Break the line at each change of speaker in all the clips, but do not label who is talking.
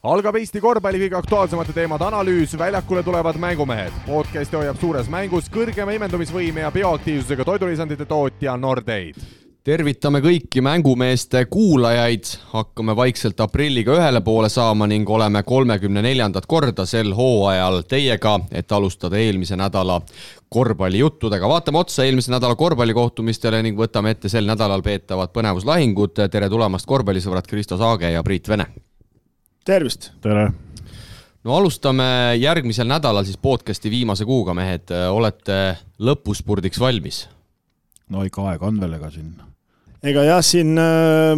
Algab Eesti korvpalli kõige aktuaalsemate teemade analüüs, väljakule tulevad mängumehed. Podcasti hoiab suures mängus kõrgema imendumisvõime ja bioaktiivsusega toidulisandite tootja Nordeid.
Tervitame kõiki mängumeeste kuulajaid, hakkame vaikselt aprilliga ühele poole saama ning oleme 34. korda sel hooajal teiega, et alustada eelmise nädala korvpallijuttudega. Vaatame otsa eelmise nädala korvpallikohtumistele ning võtame ette sel nädalal peetavad põnevuslahingud. Tere tulemast korvpallisõbrad Kristo Saage ja Priit Vene.
Tervist!
Tere!
No alustame järgmisel nädalal siis podcasti viimase kuuga, mehed. Olete lõpuspurdiks valmis?
No ikka aeg on veel ega siin.
Ega jah, siin,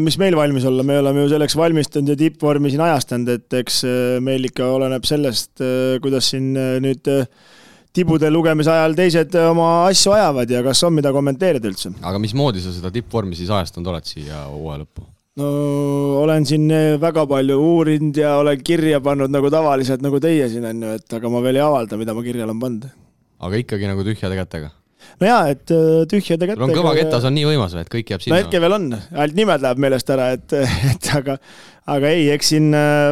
mis meil valmis olla, me oleme ju selleks valmistanud ja tippvormi siin ajastanud, et eks meil ikka oleneb sellest, kuidas siin nüüd tibude lugemise ajal teised oma asju ajavad ja kas on mida kommenteerida üldse.
Aga mismoodi sa seda tippvormi siis ajastanud oled siia hooaja lõppu?
No olen siin väga palju uurinud ja olen kirja pannud nagu tavaliselt nagu teie siin on ju, et aga ma veel ei avalda, mida ma kirja olen pannud.
Aga ikkagi nagu tühjade kätega?
No jaa, et tühjade kätega.
On kõva ketas on nii võimas, et kõik jääb sinna.
No hetke veel on, ainult nimed läheb meelest ära, et aga ei, eks siin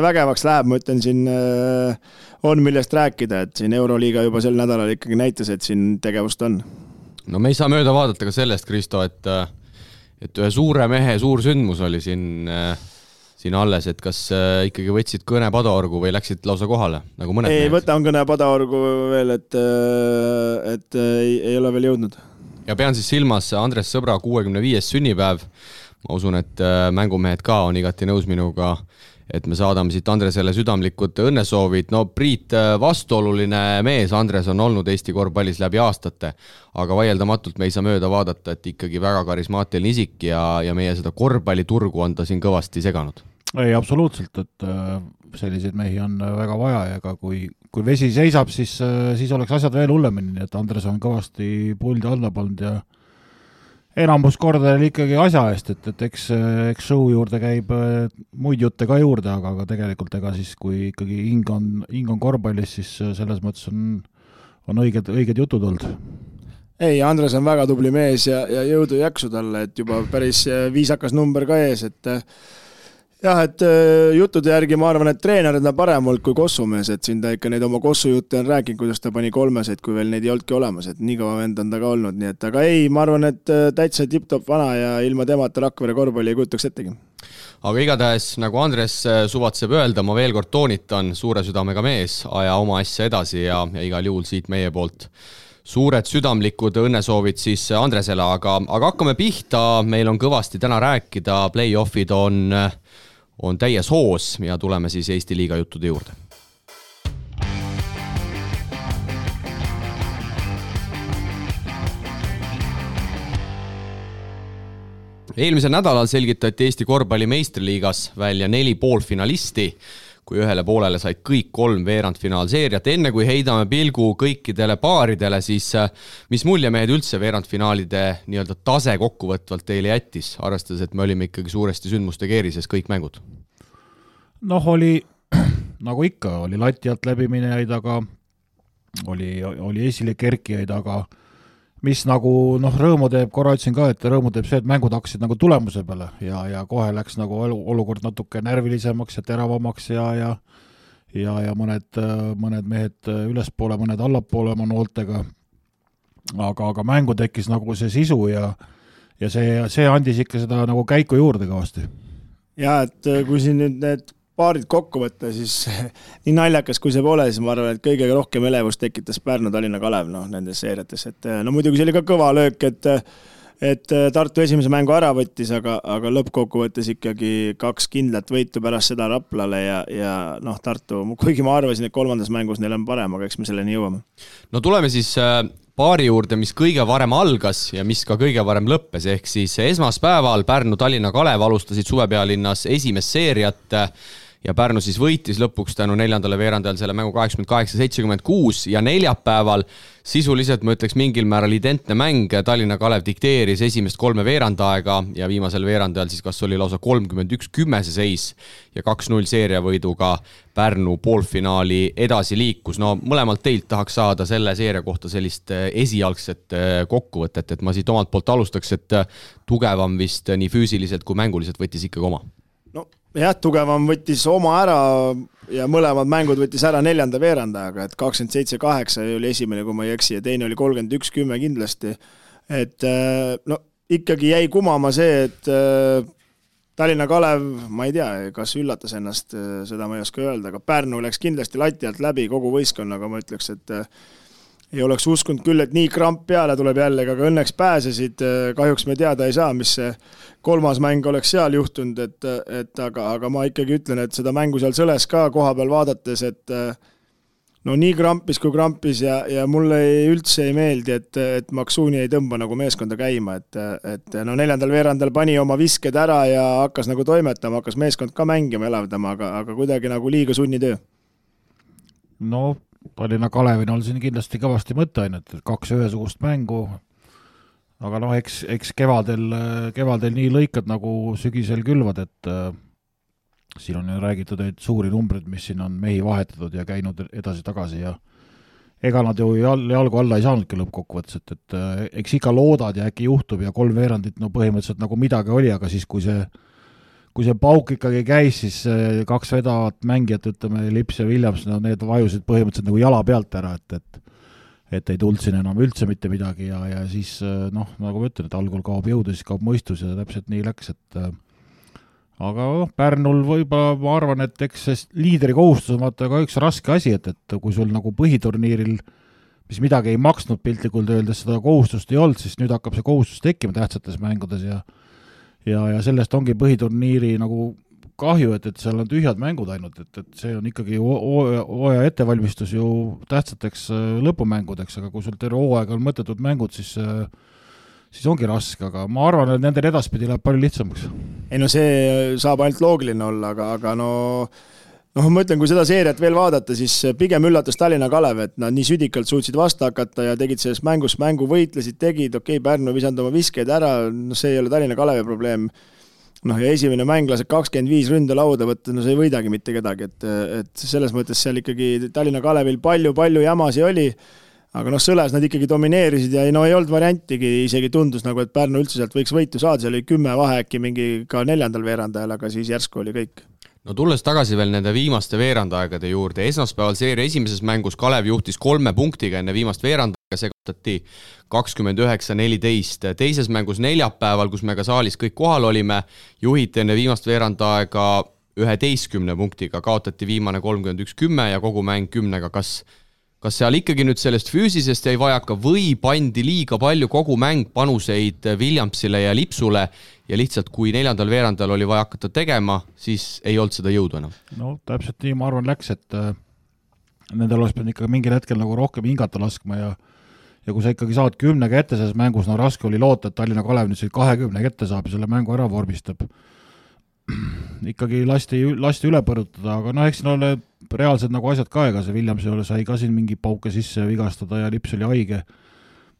vägevaks läheb, ma ütlen siin on millest rääkida, et siin Euroliiga juba sel nädalal ikkagi näitas, et siin tegevust on.
No me ei saa mööda vaadata ka sellest, Kristo, et ühe suure mehe suur sündmus oli siin alles, et kas ikkagi võtsid kõne Padaorgu või läksid lausa kohale, nagu mõned
ei,
mehed?
Võtan kõne Padaorgu veel, et ei ole veel jõudnud.
Ja pean siis silmas Andres Sõbra 65. sünnipäev. Ma usun, et mängumehed ka on igati nõus minuga, et me saadame siit Andresele südamlikud õnnesoovid. No Priit, vastuoluline mees, Andres on olnud Eesti korvpallis läbi aastate, aga vaieldamatult me ei saa mööda vaadata, et ikkagi väga karismaatiline isik ja meie seda korvpalliturgu on ta siin kõvasti seganud.
Ei, absoluutselt, et selliseid mehi on väga vaja ja ka kui vesi seisab, siis oleks asjad veel hullemini, et Andres on kõvasti puldi alla pannud ja enamus korda ikkagi asja eest, et eks show juurde käib muid jutte ka juurde, aga tegelikult ega siis, kui ikkagi hing on korvpallis, siis selles mõttes on õiged jutud olnud.
Ei, Andres on väga tubli mees ja jõudu jaksu talle, et juba päris viisakas number ka ees, et jah, et jutude järgi ma arvan, et treener on parem olnud kui kossumees, et siin ta ikka neid oma kossujutte on rääkinud, kuidas ta pani 3, kui veel neid ei oldki olemas, et nii kaua vend on ta ka olnud, nii et aga ei, ma arvan, et täitsa tipp-top vana ja ilma temata Rakvere korvpalli ei kujutaks ettegi.
Aga igatahes, nagu Andres suvatseb öelda, ma veel kord toonitan, suure südamega mees, aja oma asja edasi ja igal juhul siit meie poolt suured südamlikud õnnesoovid siis Andresele, aga hakkame pihta, meil on kõvasti täna rääkida, play-offid on täies hoos ja tuleme siis Eesti liiga juttude juurde. Eelmisel nädalal selgitati Eesti korvpalli meistriliigas välja 4 poolfinalisti, kui ühele poolele said kõik 3 veerandfinaalseeriat. Enne kui heidame pilgu kõikidele paaridele, siis mis mulje mehed üldse veerandfinaalide nii-öelda tase kokkuvõtvalt teile jättis, arvestades, et me olime ikkagi suuresti sündmuste keerises kõik mängud?
Noh, oli, nagu ikka, oli lati alt läbiminejaid, aga oli esile kerkijaid, aga mis nagu rõõmu teeb, korra ütlesin ka, et rõõmu teeb see, et mängud hakkasid nagu tulemuse peale ja kohe läks nagu olukord natuke närvilisemaks ja teravamaks ja mõned mehed ülespoole, mõned allapoole oma nooltega. Aga mängu tekkis nagu see sisu ja see andis ikka seda nagu käiku juurde kõvasti.
Ja, et kui siin nüüd need paarid kokku võtta, siis nii naljakas kui see pole, siis ma arvan, et kõige rohkem elevust tekitas Pärnu Tallinna Kalev nendes seeriates. Et, muidugi see oli ka kõva löök, et Tartu esimese mängu ära võttis, aga lõppkokku võttes ikkagi 2 kindlat võitu pärast seda Raplale ja Tartu, kuigi ma arvasin, et 3. mängus neil on parem, aga eks me selleni jõuame.
No tuleme siis paari juurde, mis kõige varem algas ja mis ka kõige varem lõppes, ehk siis esmaspäeval Pärnu Tallinna Kalev alustasid suvepealinnas esimest seeriat ja Pärnu siis võitis lõpuks tänu 4. veerandajal selle mängu 88-76 ja neljapäeval sisuliselt, ma ütleks, mingil määral identne mäng. Tallinna Kalev dikteeris esimest 3 veerandaega ja viimasel veerandajal siis kas oli lausa 31-10 see seis ja 2-0 seeriavõiduga Pärnu poolfinaali edasi liikus. No mõlemalt teilt tahaks saada selle seeria kohta sellist esialgset kokkuvõtet, et ma siit omalt poolt alustaks, et tugevam vist nii füüsiliselt kui mänguliselt võttis ikkagi oma.
No jah, tugevam võttis oma ära ja mõlemad mängud võttis ära 4. veerandajaga, et 27-8 oli esimene, kui ma ei eksi, ja teine oli 31-10 kindlasti. Et no ikkagi jäi kumama see, et Tallinna Kalev, ma ei tea, kas üllatas ennast, seda ma ei oska öelda, aga Pärnu läks kindlasti lati alt läbi kogu võistkonnaga, ma ütleks, et ei oleks uskunud küll, et nii kramp peale tuleb jälle, aga õnneks pääsesid, kahjuks me teada ei saa, mis see 3. mäng oleks seal juhtunud, aga ma ikkagi ütlen, et seda mängu seal sõles ka koha peal vaadates, et no nii krampis kui krampis ja mulle üldse ei meeldi, et Maksuuni ei tõmba nagu meeskonda käima, et no 4. veerandal pani oma visked ära ja hakkas nagu toimetama, hakkas meeskond ka mängima, elavdama, aga kuidagi nagu liiga sunnitöö.
No Tallinna Kalevin on siin kindlasti kõvasti mõtteainet, et 2 ühesugust mängu, aga noh, eks kevadel nii lõikad nagu sügisel külvad, et siin on ju räägitud neid suuri numbreid, mis siin on mehi vahetatud ja käinud edasi-tagasi ja ega nad ju jalgu alla ei saanudki lõppkokkuvõttes, et eks ikka loodad ja äkki juhtub ja 3 veerandit no põhimõtteliselt nagu midagi oli, aga siis kui see pauk ikkagi käis, siis 2 vedavat mängijat, ütleme, Lips ja Williams, no need vajusid põhimõtteliselt nagu jala pealt ära, et ei tulnud siin enam üldse mitte midagi ja siis noh, nagu ma ütlen, et algul kaob jõudu, siis kaob mõistus ja täpselt nii läks, et aga Pärnul võib-olla ma arvan, et eks see liidri kohustus on vaata ka üks raske asi, et kui sul nagu põhiturniiril, mis midagi ei maksnud piltlikult öeldes, seda kohustust ei olnud, siis nüüd hakkab see kohustus tekkima tähtsates mängudes ja sellest ongi põhiturniiri nagu kahju, et seal on tühjad mängud ainult, et see on ikkagi hooaja ettevalmistus ju tähtsateks lõpumängudeks, aga kui sul terve hooaega on mõttetud mängud, siis ongi raske, aga ma arvan, et nendel edaspidi läheb palju lihtsamaks.
Ei no see saab ainult loogiline olla, aga no ma ütlen, kui seda seeriat veel vaadata, siis pigem üllatas Tallinna Kalev, et nad nii südikalt suutsid vastu hakata ja tegid selles mängu võitlesid, tegid, Pärnu visanud oma viskeid ära, no see ei ole Tallinna Kalevi probleem. Ja esimene mäng laseb 25 ründe lauda võtta, no see ei võidagi mitte kedagi, et selles mõttes seal ikkagi Tallinna Kalevil palju jamasi oli, aga sõles nad ikkagi domineerisid ja ei olnud variantigi, isegi tundus nagu, et Pärnu üldse sealt võiks võitu saada, seal oli 10 vahe äkki mingi ka 4. veerandajal, aga siis järsku oli kõik.
No tulles tagasi veel nende viimaste veerandaegade juurde, esmaspäeval seeria esimeses mängus Kalev juhtis 3 punktiga enne viimast veerandaega, see kaotati 29-14. Teises mängus neljapäeval, kus me ka saalis kõik kohal olime, juhiti enne viimast veerandaega 11 punktiga, kaotati viimane 31-10 ja kogu mäng 10-ga. Kas seal ikkagi nüüd sellest füüsisest jäi vajaka või pandi liiga palju kogu mäng panuseid Williamsile ja Lipsule ja lihtsalt kui 4. veerandal oli vaja hakata tegema, siis ei olnud seda jõudu enam?
No täpselt nii, ma arvan, läks, et nendel oleks pidanud ikka mingil hetkel nagu rohkem hingata laskma ja kui sa ikkagi saad 10 ette selles mängus, no raske oli loota, et Tallinna Kalev nüüd 20 ette saab ja selle mängu ära vormistab. Ikkagi lasti üle põrutada, aga eks siin ole reaalsed nagu asjad ka, ega see Williams sai ka siin mingi pauke sisse vigastada ja Lips oli haige,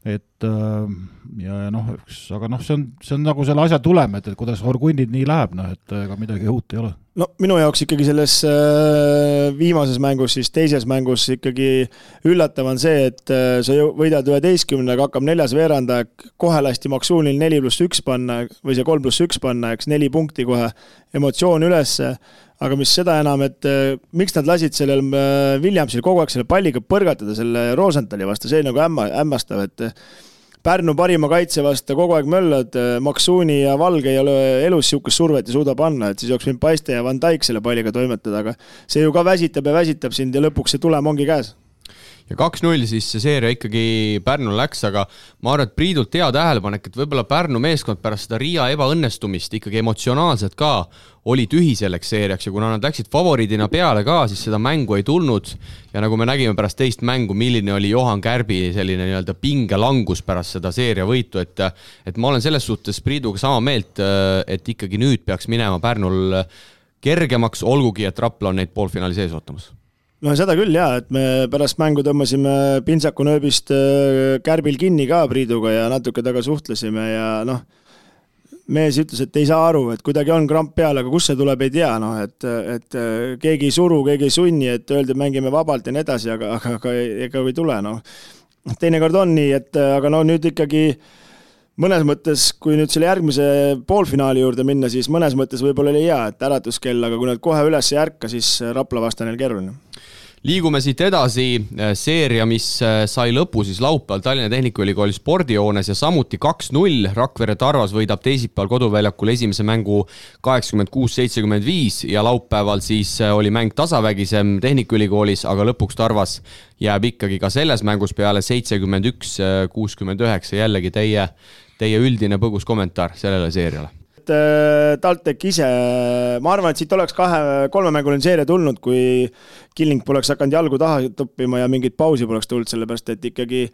et aga see on nagu selle asja tulem, et kuidas Horgunnid nii läheb, et ega midagi uut ei ole.
No minu jaoks ikkagi selles viimases mängus, siis teises mängus ikkagi üllatav on see, et sa võidad 11, aga hakkab 4. veeranda, kohe lasti Maksuunil 4+1 panna või see 3+1 panna, 4 punkti kohe, emotsioon üles, aga mis seda enam, et miks nad lasid sellel Williamsil kogu aeg selle palliga põrgatada selle Rosenthali vastu, see nagu hämmastav, et Pärnu parima kaitse vastu kogu aeg möllad, Maksuuni ja Valge ei ole elus siukest survet ja suuda panna, et siis jooks mind Paiste ja Van Dijk selle palliga toimetada, aga see ju ka väsitab sind ja lõpuks see tulem ongi käes.
Ja 2-0 siis see seeria ikkagi Pärnul läks, aga ma arvan, et Priidult hea tähelepanek, et võib-olla Pärnu meeskond pärast seda Riia ebaõnnestumist ikkagi emotsionaalselt ka oli tühi selleks seeriaks ja kuna nad läksid favoriidina peale ka, siis seda mängu ei tulnud ja nagu me nägime pärast teist mängu, milline oli Johan Kärbi selline nii-öelda pingelangus pärast seda seeria võitu, et ma olen selles suhtes Priiduga sama meelt, et ikkagi nüüd peaks minema Pärnul kergemaks, olgugi et Rapla on neid poolfinaali sees ootamas.
No seda küll jah, et me pärast mängu tõmbasime Pintsaku nööbist Kärbil kinni ka Priiduga ja natuke taga suhtlesime ja mees ütles, et ei saa aru, et kuidagi on kramp peal, aga kus see tuleb, ei tea, et keegi ei suru, keegi ei sunni, et öeldi, mängime vabalt ja nii edasi, aga ega ei tule. Teinekord on nii, et aga nüüd ikkagi mõnes mõttes, kui nüüd selle järgmise poolfinaali juurde minna, siis mõnes mõttes võib-olla oli hea, et äratuskell, aga kui nad kohe üles ei ärka, siis Rapla vastane keeruline.
Liigume siit edasi, seeria, mis sai lõpu siis laupäeval Tallinna Tehnikaülikooli spordijoones ja samuti 2-0. Rakvere Tarvas võidab teisipäeval koduväljakul esimese mängu 86-75 ja laupäeval siis oli mäng tasavägisem Tehnikaülikoolis, aga lõpuks Tarvas jääb ikkagi ka selles mängus peale 71-69. Jällegi teie üldine põgus kommentaar sellele seeriale.
TalTech ise, ma arvan, et siit oleks 2-3-mänguline seeria tulnud, kui Killing poleks hakanud jalgu taha toppima ja mingit pausi poleks tulnud, sellepärast et ikkagi,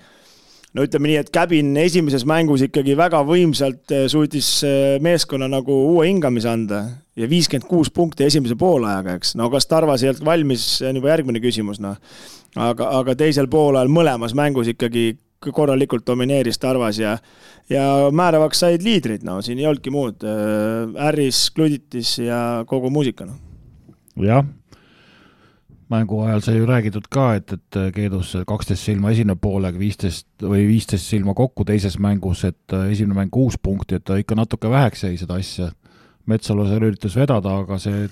no ütleme nii, et Käbin esimeses mängus ikkagi väga võimsalt suutis meeskonna nagu uue hingamise anda ja 56 punkti esimese poolajaga, eks. No kas Tarvas ei olnud valmis, see on juba järgmine küsimus, no. Aga teisel poolajal mõlemas mängus ikkagi korralikult domineeris Tarvas ja määravaks said liidrid, no siin ei olnudki muud. Harris, Kluditis ja kogu muusika, no.
Jah, mängu ajal sai ju räägitud ka, et Keedus 12 silma esimene poolega, 15 silma kokku teises mängus, et esimene mäng 6 punkti, et ta ikka natuke väheks jäi seda asja. Metsalu seal üritas vedada, aga see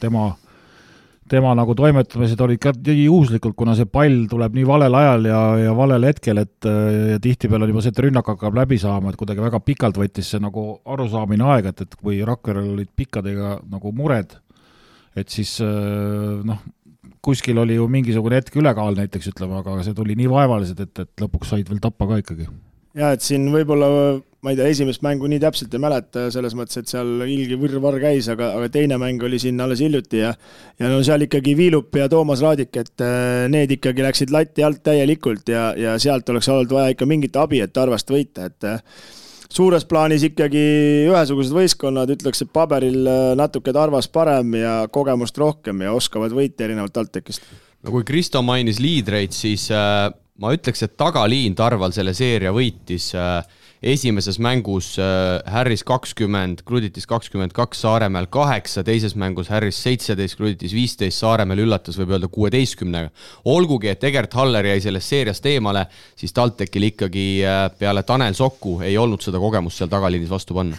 tema nagu toimetamised olid ka juhuslikult, kuna see pall tuleb nii valel ajal ja valel hetkel, et ja tihtipeale on juba see, et rünnak hakkab läbi saama, et kuidagi väga pikalt võttis see nagu arusaamine aega, et kui Rakverel olid pikkadega nagu mured, et siis kuskil oli ju mingisugune hetk ülekaal näiteks, ütleme, aga see tuli nii vaevalised, et lõpuks said veel tappa ka ikkagi.
Ja, et siin võib-olla, ma ei tea, esimest mängu nii täpselt ei mäleta selles mõttes, et seal ilgi võrvar käis, aga teine mäng oli siin alles hiljuti ja no seal ikkagi Viilup ja Toomas Raadik, et need ikkagi läksid latti alt täielikult ja sealt oleks olnud vaja ikka mingit abi, et Tarvast võita, et suures plaanis ikkagi ühesugused võistkonnad, ütleks, et paberil natuke Tarvas parem ja kogemust rohkem ja oskavad võita erinevalt TalTechist.
No kui Kristo mainis liidreid, siis ma ütleks, et tagaliin Tarval selle seeria võitis esimeses mängus Harris 20, Kluditis 22, Saaremäel 8, teises mängus Harris 17, Kluditis 15, Saaremäel üllatas võib öelda 16. Olgugi, et Egert Haller jäi sellest seeriast eemale, siis TalTechil ikkagi peale Tanel Sokku ei olnud seda kogemust seal tagaliinis vastu panna.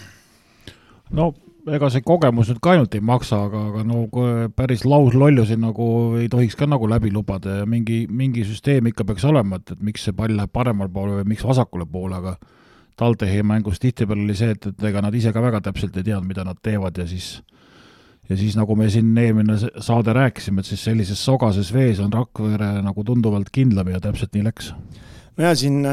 No ega see kogemus nüüd ka ainult ei maksa, aga no päris lauslollusi nagu ei tohiks ka nagu läbi lubada ja mingi süsteem ikka peaks olema, et miks see pall läheb paremal poole või miks vasakule poole, aga TalTechi mängus tihtipeale oli see, et ega nad ise ka väga täpselt ei teadnud, mida nad teevad ja siis nagu me siin eelmine saade rääkisime, et siis sellises sogases vees on Rakvere nagu tunduvalt kindlam ja täpselt nii läks.
No ja siin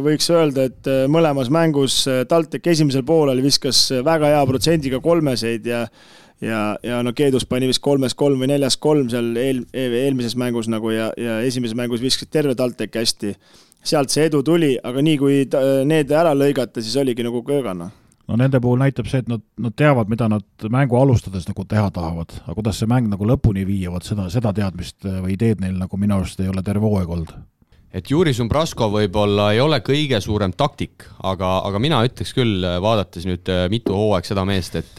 võiks öelda, et mõlemas mängus TalTech esimesel poolel viskas väga hea protsendiga kolmeseid ja no Keedus pani vist 3-3 või 4-3 seal eelmises mängus nagu ja esimeses mängus viskas terve TalTech hästi. Sealt see edu tuli, aga nii kui need ära lõigata, siis oligi nagu köögana.
No nende puhul näitab see, et nad teavad, mida nad mängu alustades nagu teha tahavad, aga kuidas see mäng nagu lõpuni viiavad, seda teadmist või ideed neil nagu minu arust ei ole terve hooaeg olnud.
Et Juri Sumbrasko võib-olla ei ole kõige suurem taktik, aga mina ütleks küll, vaadates nüüd mitu hooaeg seda meest, et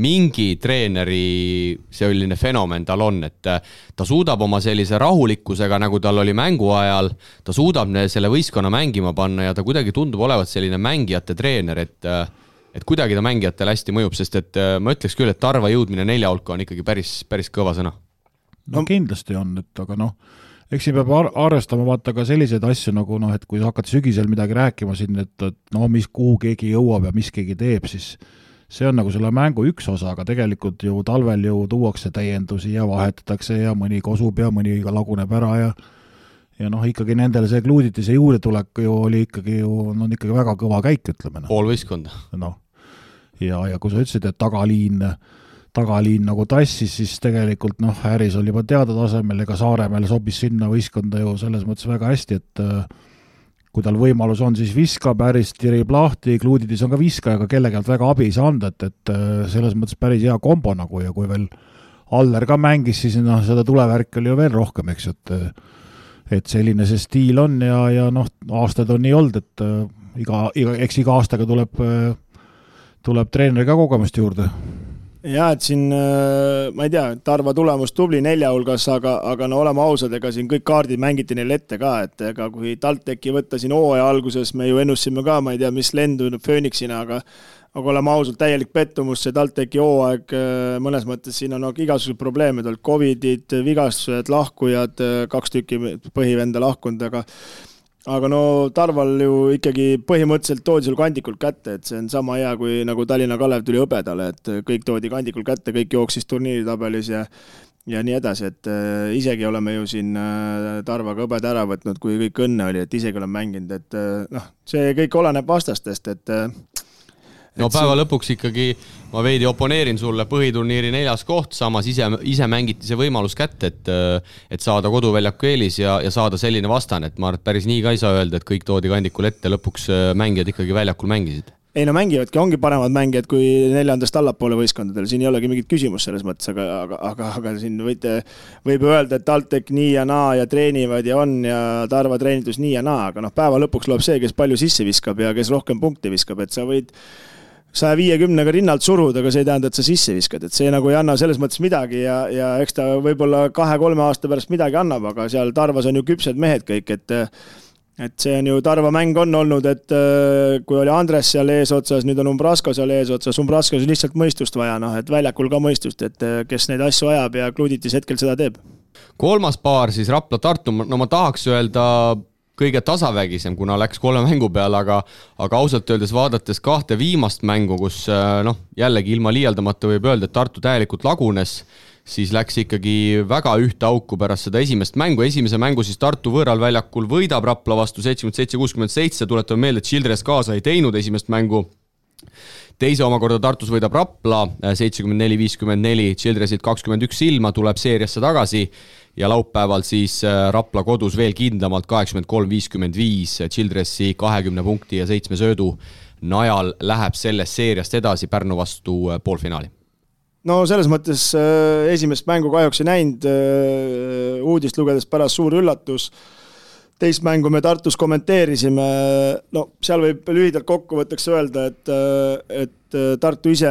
mingi treeneri selline fenomen tal on, et ta suudab oma sellise rahulikkusega, nagu tal oli mängu ajal, ta suudab selle võistkonna mängima panna ja ta kuidagi tundub olevat selline mängijate treener, et kuidagi ta mängijatele hästi mõjub, sest et ma ütleks küll, et Tarva jõudmine 4 hulka on ikkagi päris kõva sõna.
No kindlasti on, et aga eks siin peab arvestama vaata ka selliseid asju nagu et kui hakkad sügisel midagi rääkima siin, et kuhu keegi jõuab ja mis keegi teeb, siis see on nagu selle mängu üks osa, aga tegelikult ju talvel ju tuuakse täiendusi ja vahetatakse ja mõni kosub ja mõni laguneb ära ja ikkagi nendele see Kluuditise juurde tulek ju oli ikkagi ikkagi väga kõva käik, ütleme.
Pool võistkonda.
Ja kui sa ütlesid, et tagaliin nagu tassis, siis tegelikult Harris oli juba teada tasemel, ega Saaremäel sobis sinna võistkonda ju selles mõttes väga hästi, et kui tal võimalus on, siis viskab, Harris tirib lahti, Kluuditis on ka viskaja, aga kellegelt väga abi ei saa anda, et selles mõttes päris hea kombo nagu ja kui veel Aller ka mängis, siis seda tulevärk oli ju veel rohkem, eks, et selline see stiil on ja aastad on nii olnud, et iga aastaga tuleb treeneri ka kogemust juurde.
Ja, et siin, ma ei tea, Tarva tulemus tubli 4 hulgas, aga no oleme ausad, ega siin kõik kaardid mängiti neil ette ka, et ega kui TalTechi võtta siin hooaja alguses, me ju ennusime ka, ma ei tea, mis lendu Phoenixina, aga oleme ausalt täielik pettumus, see TalTechi hooaeg mõnes mõttes siin on igasugused probleemid olnud, covidid, vigastused, lahkujad, 2 tükki põhivenda lahkunud, aga no Tarval ju ikkagi põhimõtteliselt toodi sul kandikult kätte, et see on sama hea kui nagu Tallinna Kalev tuli hõbedale, et kõik toodi kandikult kätte, kõik jooksis turniiritabelis ja nii edasi, et isegi oleme ju siin Tarvaga hõbed ära võtnud, kui kõik õnne oli, et isegi oleme mänginud, et noh, see kõik oleneb vastastest, et
no päeva lõpuks ikkagi ma veidi oponeerin sulle, põhiturniiri 4. koht, samas ise mängiti see võimalus kätte, et saada koduväljaku eelis ja saada selline vastane, et ma arvan, et päris nii ka ei saa öelda, et kõik toodi kandikul ette, lõpuks mängijad ikkagi väljakul mängisid.
Ei no mängivadki, ongi paremad mängijad kui 4. allapoole võistkondadel, siin ei olegi mingit küsimus selles mõttes, aga siin võib öelda, et TalTech nii ja naa ja treenivad ja on ja Tarva treenitus nii ja naa, aga noh, päeva lõpuks loeb see, kes palju sisse viskab ja kes rohkem punkti viskab, et sa võid 150-ga rinnalt suruda, aga see ei tähenda, et sa sisse viskad, et see nagu ei anna selles mõttes midagi ja eks ta võib-olla 2-3 aasta pärast midagi annab, aga seal Tarvas on ju küpsed mehed kõik, et see on ju Tarva mäng on olnud, et kui oli Andres seal eesotsas, nüüd on Umbrasko seal eesotsas, Umbraskos on lihtsalt mõistust vaja, noh, et väljakul ka mõistust, et kes neid asju ajab ja Kluditis hetkel seda teeb.
3. paar siis Rapla-Tartu, no ma tahaks öelda kõige tasavägisem, kuna läks 3 mängu peale, aga ausalt öeldes vaadates 2 viimast mängu, kus jällegi ilma liialdamata võib öelda, et Tartu täielikult lagunes, siis läks ikkagi väga ühte auku pärast seda esimest mängu. Esimese mängu siis Tartu võõral väljakul võidab Rapla vastu 77-67, tuletame meelde, et Childress kaasa ei teinud esimest mängu. Teise omakorda Tartus võidab Rapla 74-54, Childressit 21 ilma, tuleb seeriasse tagasi ja laupäeval siis Rapla kodus veel kindlamalt 83-55, Childressi 20 punkti ja 7 söödu najal läheb sellest seeriast edasi Pärnu vastu poolfinaali.
No selles mõttes esimest mängu kahjuks ei näinud, uudist lugedes pärast suur üllatus. Teist mängu me Tartus kommenteerisime, no seal võib lühidalt kokkuvõtteks öelda, et Tartu ise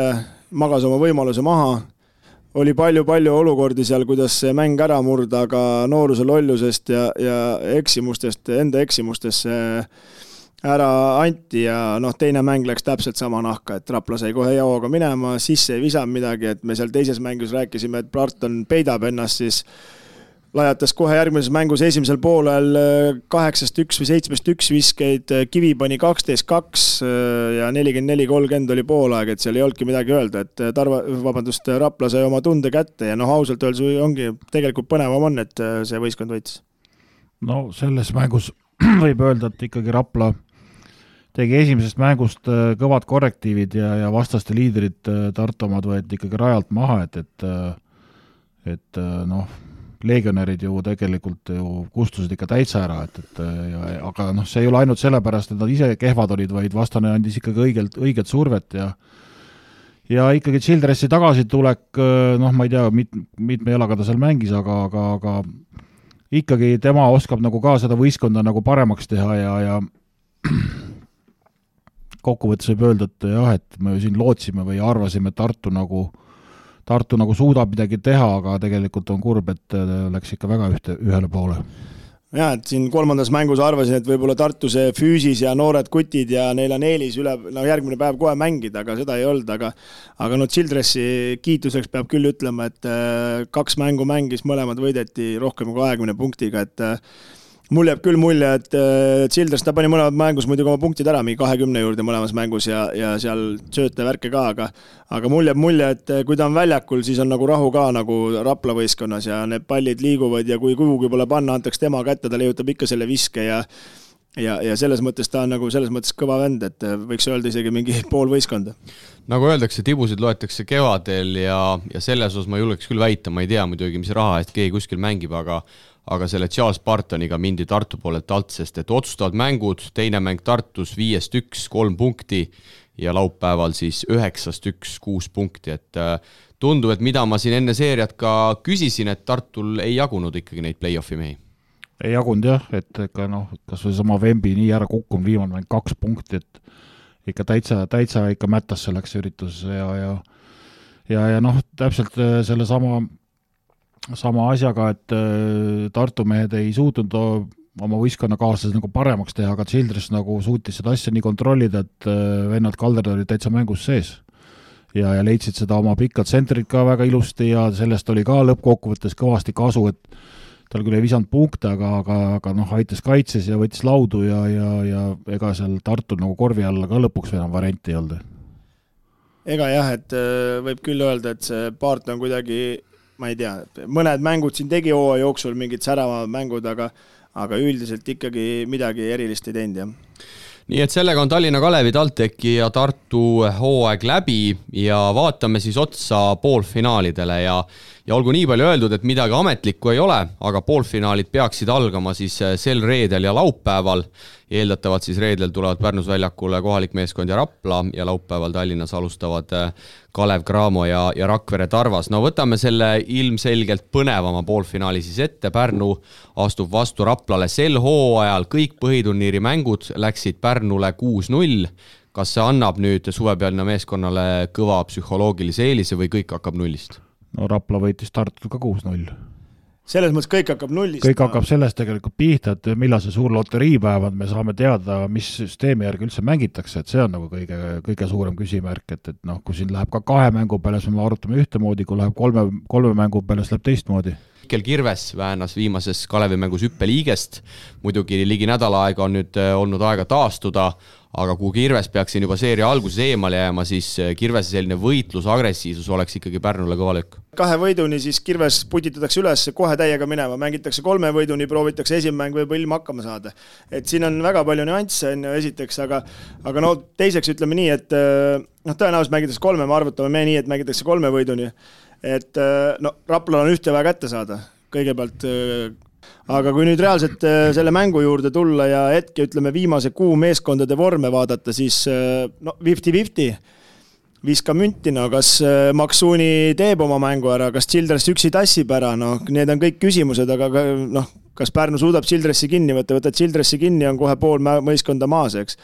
magas oma võimaluse maha. Oli palju olukordi seal, kuidas see mäng ära murda, aga nooruse lollusest ja eksimustest, enda eksimustesse ära anti ja noh, teine mäng läks täpselt sama nahka, et Rapla sai kohe jaoga minema, sisse ei visanud midagi, et me seal teises mängus rääkisime, et Barton peidab ennast, siis lajatas kohe järgmises mängus esimesel poolel 8-1 või 7-1 viskeid, Kivi pani 12-2 ja 44-30 oli poolaeg, et seal ei olnudki midagi öelda, et Rapla sai oma tunde kätte ja noh, ausalt öeldes ongi tegelikult põnevam on, et see võistkond võitis.
No selles mängus võib öelda, et ikkagi Rapla tegi esimesest mängust kõvad korrektiivid ja vastaste liidrid Tartu omad võeti ikkagi rajalt maha, et noh, legionärid ju tegelikult ju kustusid ikka täitsa ära, aga noh, see ei ole ainult sellepärast, et nad ise kehvad olid, vaid vastane andis ikkagi õiget survet ja ikkagi Childressi tagasitulek, noh, ma ei tea, mitme jalaga ta seal mängis, aga ikkagi tema oskab nagu ka seda võistkonda nagu paremaks teha ja kokkuvõttes võib öelda, et jah, et me siin lootsime või arvasime, et Tartu nagu suudab midagi teha, aga tegelikult on kurb, et läks ikka väga ühele poole.
Ja, et siin 3. mängus arvasin, et võib-olla Tartu see füüsis ja noored kutid ja neil on eelis järgmine päev kohe mängida, aga seda ei olnud, aga Childressi kiituseks peab küll ütlema, et 2 mängu mängis, mõlemad võideti rohkem kui 20 punktiga, et mul jääb küll mulje, et Childress ta pani mõlemad mängus muidugi oma punktid ära, mingi 20 juurde mõlemas mängus ja seal sööte värke ka, aga mul jääb mulje, et kui ta on väljakul, siis on nagu rahu ka nagu Rapla võistkonnas ja need pallid liiguvad ja kui kuhugi pole panna, antaks tema kätte, ta leiutab ikka selle viske ja selles mõttes ta on nagu selles mõttes kõva vend, et võiks öelda isegi mingi pool võistkonda.
Nagu öeldakse, tibusid loetakse kevadel ja selles osas ma julgeks küll väita, ma ei tea muidugi, mis raha eest keegi kuskil mängib, aga selle Charles Bartoniga mindi Tartu poolelt alt, sest et otsustavad mängud, teine mäng Tartus 5-1, 3 punkti ja laupäeval siis 9-1, 6 punkti, et tundub, et mida ma siin enne seeriat ka küsisin, et Tartul ei jagunud ikkagi neid play-offi mehi.
Ei jagunud jah, et ikka noh, kas või sama Vembi nii ära kukkunud, viimane mäng 2 punkti, et ikka täitsa ikka mätas selleks üritus ja noh, täpselt selle sama asjaga, et Tartu mehed ei suutnud oma võistkonnakaaslased nagu paremaks teha, aga Childress nagu suutis seda asja nii kontrollida, et vennad Kalderd olid täitsa mängus sees. Ja leidsid seda oma pikad tsentrid ka väga ilusti ja sellest oli ka lõppkokkuvõttes kõvasti kasu, et tal küll ei visanud punkte, aga noh, aitas kaitses ja võttis laudu ja ega seal Tartul nagu korvi alla ka lõpuks enam varianti ei olnud.
Ega jah, et võib küll öelda, et see Paart on kuidagi, ma ei tea, mõned mängud siin tegi hooaja jooksul, mingid säravamad mängud, aga üldiselt ikkagi midagi erilist ei teinud, jah.
Nii et sellega on Tallinna Kalevi, TalTechi ja Tartu hooaeg läbi ja vaatame siis otsa poolfinaalidele ja olgu nii palju öeldud, et midagi ametlikku ei ole, aga poolfinaalid peaksid algama siis sel reedel ja laupäeval. Eeldatavalt siis reedel tulevad Pärnus väljakule kohalik meeskond ja Rapla ja laupäeval Tallinnas alustavad Kalev Cramo ja Rakvere Tarvas. No võtame selle ilmselgelt põnevama poolfinaali siis ette. Pärnu astub vastu Raplale sel hooajal. Kõik põhiturniiri mängud läksid Pärnule 6-0. Kas see annab nüüd suvepealina meeskonnale kõva psühholoogilise eelise või kõik hakkab nullist?
No Rapla võitis Tartut ka 6-0.
Selles mõttes kõik hakkab nullist.
Kõik hakkab sellest tegelikult pihta, et millal see suur loteriipäev on, me saame teada, mis süsteemi järgi üldse mängitakse, et see on nagu kõige suurem küsimärk, et noh, kui siin läheb ka 2 mängu peale, siis me arutame ühtemoodi, kui läheb 3 mängu peale, siis läheb teistmoodi.
Mikkel Kirves väänas viimases Kalevi mängus hüppeliigest. Muidugi ligi nädala aega on nüüd olnud aega taastuda, aga kui Kirves peaks siin juba seeria alguses eemale jääma, siis Kirvese selline võitlus, agressiivsus oleks ikkagi Pärnule kõva löök.
2 võiduni siis Kirves putitatakse üles, kohe täiega minema, mängitakse 3 võiduni, proovitakse esimene mäng võib ilma hakkama saada. Et siin on väga palju nüansse esiteks, aga no teiseks ütleme nii, et tõenäoliselt mängitakse 3, me arvutame me nii, et mängitakse 3 võiduni. Et no Raplal on ühte vaja kätte saada kõigepealt, aga kui nüüd reaalselt selle mängu juurde tulla ja hetke ütleme viimase kuu meeskondade vorme vaadata, siis no 50-50 viska münti, no kas Maksuuni teeb oma mängu ära, kas Childress üksi tassib ära, no need on kõik küsimused, aga noh, kas Pärnu suudab Childressi kinni võtta Childressi kinni, on kohe pool mõiskonda maas, eks.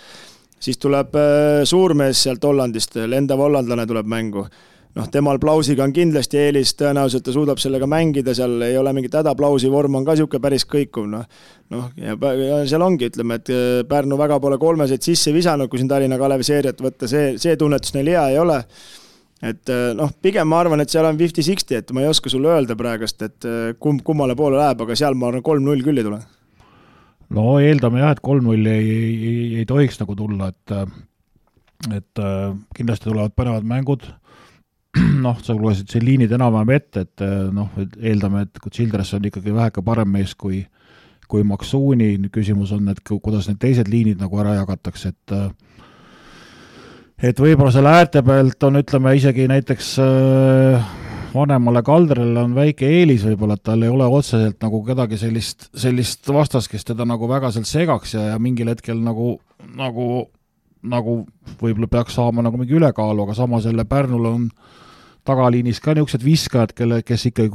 Siis tuleb suurmees sealt Hollandist, lendav hollandlane tuleb mängu. Noh, temal Plausiga on kindlasti eelis, tõenäoliselt ta suudab sellega mängida, seal ei ole mingit häda, Plausi vorm on ka siuke päris kõikuv, noh, ja seal ongi, ütleme, et Pärnu väga pole 3 sisse visanud, kui siin Tallinna Kalevi seeriat võtta, see tunnetus neil hea ei ole, et noh, pigem ma arvan, et seal on 50-60, et ma ei oska sulle öelda praegust, et kummale poole läheb, aga seal ma arvan 3-0 küll ei tule.
No eeldame jah, et 3-0 ei tohiks nagu tulla, et kindlasti tulevad põnevad mängud. Noh, sa lugesid siin liinid enam-vähem ette, et noh, eeldame, et kui Childress on ikkagi väheke parem mees kui Maksuuni, küsimus on, et kuidas need teised liinid nagu ära jagatakse, et võib-olla selle äärte pealt on, ütleme, isegi näiteks vanemale Kalderele on väike eelis võib-olla, et tal ei ole otseselt nagu kedagi sellist vastast, kes teda nagu väga sealt segaks ja mingil hetkel nagu võib-olla peaks saama nagu mingi ülekaalu, aga samas jälle Pärnul on tagaliinis ka niisugused viskajad, kes ikkagi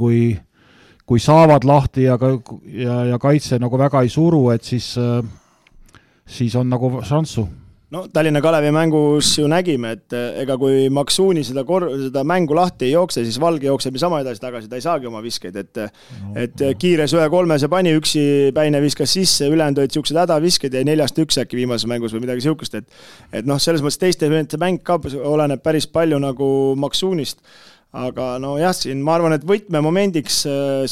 kui saavad lahti ja kaitse nagu väga ei suru, et siis on nagu šanssu.
No Tallinna Kalevi mängus ju nägime, et ega kui Maksuuni seda mängu lahti ei jookse, siis Valge jookseb sama edasi tagasi, ta ei saagi oma viskeid, et kiires 1-3 see pani, üksi Päine viskas sisse, ülejäänud olid siuksed hädavisked ja 4-1 äkki viimases mängus või midagi siukest, et noh, selles mõttes teiste mäng ka oleneb päris palju nagu Maksuunist, aga no jah, siin ma arvan, et võtmemomendiks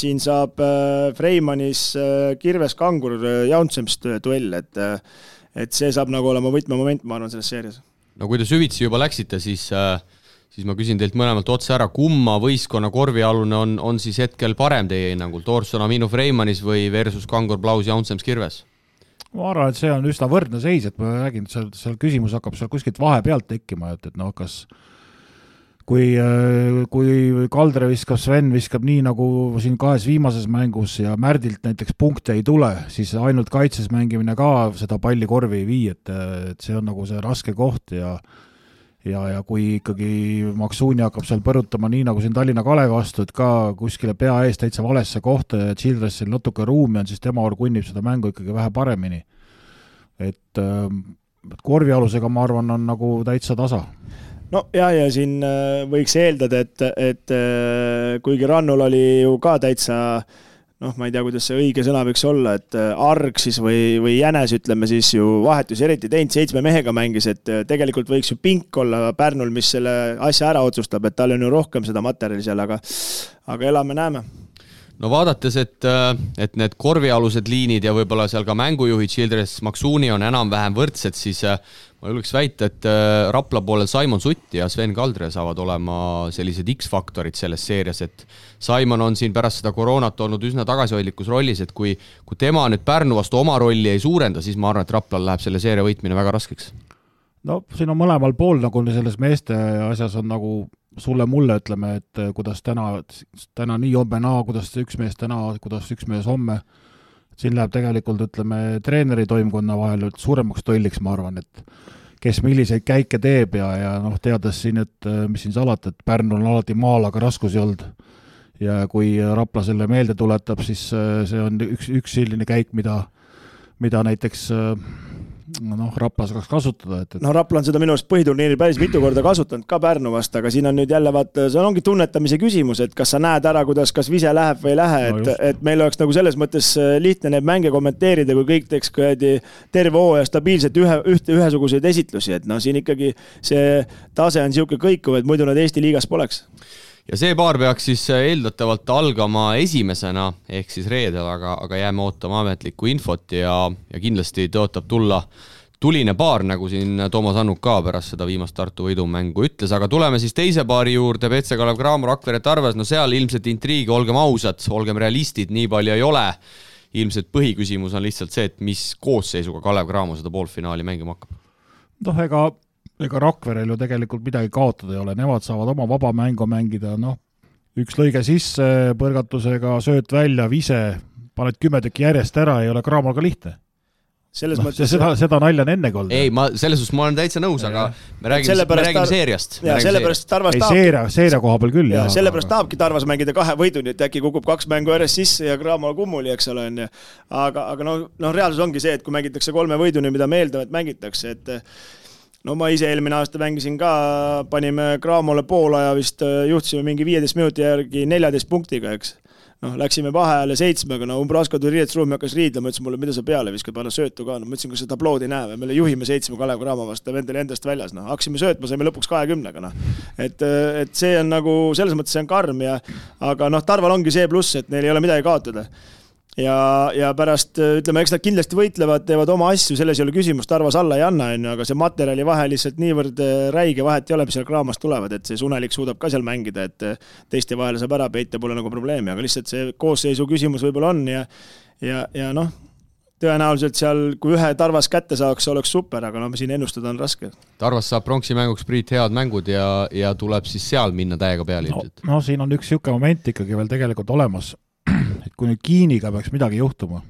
siin saab Freimanis Kirves Kangur Jauntsemst duell, et see saab nagu olema võtmemoment, ma arvan, selles seerias.
No kui te süvitsi juba läksite, siis ma küsin teilt mõlemalt otse ära, kumma võistkonna korvialune on siis hetkel parem teie hinnangul? Thorson Aminu Freimanis või versus Kangur Plaus Jaunsems Kirves?
Ma arvan, et see on üsna võrdne seis, et ma räägin, et seal küsimus hakkab seal kuskilt vahepealt tekkima, et noh, kas kui Kaldre viskab, Sven viskab nii nagu siin 2 viimases mängus ja Märdilt näiteks punkte ei tule, siis ainult kaitses mängimine ka seda palli korvi ei vii, et see on nagu see raske koht ja kui ikkagi Maksuuni hakkab seal põrutama nii nagu siin Tallinna Kalevi vastu, et ka kuskile pea ees täitsa valesse kohta ja Childressil natuke ruumi on, siis tema kunnib seda mängu ikkagi vähe paremini. Et korvialusega ma arvan on nagu täitsa tasa.
no ja siin võiks eeldada, et kuigi Rannul oli ju ka täitsa ma ei tea, kuidas see õige sõna võiks olla, et arg siis või jänes, ütleme siis ju vahetus eriti teinud, 7 mehega mängis, et tegelikult võiks ju pink olla Pärnul, mis selle asja ära otsustab, et tal on ju rohkem seda materjali seal, aga elame-näeme.
No vaadates, et need korvialused liinid ja võib-olla seal ka mängujuhid Childress Maksuuni on enam-vähem võrdsed, siis ma julgeks väita, et Rapla poolel Simon Sutt ja Sven Kaldre saavad olema sellised X-faktorid selles seerias, et Simon on siin pärast seda koroonat olnud üsna tagasihoidlikus rollis, et kui tema nüüd Pärnu vastu oma rolli ei suurenda, siis ma arvan, et Raplal läheb selle seeria võitmine väga raskeks.
No siin on mõlemal pool nagu selles meeste asjas on nagu sulle-mulle, ütleme, et kuidas täna nii homme naa, kuidas üks mees täna, kuidas üks mees homme. Siin läheb tegelikult, ütleme, treeneri toimkonna vahel suuremaks tolliks, ma arvan, et kes milliseid käike teeb ja teades siin, et mis siin salata, et Pärnul on alati maal, aga raskusi olnud. Ja kui Rapla selle meelde tuletab, siis see on üks selline käik, mida näiteks Rapla saaks kasutada.
Rapla on seda minu arust põhiturniiri päris mitu korda kasutanud ka Pärnu vast, aga siin on nüüd jälle see ongi tunnetamise küsimus, et kas sa näed ära, kuidas kas vise läheb või ei lähe, et meil oleks nagu selles mõttes lihtne need mänge kommenteerida, kui kõik teeks terve hooaja stabiilselt ühesuguseid esitlusi, et siin ikkagi see tase on siuke kõikuv, et muidu nad Eesti liigas poleks.
Ja see paar peaks siis eeldatavalt algama esimesena, ehk siis reedel, aga jääme ootama ametlikku infot ja kindlasti tõotab tulla tuline paar, nagu siin Toomas Annuk ka pärast seda viimast Tartu võidumängu ütles, aga tuleme siis teise paari juurde, PC Kalev Cramo, Rakvere Tarvas, seal ilmselt intriigi, olgem ausad, olgem realistid, nii palju ei ole. Ilmselt põhiküsimus on lihtsalt see, et mis koosseisuga Kalev Cramo seda poolfinaali mängima hakkab.
Ega Rakverel ju tegelikult midagi kaotada ei ole, nemad saavad oma vaba mängu mängida, üks lõige sisse, põrgatusega, sööt välja, vise, paned 10 tükki järjest ära, ei ole Cramol ka lihtne. Seda nalja on ennegi olnud.
Ei, selles suhtes ma olen täitsa nõus, aga me räägime seeriast.
Seeria
koha peal küll.
Sellepärast tahabki Tarvas mängida 2 võiduni, et äkki kukub 2 mängu järjest sisse ja Cramol kummuli, eks ole. Aga reaalsus ongi see, et kui mängitakse 3 võiduni, mida meeldavad mängitakse, et ma ise eelmine aasta mängisin ka, panime Cramole poolaja vist, juhtisime mingi 15 minuti järgi 14 punktiga, eks. Läksime vaheajale 7, Umbrasko tuli riietusruumi, hakkas riidlema, ütles mulle, mida sa peale viskad, panna söötu ka. Ma ütlesin, kas seda tablood ei näe, me juhime 7 Kalev Cramo vastu, vendel endast väljas. Haksime söötma, saime lõpuks 20-ga. Et see on nagu, selles mõttes see on karm, aga Tarval ongi see pluss, et neil ei ole midagi kaotada. Ja pärast, ütleme, eks nad kindlasti võitlevad, teevad oma asju, selles ei ole küsimus, Tarvas alla ei anna, aga see materjali vahe lihtsalt niivõrd räige vahet ei ole, mis seal Cramost tulevad, et see Sunelik suudab ka seal mängida, et teiste vahele saab ära peita, pole nagu probleemi, aga lihtsalt see koosseisu küsimus võib-olla on ja tõenäoliselt seal, kui ühe Tarvas kätte saaks, oleks super, aga siin ennustada on raske.
Tarvas saab pronksi mänguks Priit head mängud ja tuleb siis seal minna täiega peale ilmselt.
Siin on üks siuke moment ikkagi veel tegelikult olemas. Et kui nüüd Kiiniga peaks midagi juhtuma,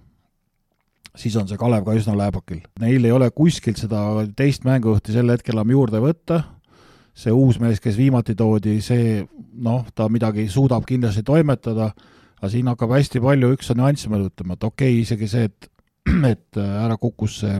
siis on see Kalev ka üsna lääbakil. Neil ei ole kuskilt seda teist mängujuhti sel hetkel enam juurde võtta. See uus mees, kes viimati toodi, see, ta midagi suudab kindlasti toimetada, aga siin hakkab hästi palju üks nüanss meil ütlema, et okei, isegi see, et ära kukkus see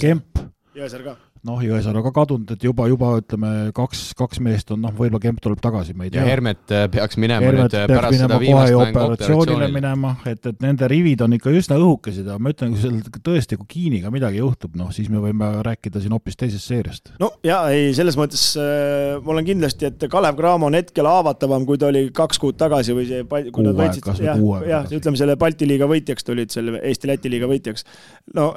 Kemp.
Jõesaar ka.
Jõesaar on ka kadunud, et juba ütleme, kaks meest on, võib-olla Kemp tuleb tagasi, me ei tea.
Ja Hermet peaks minema nüüd pärast seda viimast mängu
operatsioonile minema, et nende rivid on ikka üsna õhukesid, aga ma ütlen, kui seal tõesti, kui Kiiniga midagi juhtub, siis me võime rääkida siin hoopis teisest seeriast.
Selles mõttes ma olen kindlasti, et Kalev Cramo on hetkel haavatavam, kui ta oli 2 kuud tagasi või see, kui nad võitsid, ütleme selle Balti liiga võitjaks tulid, selle Eesti-Läti liiga võitjaks.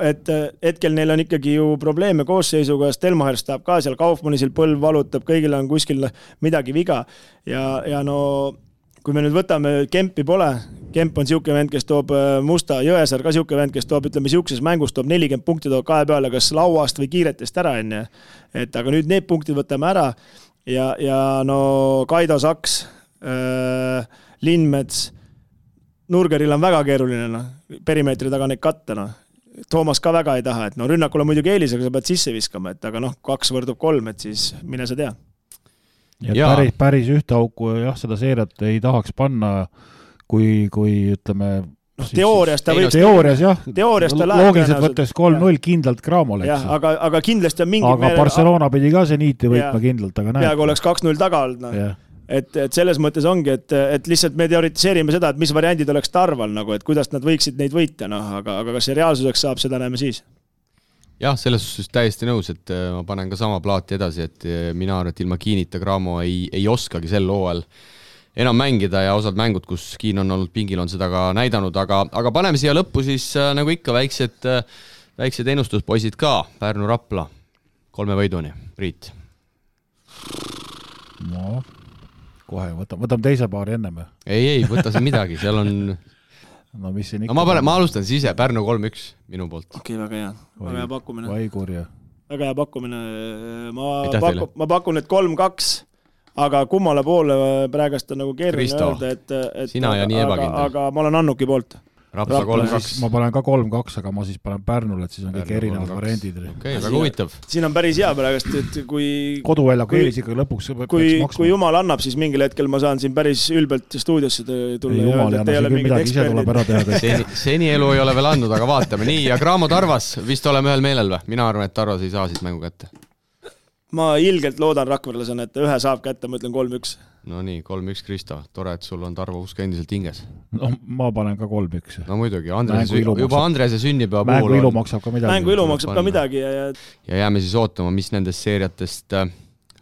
Et hetkel neil on ikkagi ju probleeme koosseisu, Stelmacher stab ka seal, Kaufmannisil põlv valutab, kõigil on kuskil midagi viga ja kui me nüüd võtame, Kempi pole, Kemp on siuke vend, kes toob musta, Jõesaar ka siuke vend, kes toob, ütleme, siukses mängus toob 40 punkti toob 2 peale, kas lauast või kiiretest ära enne. Et aga nüüd need punktid võtame ära ja Kaido Saks, Lindmets, Nurgeril on väga keeruline, perimeetri taga neid katta, Toomas ka väga ei taha, et rünnakul on muidugi eelisega, sa pead sisse viskama, et aga 2 võrdub 3, et siis mine sa tea.
Ja päris ühte auku seda seeriat ei tahaks panna, kui ütleme,
teoorias ta võib...
Teoorias jah,
ta
loogiliselt võttes 3-0 kindlalt Cramole.
Jah, aga kindlasti on mingi...
Aga Barcelona pidi ka Zeniiti võitma kindlalt, aga näed.
Peaaegu oleks 2-0 taga olnud. No. Et selles mõttes ongi, et lihtsalt me teoritiseerime seda, et mis variandid oleks Tarval, nagu, et kuidas nad võiksid neid võita, aga kas see reaalsuseks saab, seda näeme siis.
Jah, selles suhtes täiesti nõus, et ma panen ka sama plaati edasi, et mina arvan, et ilma Kiinita Cramo ei oskagi sel hooajal enam mängida ja osad mängud, kus Kiin on olnud pingil, on seda ka näidanud, aga paneme siia lõppu siis nagu ikka väiksed ennustuspoisid ka, Pärnu Rapla 3 võiduni, Priit.
No, kohe, võtame teise paari enne me.
Ei, võta siin midagi, seal on...
No mis siin ikka...
ma alustan siis ise, Pärnu 3-1 minu poolt.
Okei, väga hea pakkumine.
Vaikurja.
Väga hea pakkumine. Ma pakun, et 3-2. Aga kummale poole praegast on nagu keeruline öelda, et
sina ja nii ebakindel.
Aga ma olen Annuki poolt.
Rapla 3-2.
Ma panen ka 3-2, aga ma siis panen Pärnule, et siis on kõik erinevad variandid.
Okei, väga huvitav.
Siin on päris hea praegast, et kui...
Koduväljaku eelis ikka lõpuks
kui jumal annab, siis mingil hetkel ma saan siin päris ülbelt stuudiosse tulla.
Ei, jumal ei anna, siin midagi ise tuleb ära teha.
Seni elu ei ole veel andnud, aga vaatame. Nii, ja Cramo Tarvas, vist oleme ühel meelel või? Mina arvan, et Tarvas ei saa siit mängu kätte.
Ma ilgelt loodan rakverlasena, et ühe saab kätte, ma ütlen 3-1.
No nii, 3-1 Kristo. Tore, et sul on Tarvo usk endiselt hinges.
No ma panen ka 3-1.
No muidugi, juba Andrese sünnipäeva puhul
mängu ilu maksab ka midagi.
Mängu ilu maksab ka midagi.
Ja jääme siis ootama, mis nendest seeriatest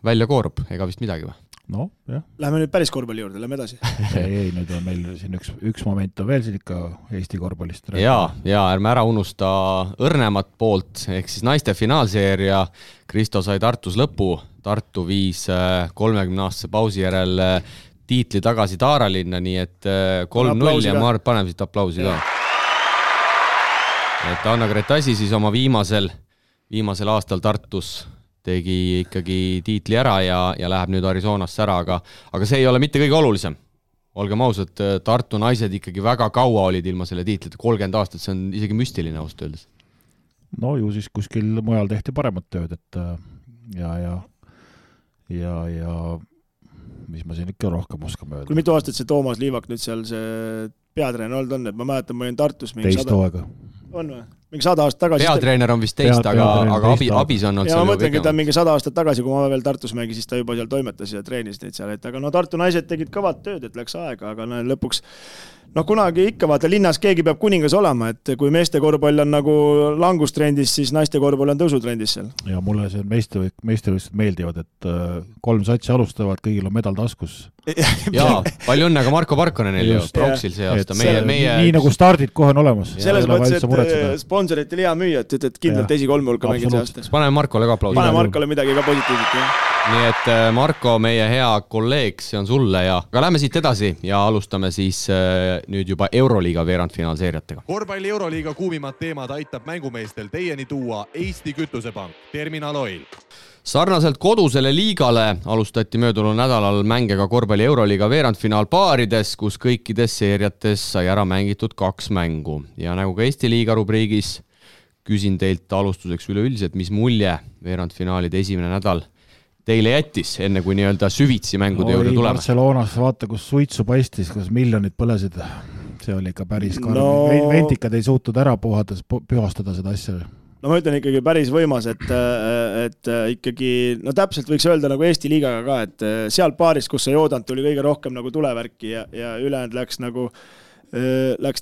välja koorub. Ega vist midagi või?
No, jah.
Läheme nüüd päris korvpalli juurde, lähme edasi.
ei, nüüd on meil siin üks moment on veel siin ikka Eesti korvpallist.
Ja ärme ära unusta õrnemat poolt, ehk siis naiste finaalseeria. Kristo sai Tartus lõpu. Tartu viis 30-aastase pausi järel tiitli tagasi Taaralinna, nii et 3-0 ja ma arvan, paneme siit aplausi ka. Et Anna Gretasi siis oma viimasel aastal Tartus tegi ikkagi tiitli ära ja läheb nüüd Arizonasse ära, aga see ei ole mitte kõige olulisem. Olgem ausad, Tartu naised ikkagi väga kaua olid ilma selle tiitlite, 30 aastat, see on isegi müstiline ausalt öeldes.
No ju siis kuskil mujal tehti paremat tööd, et ja mis ma siin ikka rohkem oskame öelda.
Kui mitu aastat see Toomas Liivak nüüd seal see peatreen olnud on, et ma mäletan, ma olin Tartus
teist hooaega.
On või? Mingi 100 aastat tagasi.
Peatreener on vist teist, aga abis on olnud
ja ma mõtlengi, et ta mingi 100 aastat tagasi, kui ma veel Tartus mängi, siis ta juba seal toimetas ja treenis neid seal. Aga no Tartu naised tegid kõvat tööd, et läks aega, aga lõpuks kunagi ikka vaata, linnas keegi peab kuningas olema, et kui meeste korvpall on nagu langustrendis, siis naiste korvpall on tõusutrendis seal.
Ja mulle see meistevõistlused meeldivad, et 3 satsi alustavad, kõigil on medal taskus.
Jaa, palju õnne ka Marko Parkonenil ju, Proxil see aasta.
Nii nagu stardid kohe on olemas.
Selles mõttes, et sponsoritel hea müüa, et kindlalt esikolme hulka mängid see aasta.
Paneme Markole ka aplausi.
Paneme Markole midagi ka positiivset.
Nii et Marko, meie hea kolleeg, see on sulle ja aga lähme siit edasi ja alustame siis nüüd juba Euroliiga veerandfinaalseeriatega.
Korvpalli Euroliiga kuumimad teemad aitab mängumeestel teieni tuua Eesti Kütusepank, Terminal Oil.
Sarnaselt kodusele liigale alustati möödunud nädalal mänge ka korvpalli Euroliiga veerandfinaalpaarides, kus kõikides seeriates sai ära mängitud 2 mängu. Ja nagu ka Eesti liiga rubriigis küsin teilt alustuseks üleüldiselt, mis mulje veerandfinaalide esimene nädal teile jättis, enne kui nii-öelda süvitsi mängude juurde tulema?
Barcelonas vaata, kus suitsu paistis, kus miljonid põlesid. See oli ikka päris karm. Ventikad ei suutud ära pühastada seda asja.
No ma ütlen ikkagi päris võimas, et ikkagi, no täpselt võiks öelda nagu Eesti liigaga ka, et seal paaris, kus see joodant tuli kõige rohkem nagu tulevärki ja ülejäänud läks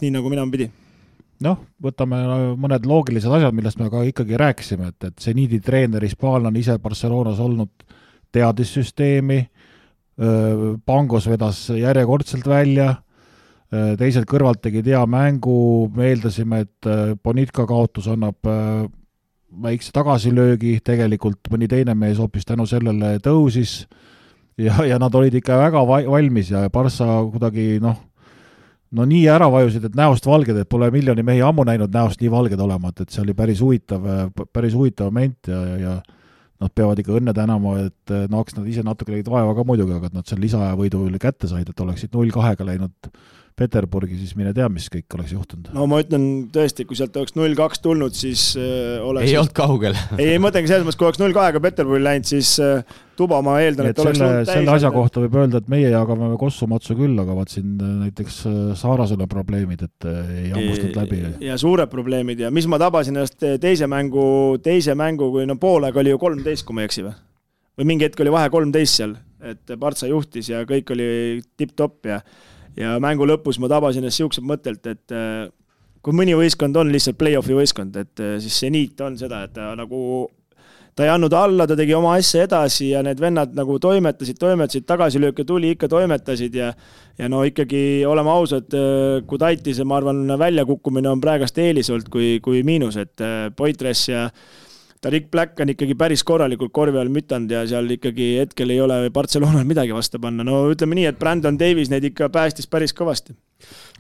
nii, nagu mina pidi.
Noh, võtame mõned loogilised asjad, millest me ka ikkagi rääkisime, et Zeniidi treener Hispaal on ise Barcelonas olnud teadissüsteemi, Pangos vedas järjekordselt välja, teised kõrvalt tegid hea mängu, me eeldasime, et Bonitka kaotus annab väikse tagasilöögi, tegelikult mõni teine mees hoopis tänu sellele tõusis ja nad olid ikka väga valmis ja Barca kuidagi no nii ära vajusid, et näost valged, et pole miljoni mehi ammu näinud näost nii valged olema, et see oli päris huvitav moment ja nad peavad ikka õnne tänama, et eks nad ise natuke legid vaeva ka muidugi, aga nad seal lisaaja võidu kätte said, et oleksid 0-2-ga läinud Peterburgi, siis mine tea, mis kõik oleks juhtunud.
No ma ütlen tõesti, kui sealt oleks 0-2 tulnud, siis oleks...
Ei olnud kaugel.
ei mõtlengi selles mõttes, kui oleks 0-2 Peterburgi läinud, siis tuba ma eeldan, et oleks
olnud täis. Selle asja kohta võib öelda, et meie jagame Kossu-Matsu küll, aga vaat siin näiteks Saarasel on probleemid, et ei hammustanud läbi.
Ja suured probleemid ja mis ma tabasin ennast teise mängu, kui poolega oli ju 13, kui ma ei eksi või mingi hetk oli vahe 13 seal, et Partsa juhtis ja kõik oli tipp-topp ja mängu lõpus ma tabasin ennast siuksed mõttelt, et kui mõni võistkond on lihtsalt play-offi võistkond, et siis see niit on seda, et ta ei andnud alla, ta tegi oma asja edasi ja need vennad nagu toimetasid, tagasilööke tuli, ikka toimetasid ja no ikkagi oleme ausad, kui Taitise, ma arvan, väljakukkumine on praegast eelis olnud kui miinus, et Poitres ja Tarik Black on ikkagi päris korralikult korvi all mütanud ja seal ikkagi hetkel ei ole Barcelonal midagi vastu panna. No ütleme nii, et Brandon Davies neid ikka päästis päris kõvasti.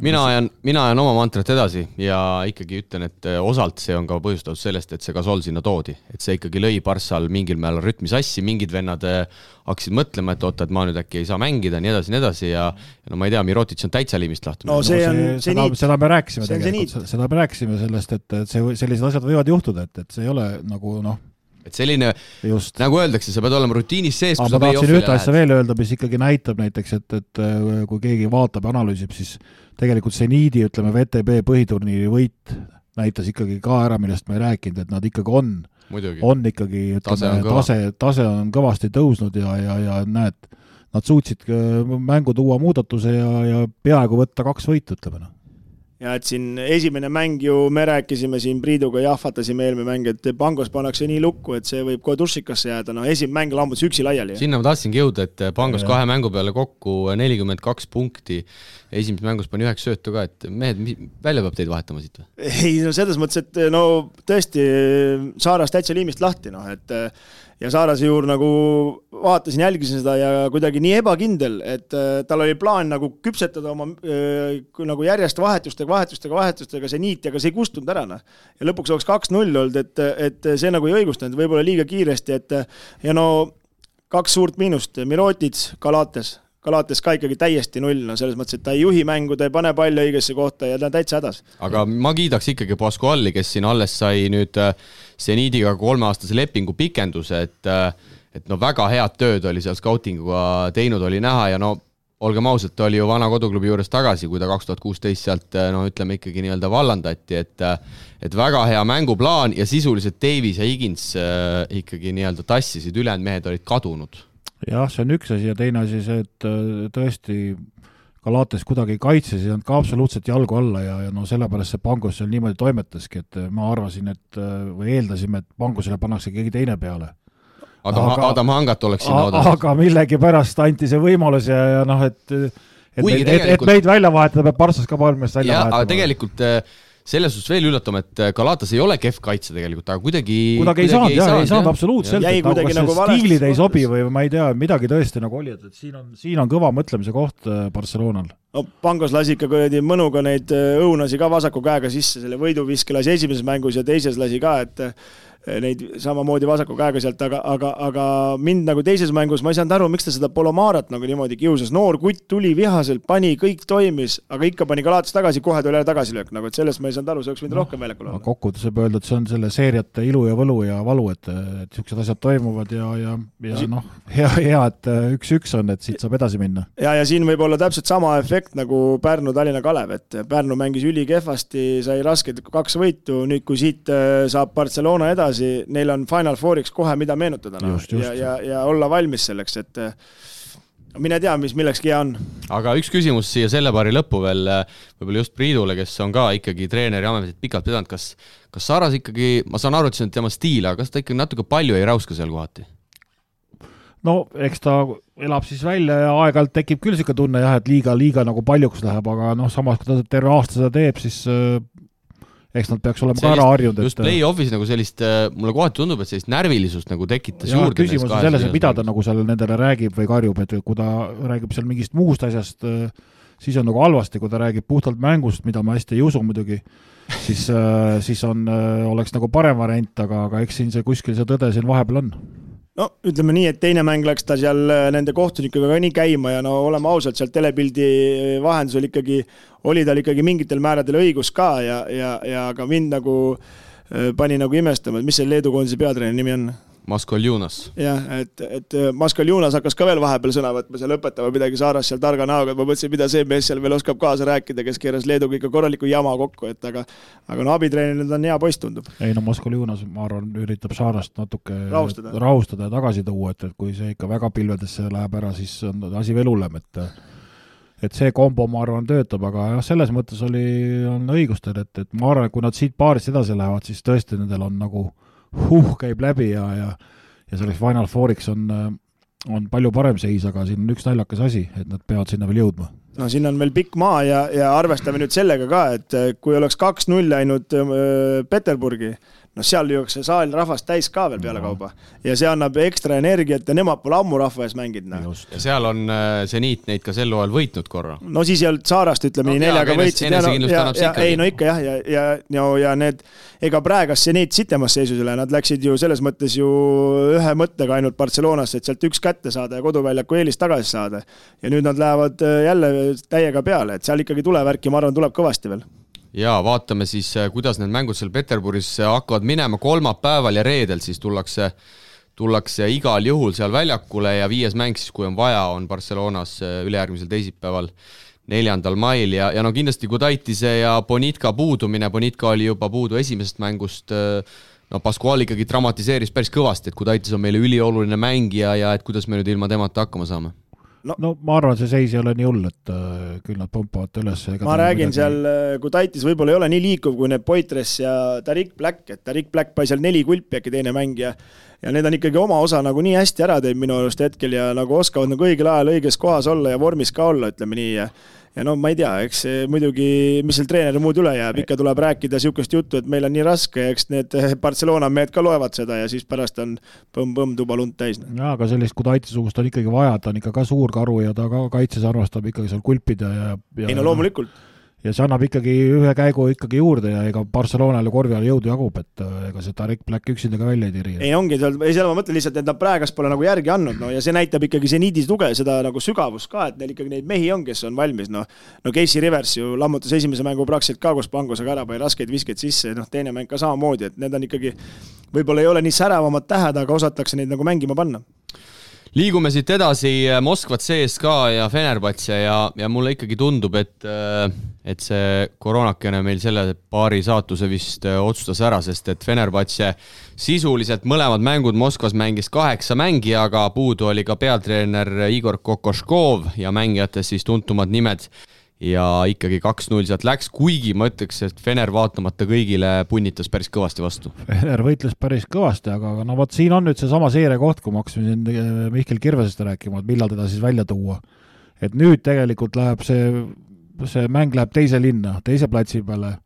Mina ajan oma mantrat edasi ja ikkagi ütlen, et osalt see on ka põhjustatud sellest, et see Gasol sinna toodi. Et see ikkagi lõi Barssal mingil määral rütmi sassi, mingid vennad hakkasid mõtlema, et oota, et ma nüüd äkki ei saa mängida, nii edasi ja no ma ei tea, Mirotic on täitsa liimist lahti.
No
seda me rääkisime tegelikult, seda me rääkisime sellest, et sellised asjad võivad juhtuda, et see ei ole nagu
et selline, just. Nagu öeldakse, sa pead olema rutiinis sees,
kui sa tahtsin ühte asja veel öelda, mis ikkagi näitab näiteks, et kui keegi vaatab ja analüüsib, siis tegelikult see niidi, ütleme, VTB põhiturniiri võit näitas ikkagi ka ära, millest me ei rääkinud, et nad ikkagi on ikkagi, ütleme, tase on kõvasti tõusnud ja näed, nad suutsid mängu tuua muudatuse ja peaaegu võtta 2 võitu, ütleme.
Ja et siin esimene mäng ju me rääkisime siin Priiduga, jahvatasime eelmine mäng, et Pangos pannakse nii lukku, et see võib kohe tursikasse jääda. No esimene mäng lambutas üksi laiali.
Sinna ma tahtsingi jõuda, et Pangos 2 mängu peale kokku 42 punkti. Esimeses mängus pani 9 söötu ka, et mehed, välja peab teid vahetama siit või?
Ei, no selles mõttes, et no tõesti Saaras täitsa liimist lahti, et ja Saarase juur nagu vaatasin, jälgisin seda ja kuidagi nii ebakindel, et tal oli plaan nagu küpsetada oma nagu järjest vahetustega see niit, aga see ei kustunud ära. Ja lõpuks oleks 2-0 olnud, et see nagu ei õigustanud, võib-olla liiga kiiresti, ja no 2 suurt miinust, Mirotic, Kalates ka ikkagi täiesti 0, selles mõttes, et ta ei juhi mängu, ta ei pane palju õigesse kohta ja ta on täitsa hädas.
Aga ma kiidaks ikkagi Pascuali, kes siin alles sai nüüd Seniidiga 3-aastase lepingu pikenduse, et no väga head tööd oli seal scoutinguga teinud, oli näha ja no olgem ausalt, ta oli ju vana koduklubi juures tagasi, kui ta 2016 sealt, no ütleme ikkagi nii-öelda vallandati, et väga hea mänguplaan ja sisuliselt Davies ja Higgins ikkagi nii-öelda tassisid, ülejäänud mehed olid kadunud.
Jah, see on üks asi ja teine asi see, et tõesti Kalates kuidagi kaitses ja ka absoluutselt jalgu alla ja no sellepärast see Pangos seal niimoodi toimetaski, et ma arvasin, või eeldasime, et Pangosele pannakse keegi teine peale.
Adam Hangat oleks sinna oodanud.
Aga millegi pärast anti see võimalus ja noh, et meid välja vahetada, peab Parssas ka palmest välja vahetama.
Aga tegelikult selles suhtes veel üllatama, et Kalatas ei ole kehv kaitse tegelikult, aga kuidagi
ei saanud absoluutselt, et nagu stiilid ei sobi või ma ei tea, midagi tõesti nagu oli, et siin on kõva mõtlemise koht Barcelonal.
No, Pangos lasi ikka mõnuga neid õunasi ka vasaku käega sisse, selle võiduviske lasi esimeses mängus ja teises lasi ka, et neid samamoodi vasaku käega sealt, aga mind nagu teises mängus, ma ei saanud aru, miks ta seda Polomarat nagu niimoodi kiusas. Noor kutt tuli vihaselt, pani, kõik toimis, aga ikka pani Kalates tagasi, kohe tuli tagasilöök, nagu et sellest ma ei saanud aru, see oleks võinud rohkem väljakul olla.
Kokkuvõttes võib öelda, et see on selle seeriate ilu ja võlu ja valu, et siuksed asjad toimuvad ja noh, hea, et 1-1 on, et siit saab edasi minna.
Ja siin võib olla täpselt sama efekt nagu Pärnu Tallinna Kalev, et Pärnu mängis üli kehvasti, sai rasked 2 võitu, nüüd kui siit saab Barcelona edasi, neil on Final Fouriks kohe mida meenutada
just.
Ja olla valmis selleks, et mine tea, mis millekski hea on.
Aga üks küsimus siia selle paari lõppu veel, võib-olla just Priidule, kes on ka ikkagi treeneri ametit pikalt pidanud, kas Saaras ikkagi, ma saan aru, et see on tema stiil, aga kas ta ikkagi natuke palju ei rauska seal kohati?
No, eks ta elab siis välja ja aeg-ajalt tekib küll siuke tunne, jah, et liiga nagu paljuks läheb, aga noh, samas kui ta terve aasta seda teeb, siis eks nad peaks olema ka ära harjunud.
Just play-offis nagu sellist, mulle kohati tundub, et sellist närvilisust nagu tekitas juurde.
Küsimus on selles, et mida ta nagu seal nendele räägib või karjub, et kui ta räägib seal mingist muust asjast, siis on nagu halvasti, kui ta räägib puhtalt mängust, mida ma hästi ei usu muidugi, siis oleks nagu parem variant, aga eks siin see kuskil see tõde siin vahepeal on.
No ütleme nii, et teine mäng läks ta seal nende kohtunikega ka nii käima ja no oleme ausalt, seal telepildi vahendusel ikkagi oli tal ikkagi mingitel määradel õigus ka ja ka mind nagu pani nagu imestama, et mis see Leedu koondise peatreeneri nimi on?
Maskoljunas.
Jah, et Maskoljunas hakkas ka veel vahepeal sõna võtma, seal õpetama midagi Saaras seal targa näoga, et ma mõtlesin, mida see mees seal veel oskab kaasa rääkida, kes keeras Leeduga ikka korraliku jama kokku, et aga no abitreeneril on hea poiss tundub.
Ei no Maskoljunas, ma arvan, üritab Saarast natuke
rahustada
ja tagasi tuua, et kui see ikka väga pilvedesse läheb ära, siis on asi veel hullem, et see kombo, ma arvan, töötab, aga jah, selles mõttes on õigustel, et ma arvan, et kui nad siit paarist edasi lähevad, siis tõesti nendel on nagu käib läbi ja selleks Final Fouriks on palju parem seis, aga siin on üks naljakas asi, et nad peavad sinna veel jõudma.
No siin on veel pikk maa ja arvestame nüüd sellega ka, et kui oleks 2-0 läinud Peterburgi, no seal jõuaks see saal rahvast täis ka veel peale kauba. Ja see annab ekstra energiat ja nemad pole ammu rahva ees mängid.
Ja seal on Zeniit neid ka sel hooajal võitnud korra.
No siis ei olnud Saarast, ütleme nii, 4-ga võitsid. Ei, no ikka ja need, ega praegas Zeniit sitemas seisusele, nad läksid ju selles mõttes ju ühe mõttega ainult Barcelonasse, et sealt üks kätte saada ja koduväljaku eelist tagasi saada. Ja nüüd nad lähevad jälle täiega peale, et seal ikkagi tulevärki, ma arvan, tuleb kõvasti veel.
Ja vaatame siis, kuidas need mängud seal Peterburis hakkavad minema kolmapäeval ja reedel, siis tullakse igal juhul seal väljakule ja 5. mäng siis, kui on vaja, on Barcelonas ülejärgmisel teisipäeval 4. mail ja no kindlasti Gudaitise ja Bonitka puudumine, Bonitka oli juba puudu esimesest mängust, no Pascual ikkagi dramatiseeris päris kõvasti, et Gudaitis on meile ülioluline mängija ja et kuidas me nüüd ilma temata hakkama saame.
No ma arvan, see seis ei ole nii hull, et küll nad pompavad üles.
Ma räägin seal, kui Taitis võib-olla ei ole nii liikuv kui need Poitres ja Tariq Black, et Tariq Black pai seal 4 kulpi äkki teine mängija ja need on ikkagi oma osa nagu nii hästi ära teeb minu arust hetkel ja nagu oskavad nagu õigel ajal õiges kohas olla ja vormis ka olla, ütleme nii ja no ma ei tea, eks muidugi, mis seal treeneri muud üle jääb, ikka tuleb rääkida siukest juttu, et meil on nii raske, eks need Barcelona mehed ka loevad seda ja siis pärast on põmm tuba lund täis.
Ja, aga sellist Gudaitisugust on ikkagi vaja, ta on ikka ka suur karu ja ta ka kaitses arvastab ikkagi seal kulpida
ei no loomulikult.
Ja see annab ikkagi ühe käigu ikkagi juurde ja ega Barcelonale korvi all jõudu jagub, et ega see Tariq Black üksinda ka välja ei tiri.
Ei ongi, seal ma mõtlen lihtsalt, et nad praegas pole nagu järgi andnud, no ja see näitab ikkagi see niidis tuge, seda nagu sügavust ka, et neil ikkagi neid mehi on, kes on valmis, no Casey Rivers ju lammutas esimese mängu praktiliselt ka, kus Pangosega ära pai raskeid viskeid sisse, teine mäng ka samamoodi, et need on ikkagi, võib-olla ei ole nii säravamad tähed, aga osatakse neid nagu mängima panna.
Liigume siit edasi Moskvat CSKA ja Fenerbahce ja mulle ikkagi tundub, et see koroonakene meil selle paari saatuse vist otsustas ära, sest et Fenerbahce sisuliselt mõlemad mängud Moskvas mängis 8 mängijaga, puudu oli ka peatreener Igor Kokoškov ja mängijates siis tuntumad nimed ja ikkagi 2-0 sealt läks, kuigi ma ütleks, et Fener vaatamata kõigile punnitas päris kõvasti vastu.
Fener võitles päris kõvasti, aga no vot siin on nüüd see sama seeria koht, kui ma hakkasime siin Mihkel Kirvesest rääkima, et millal teda siis välja tuua. Et nüüd tegelikult läheb see mäng läheb teise linna, teise platsi peale.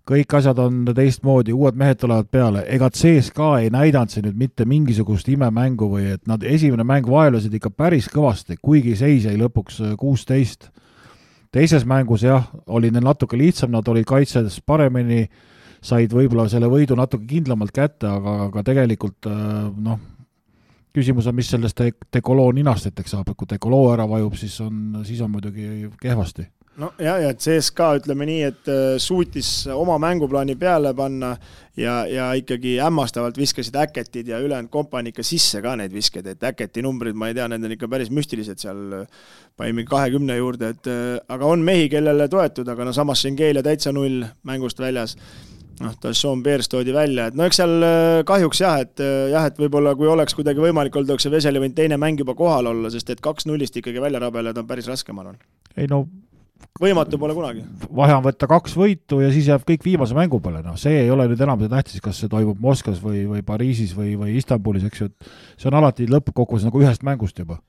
Kõik asjad on teistmoodi, uued mehed tulevad peale. Ega CSKA ei näidanud see nüüd mitte mingisugust imemängu või et nad esimene mäng vaelusid ikka päris kõvasti, kuigi seis jäi lõpuks 16. Teises mängus jah, oli neil natuke lihtsam, nad olid kaitsedes paremini, said võib-olla selle võidu natuke kindlamalt kätte, aga tegelikult küsimus on, mis sellest Dekoloo ninasteteks saab, et kui Dekoloo ära vajub, siis on muidugi kehvasti.
No ja CSKA ütleme nii, et suutis oma mänguplaani peale panna ja ikkagi hämmastavalt viskasid Äketid ja ülejäänud kompani ikka sisse ka neid viskeid, et Äketi numbrid, ma ei tea, need on ikka päris müstilised seal paimi 20 juurde, aga on mehi, kellele toetud, aga samas Schengelia täitsa 0 mängust väljas. Tasson Beers toodi välja, et eks seal kahjuks et võib-olla kui oleks kuidagi võimalik olnud, oleks see Veseli võinud teine mäng juba kohal olla, sest et 2-0 ikkagi välja rabeled on päris raske, ma arvan.
Ei no
võimatu pole kunagi.
Vahe on võtta 2 võitu ja siis jääb kõik viimase mängu peale. See ei ole nüüd enam see tähtis, kas see toimub Moskvas või Pariisis või Istanbulis, eks ju. See on alati lõppkokkuvõttes nagu ühest mängust juba.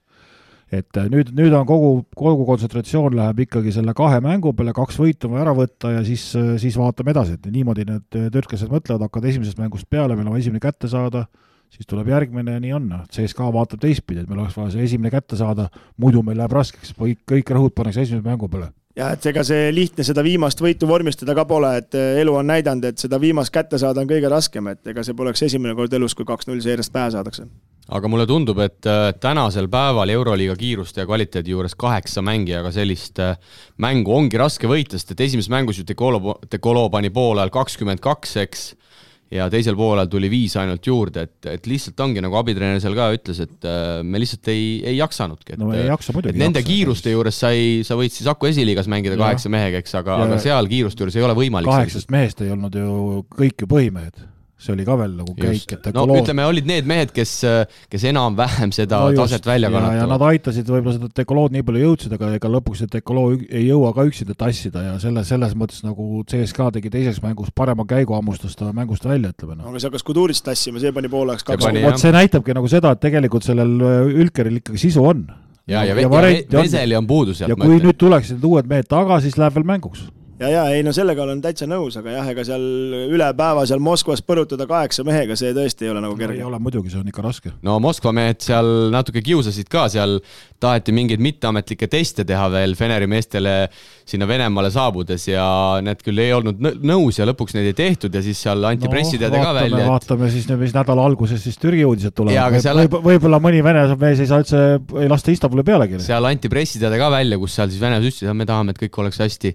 Et nüüd on kogu kontsentratsioon läheb ikkagi selle 2 mängu peale, 2 võitu ära võtta ja siis vaatame edasi. Et niimoodi need töötkesed mõtlevad, hakkavad esimesest mängust peale, meil on esimene kätte saada, siis tuleb järgmine ja nii on. CSKA vaatab teistpidi, et meil oleks vaja see esimene kätte saada, muidu meil läheb raskeks, kõik rõhud pannakse esimese mängu peale.
Ja et ega see lihtne seda viimast võitu vormistada ka pole, et elu on näidanud, et seda viimast kätte saada on kõige raskem, et ega see poleks esimene kord elus, kui 2-0 seeriast pähe saadakse.
aga mulle tundub, et tänasel päeval Euroliiga kiiruste ja kvaliteedi juures 8 mängijaga sellist mängu ongi raske võita, sest et esimeses mängus ju Dekolo pani poolel 22, eks, ja teisel poolel tuli 5 ainult juurde, et lihtsalt ongi, nagu abitreener seal ka ütles, et me lihtsalt ei jaksanudki.
No ei jaksa muidugi.
Nende kiiruste juures sa võid siis Aku esiliigas mängida 8 mehega, eks, aga seal kiiruste juures ei ole võimalik.
8 mehest ei olnud ju kõik ju põhimehed. See oli ka veel nagu käik, et
ütleme, olid need mehed, kes enam-vähem seda taset välja kannatavad.
Ja nad aitasid võib-olla seda Dekolood nii palju jõudsid, aga ega lõpuks Dekolo ei jõua ka üksinda tassida ja selles mõttes nagu CSKA tegi teises mängus parema käigu ammustas ta mängust välja, ütleme.
Aga see hakkas Kudurist tassima, see pani pooleks 2.
See näitabki nagu seda, et tegelikult sellel Ülkeril ikkagi sisu on.
Ja Veseli on puudu sealt.
Ja kui nüüd tuleksid uued mehed taga, siis läheb veel mänguks.
Ja, ei, no sellega olen täitsa nõus, aga jah, ega seal üle päeva seal Moskvas põrutada 8 mehega, see tõesti ei ole nagu kerge.
Ei ole muidugi, see on ikka raske.
No Moskva mehed seal natuke kiusasid ka, seal taheti mingeid mitteametlikke teste teha veel Feneri meestele sinna Venemaale saabudes ja need küll ei olnud nõus ja lõpuks neid ei tehtud ja siis seal anti pressiteade ka välja.
Vaatame siis, mis nädala alguses siis Türgi uudised tulevad. Võib-olla mõni Vene mees ei saa üldse ei lasta Istanbuli pealegi.
Seal anti pressiteade ka välja, kus seal siis Vene ütlesid, et me tahame, et kõik oleks hästi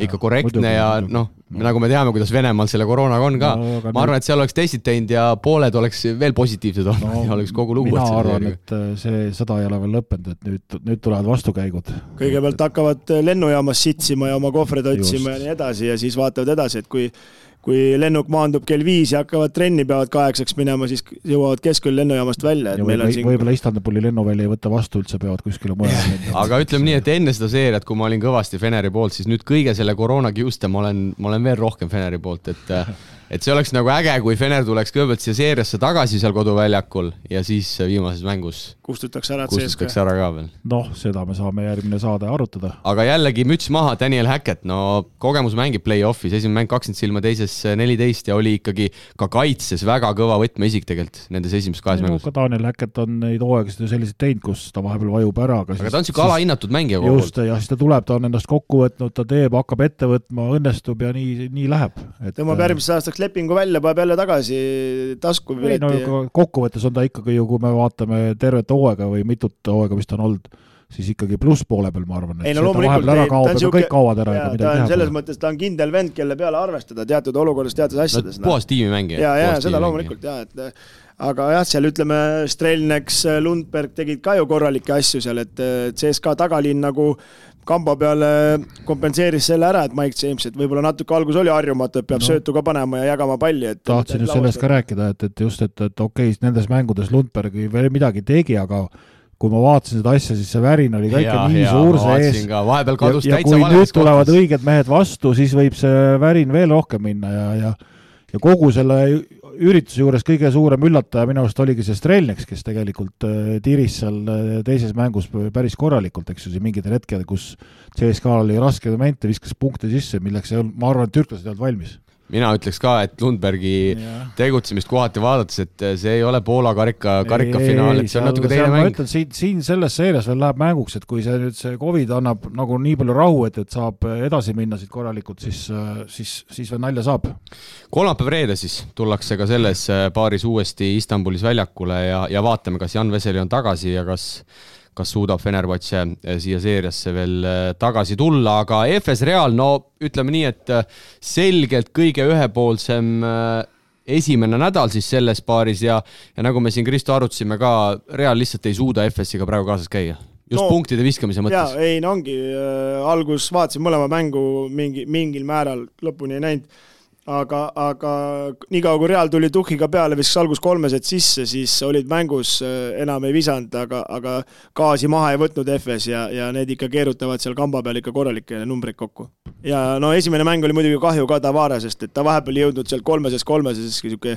ikka korrektne ja nagu me teame, kuidas Venemaal selle koroonaga on ka. Ma arvan, et seal oleks testid teinud ja pooled oleks veel positiivsed olnud ja oleks kogu lugu.
Mina arvan, et see sõda ei ole veel lõppenud, et nüüd tulevad vastukäigud.
Kõigepealt hakkavad lennujaamas sitsima ja oma kohvreid otsima ja nii edasi ja siis vaatavad edasi, et kui lennuk maandub kell 5 ja hakkavad trenni, peavad 8 minema, siis jõuavad keskel lennujaamast välja.
Võib-olla Istanbuli lennuvälja ei võtta vastu üldse, peavad kuskile mujale.
Aga ütleme nii, et enne seda seeriat, kui ma olin kõvasti Feneri poolt, siis nüüd kõige selle koroonakiuste ma olen veel rohkem Feneri poolt, et see oleks nagu äge, kui Fener tuleks kõigepealt siia seeriasse tagasi seal koduväljakul ja siis viimases mängus
kustutakse ära
ka veel.
Seda me saame järgmine saade arutada.
Aga jällegi müts maha, Daniel Hackett, kogemus mängib play-offis, esimene mäng 20 silma, teises 14 ja oli ikkagi ka kaitses väga kõva võtmeisik tegelikult nendes esimeses 2 mängus.
Ka Daniel Hackett on neid hooaegasid selliseid teinud, kus ta vahepeal vajub ära.
Aga ta on siuke alahinnatud mängija
kogu. Just, ja siis ta tuleb, ta on ennast kokku võtnud, ta teeb, hakkab ette võtma, õnnestub ja nii läheb.
Tõmbab järgmisest aastaks lepingu välja, paneb jälle tagasi tasku.
Kokkuvõttes on ta ikkagi ju, kui me vaatame tervet hooaega või mitut hooaega, mis ta on olnud, siis ikkagi pluss poole peal, ma arvan, et kõik kaovad ära.
Ta on selles mõttes, ta on kindel vend, kelle peale arvestada teatud olukorras, teatud asjades.
Puhas tiimimängija.
Ja seda loomulikult, aga jah, seal ütleme, Strelneks, Lundberg tegid ka ju korralikke asju seal, et CSKA tagalinn nagu kamba peale kompenseeris selle ära, et Mike James, et võib-olla natuke algus oli harjumatu, et peab söötu ka panema ja jagama palli.
Tahtsin just sellest ka rääkida, et just, et okei, nendes mängudes Lundberg veel midagi tegi, aga kui ma vaatasin seda asja, siis see värin oli ka ikka nii suur sees. Ja kui nüüd tulevad õiged mehed vastu, siis võib see värin veel rohkem minna ja kogu selle ürituse juures kõige suurem üllataja minu arust oligi see Strelneks, kes tegelikult tiris seal teises mängus päris korralikult, eks ju, mingitel hetkel, kus CSKA oli raske momente, viskas punkte sisse, milleks ma arvan, et türklased olid valmis.
Mina ütleks ka, et Lundbergi tegutsemist kohati vaadates, et see ei ole Poola karikafinaal, et see on natuke teine mäng.
Ma ütlen, siin selles seerias veel läheb mänguks, et kui see COVID annab nagu nii palju rahu, et saab edasi minna siit korralikult, siis veel nalja saab.
Kolmapäev reede siis tullakse ka selles paaris uuesti Istanbulis väljakule ja vaatame, kas Jan Veseli on tagasi ja kas suudab Fenerbahce siia seeriasse veel tagasi tulla, aga FS Real, ütleme nii, et selgelt kõige ühepoolsem esimene nädal siis selles paaris ja nagu me siin Kristo arutasime ka, Real lihtsalt ei suuda FS-iga praegu kaasas käia. Just punktide viskamise mõttes.
Ei, ongi, algus vaatasin mõlema mängu mingil määral lõpuni ei näinud. Aga nii kaua kui Real tuli tuhhiga peale, viskas algus 3 sisse, siis olid mängus enam ei visanud, aga gaasi maha ei võtnud FS ja need ikka keerutavad seal kamba peal ikka korralikke numbreid kokku. Ja esimene mäng oli muidugi kahju ka Tavaresest, et ta vahepeal jõudnud seal 3 siuke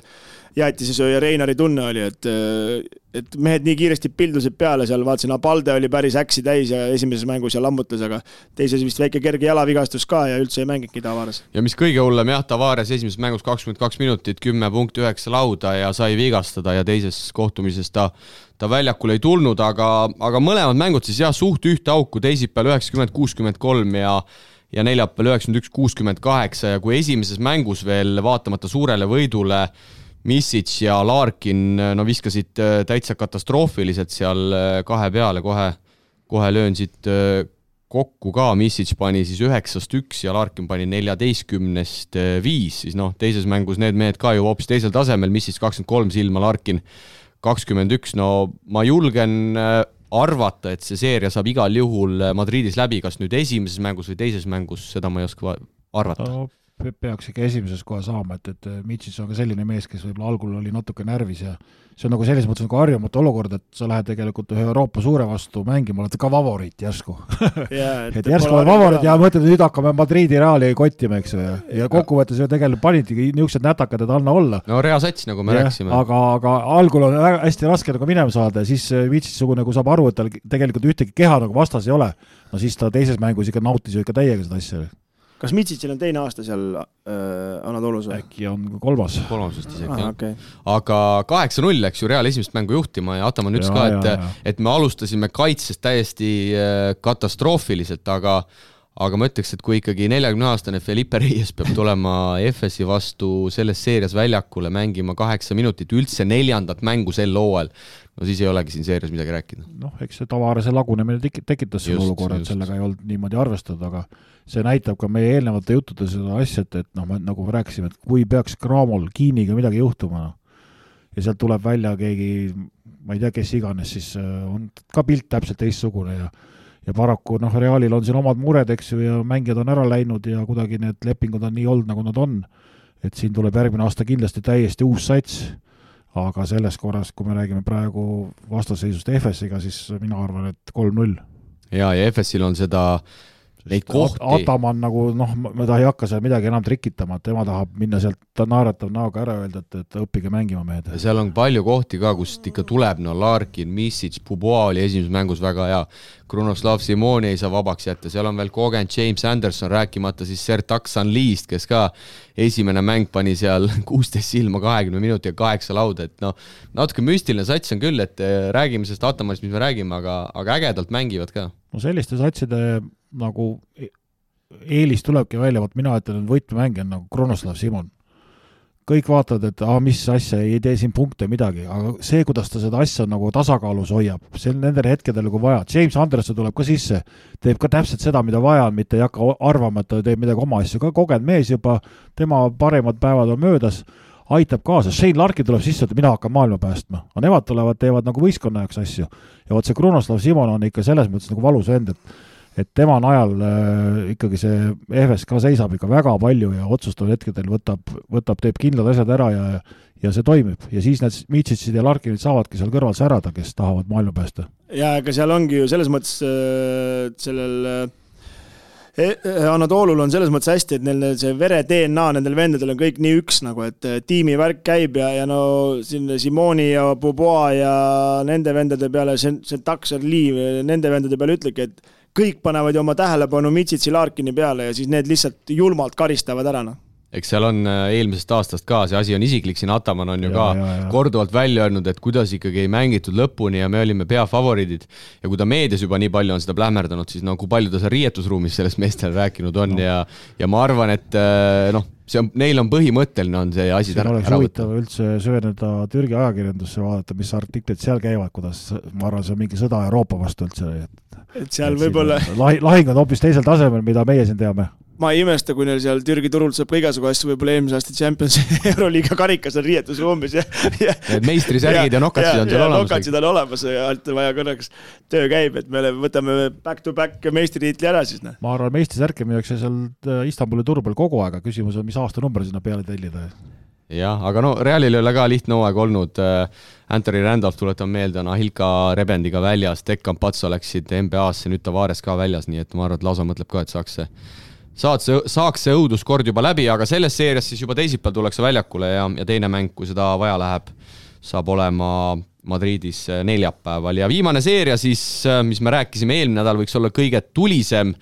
jäätisesööja Reinari tunne oli, et mehed nii kiiresti pildusid peale seal, vaatasin, Apalde oli päris äksi täis ja esimeses mängus ja lammutas, aga teises vist väike kerge jalavigastus ka ja üldse ei mänginudki Tavares.
Ja mis kõige hullem, Tavares esimeses mängus 22 minutit, 10.9 lauda ja sai vigastada ja teises kohtumises ta väljakul ei tulnud, aga mõlemad mängud siis suht ühte auku, teisipäeval 90-63 ja neljapäeval 91-68 ja kui esimeses mängus veel vaatamata suurele võidule Misic ja Larkin viskasid täitsa katastroofiliselt seal kahe peale, kohe löön siit kokku ka, Misic pani siis 9-1 ja Larkin pani 14-5, siis teises mängus need mehed ka ju hoopis teisel tasemel, Misic 23 silma, Larkin 21, ma julgen arvata, et see seeria saab igal juhul Madridis läbi, kas nüüd esimeses mängus või teises mängus, seda ma ei oska arvata.
Peaks ikka esimeses kohe saama, et Misic on ka selline mees, kes võib-olla algul oli natuke närvis ja see on nagu selles mõttes nagu harjumatu olukord, et sa lähed tegelikult ühe Euroopa suure vastu mängima, oled ka favoriit järsku. et järsku oled favoriit ja mõtled, nüüd hakkame Madridi Reali kottima, eks ju, ja kokkuvõttes ju tegelikult panidki niisugused nätakad, et anna olla.
No reasats, nagu me rääkisime.
Aga algul on väga hästi raske nagu minema saada ja siis Misic nagu saab aru, et tal tegelikult ühtegi keha nagu vastas ei ole. No siis ta teises mängus ikka nautis ju ikka täiega seda asja.
Kas Mitsicil on teine aasta seal Anadolus?
Äkki on kolmas
vist isegi, jah.
Okay.
Aga 8-0 läks ju Real esimest mängu juhtima ja Ataman ütles ka, et me alustasime kaitsest täiesti katastroofiliselt, aga ma ütleks, et kui ikkagi 40-aastane Felipe Reyes peab tulema FS-i vastu selles seerias väljakule mängima 8 minutit, üldse 4. mängu sel hooajal, no siis ei olegi siin seerias midagi rääkida.
Eks see tavaarese lagunemine tekitas selle olukorra, et sellega ei olnud niimoodi arvestada, aga see näitab ka meie eelnevate juttude seda asja, et nagu me rääkisime, et kui peaks Cramol Kiiniga midagi juhtuma ja sealt tuleb välja keegi, ma ei tea, kes iganes, siis on ka pilt täpselt teistsugune ja paraku Realil on siin omad mured, eks ju, ja mängijad on ära läinud ja kuidagi need lepingud on nii olnud, nagu nad on, et siin tuleb järgmine aasta kindlasti täiesti uus sats, aga selles korras, kui me räägime praegu vastasseisust FS-iga, siis mina arvan, et 3-0.
Ja FS-il on seda neid kohti.
Ataman nagu, ta ei hakka seal midagi enam trikitama, et tema tahab minna sealt, ta naeratab näoga ära öelda, et õppige mängima mehed.
Seal on palju kohti ka, kust ikka tuleb, Larkin, Misic, Puboa oli esimeses mängus väga hea, Krunoslav Simoni ei saa vabaks jätta, seal on veel kogenud James Anderson, rääkimata siis Sertak Sanliist, kes ka esimene mäng pani seal 16 silma 20 minuti ja 8 lauda, et natuke müstiline sats on küll, et räägime sellest Atamanist, mis me räägime, aga ägedalt mängivad ka.
No selliste satside nagu eelis tulebki välja, mina ütlen, et võtmemäng on nagu Krunoslav Simon. Kõik vaatavad, et mis asja, ei tee siin punkte midagi, aga see, kuidas ta seda asja nagu tasakaalus hoiab, see on nendel hetkedel kui vaja. James Anderson tuleb ka sisse, teeb ka täpselt seda, mida vaja on, mitte ei hakka arvama, et ta teeb midagi oma asju, ka kogenud mees juba, tema paremad päevad on möödas, aitab kaasa. Shane Larkin tuleb sisse, et mina hakkan maailma päästma. Aga nemad tulevad, teevad nagu võistkonna jaoks asju. Ja see Krunoslav Simon on ikka selles mõttes nagu valus vend, et tema najal ikkagi see EFS ka seisab ikka väga palju ja otsustav hetkedel teeb kindlad asjad ära ja see toimib. Ja siis need Mitsicid ja Larkinid saavadki seal kõrval särada, kes tahavad maailma päästa.
Ja aga seal ongi ju selles mõttes sellel Anadolul on selles mõttes hästi, et neil see vere DNA nendel vendadel on kõik nii üks, nagu, et tiimivärk käib ja siin Simoni ja Boboa ja nende vendade peale, see Taksar Liiv, nende vendade peale ütlegi, et kõik panevad ju oma tähelepanu Mitsitsi Larkini peale ja siis need lihtsalt julmalt karistavad ära.
Eks seal on eelmisest aastast ka, see asi on isiklik, siin Ataman on ju ka korduvalt välja öelnud, et kuidas ikkagi ei mängitud lõpuni ja me olime peafavoriidid ja kui ta meedias juba nii palju on seda plähmerdanud, siis kui palju ta seal riietusruumis sellest meestel rääkinud on ja ma arvan, et neil on põhimõtteline on see asi
ära võtta. Huvitav üldse süveneda Türgi ajakirjandusse, vaadata, mis artiklid seal käivad, kuidas, ma arvan, see on mingi sõda Euroopa vastu üldse.
Et seal võib-olla
lahing on hoopis teisel tasemel, mida meie siin teame.
Ma ei imesta, kui neil seal Türgi turult saab ka igasugu asju, võib-olla eelmise aasta Champions Euroliiga karikas on riietusruumis ja
meistrisärgid ja nokatsid on seal olemas.
Nokatsid on olemas ja alt vaja korraks töö käib, et me võtame back-to-back meistritiitli ära siis.
Ma arvan, meistrisärke müüakse seal Istanbuli turu peal kogu aega, küsimus on, mis aastanumber sinna peale tellida.
Jah, aga Realil ei ole ka lihtne hooaeg olnud. Anthony Randolph tuletab meelde, Ahilka Rebendiga väljas, Dekkan Pats oleksid NBA-sse, nüüd Tavares ka väljas, nii et ma arvan, et lausa mõtleb ka, et saaks see õuduskord juba läbi, aga selles seerias siis juba teisipäeval tullakse väljakule ja teine mäng, kui seda vaja läheb, saab olema Madridis neljapäeval. Ja viimane seeria siis, mis me rääkisime eelmine nädal, võiks olla kõige tulisem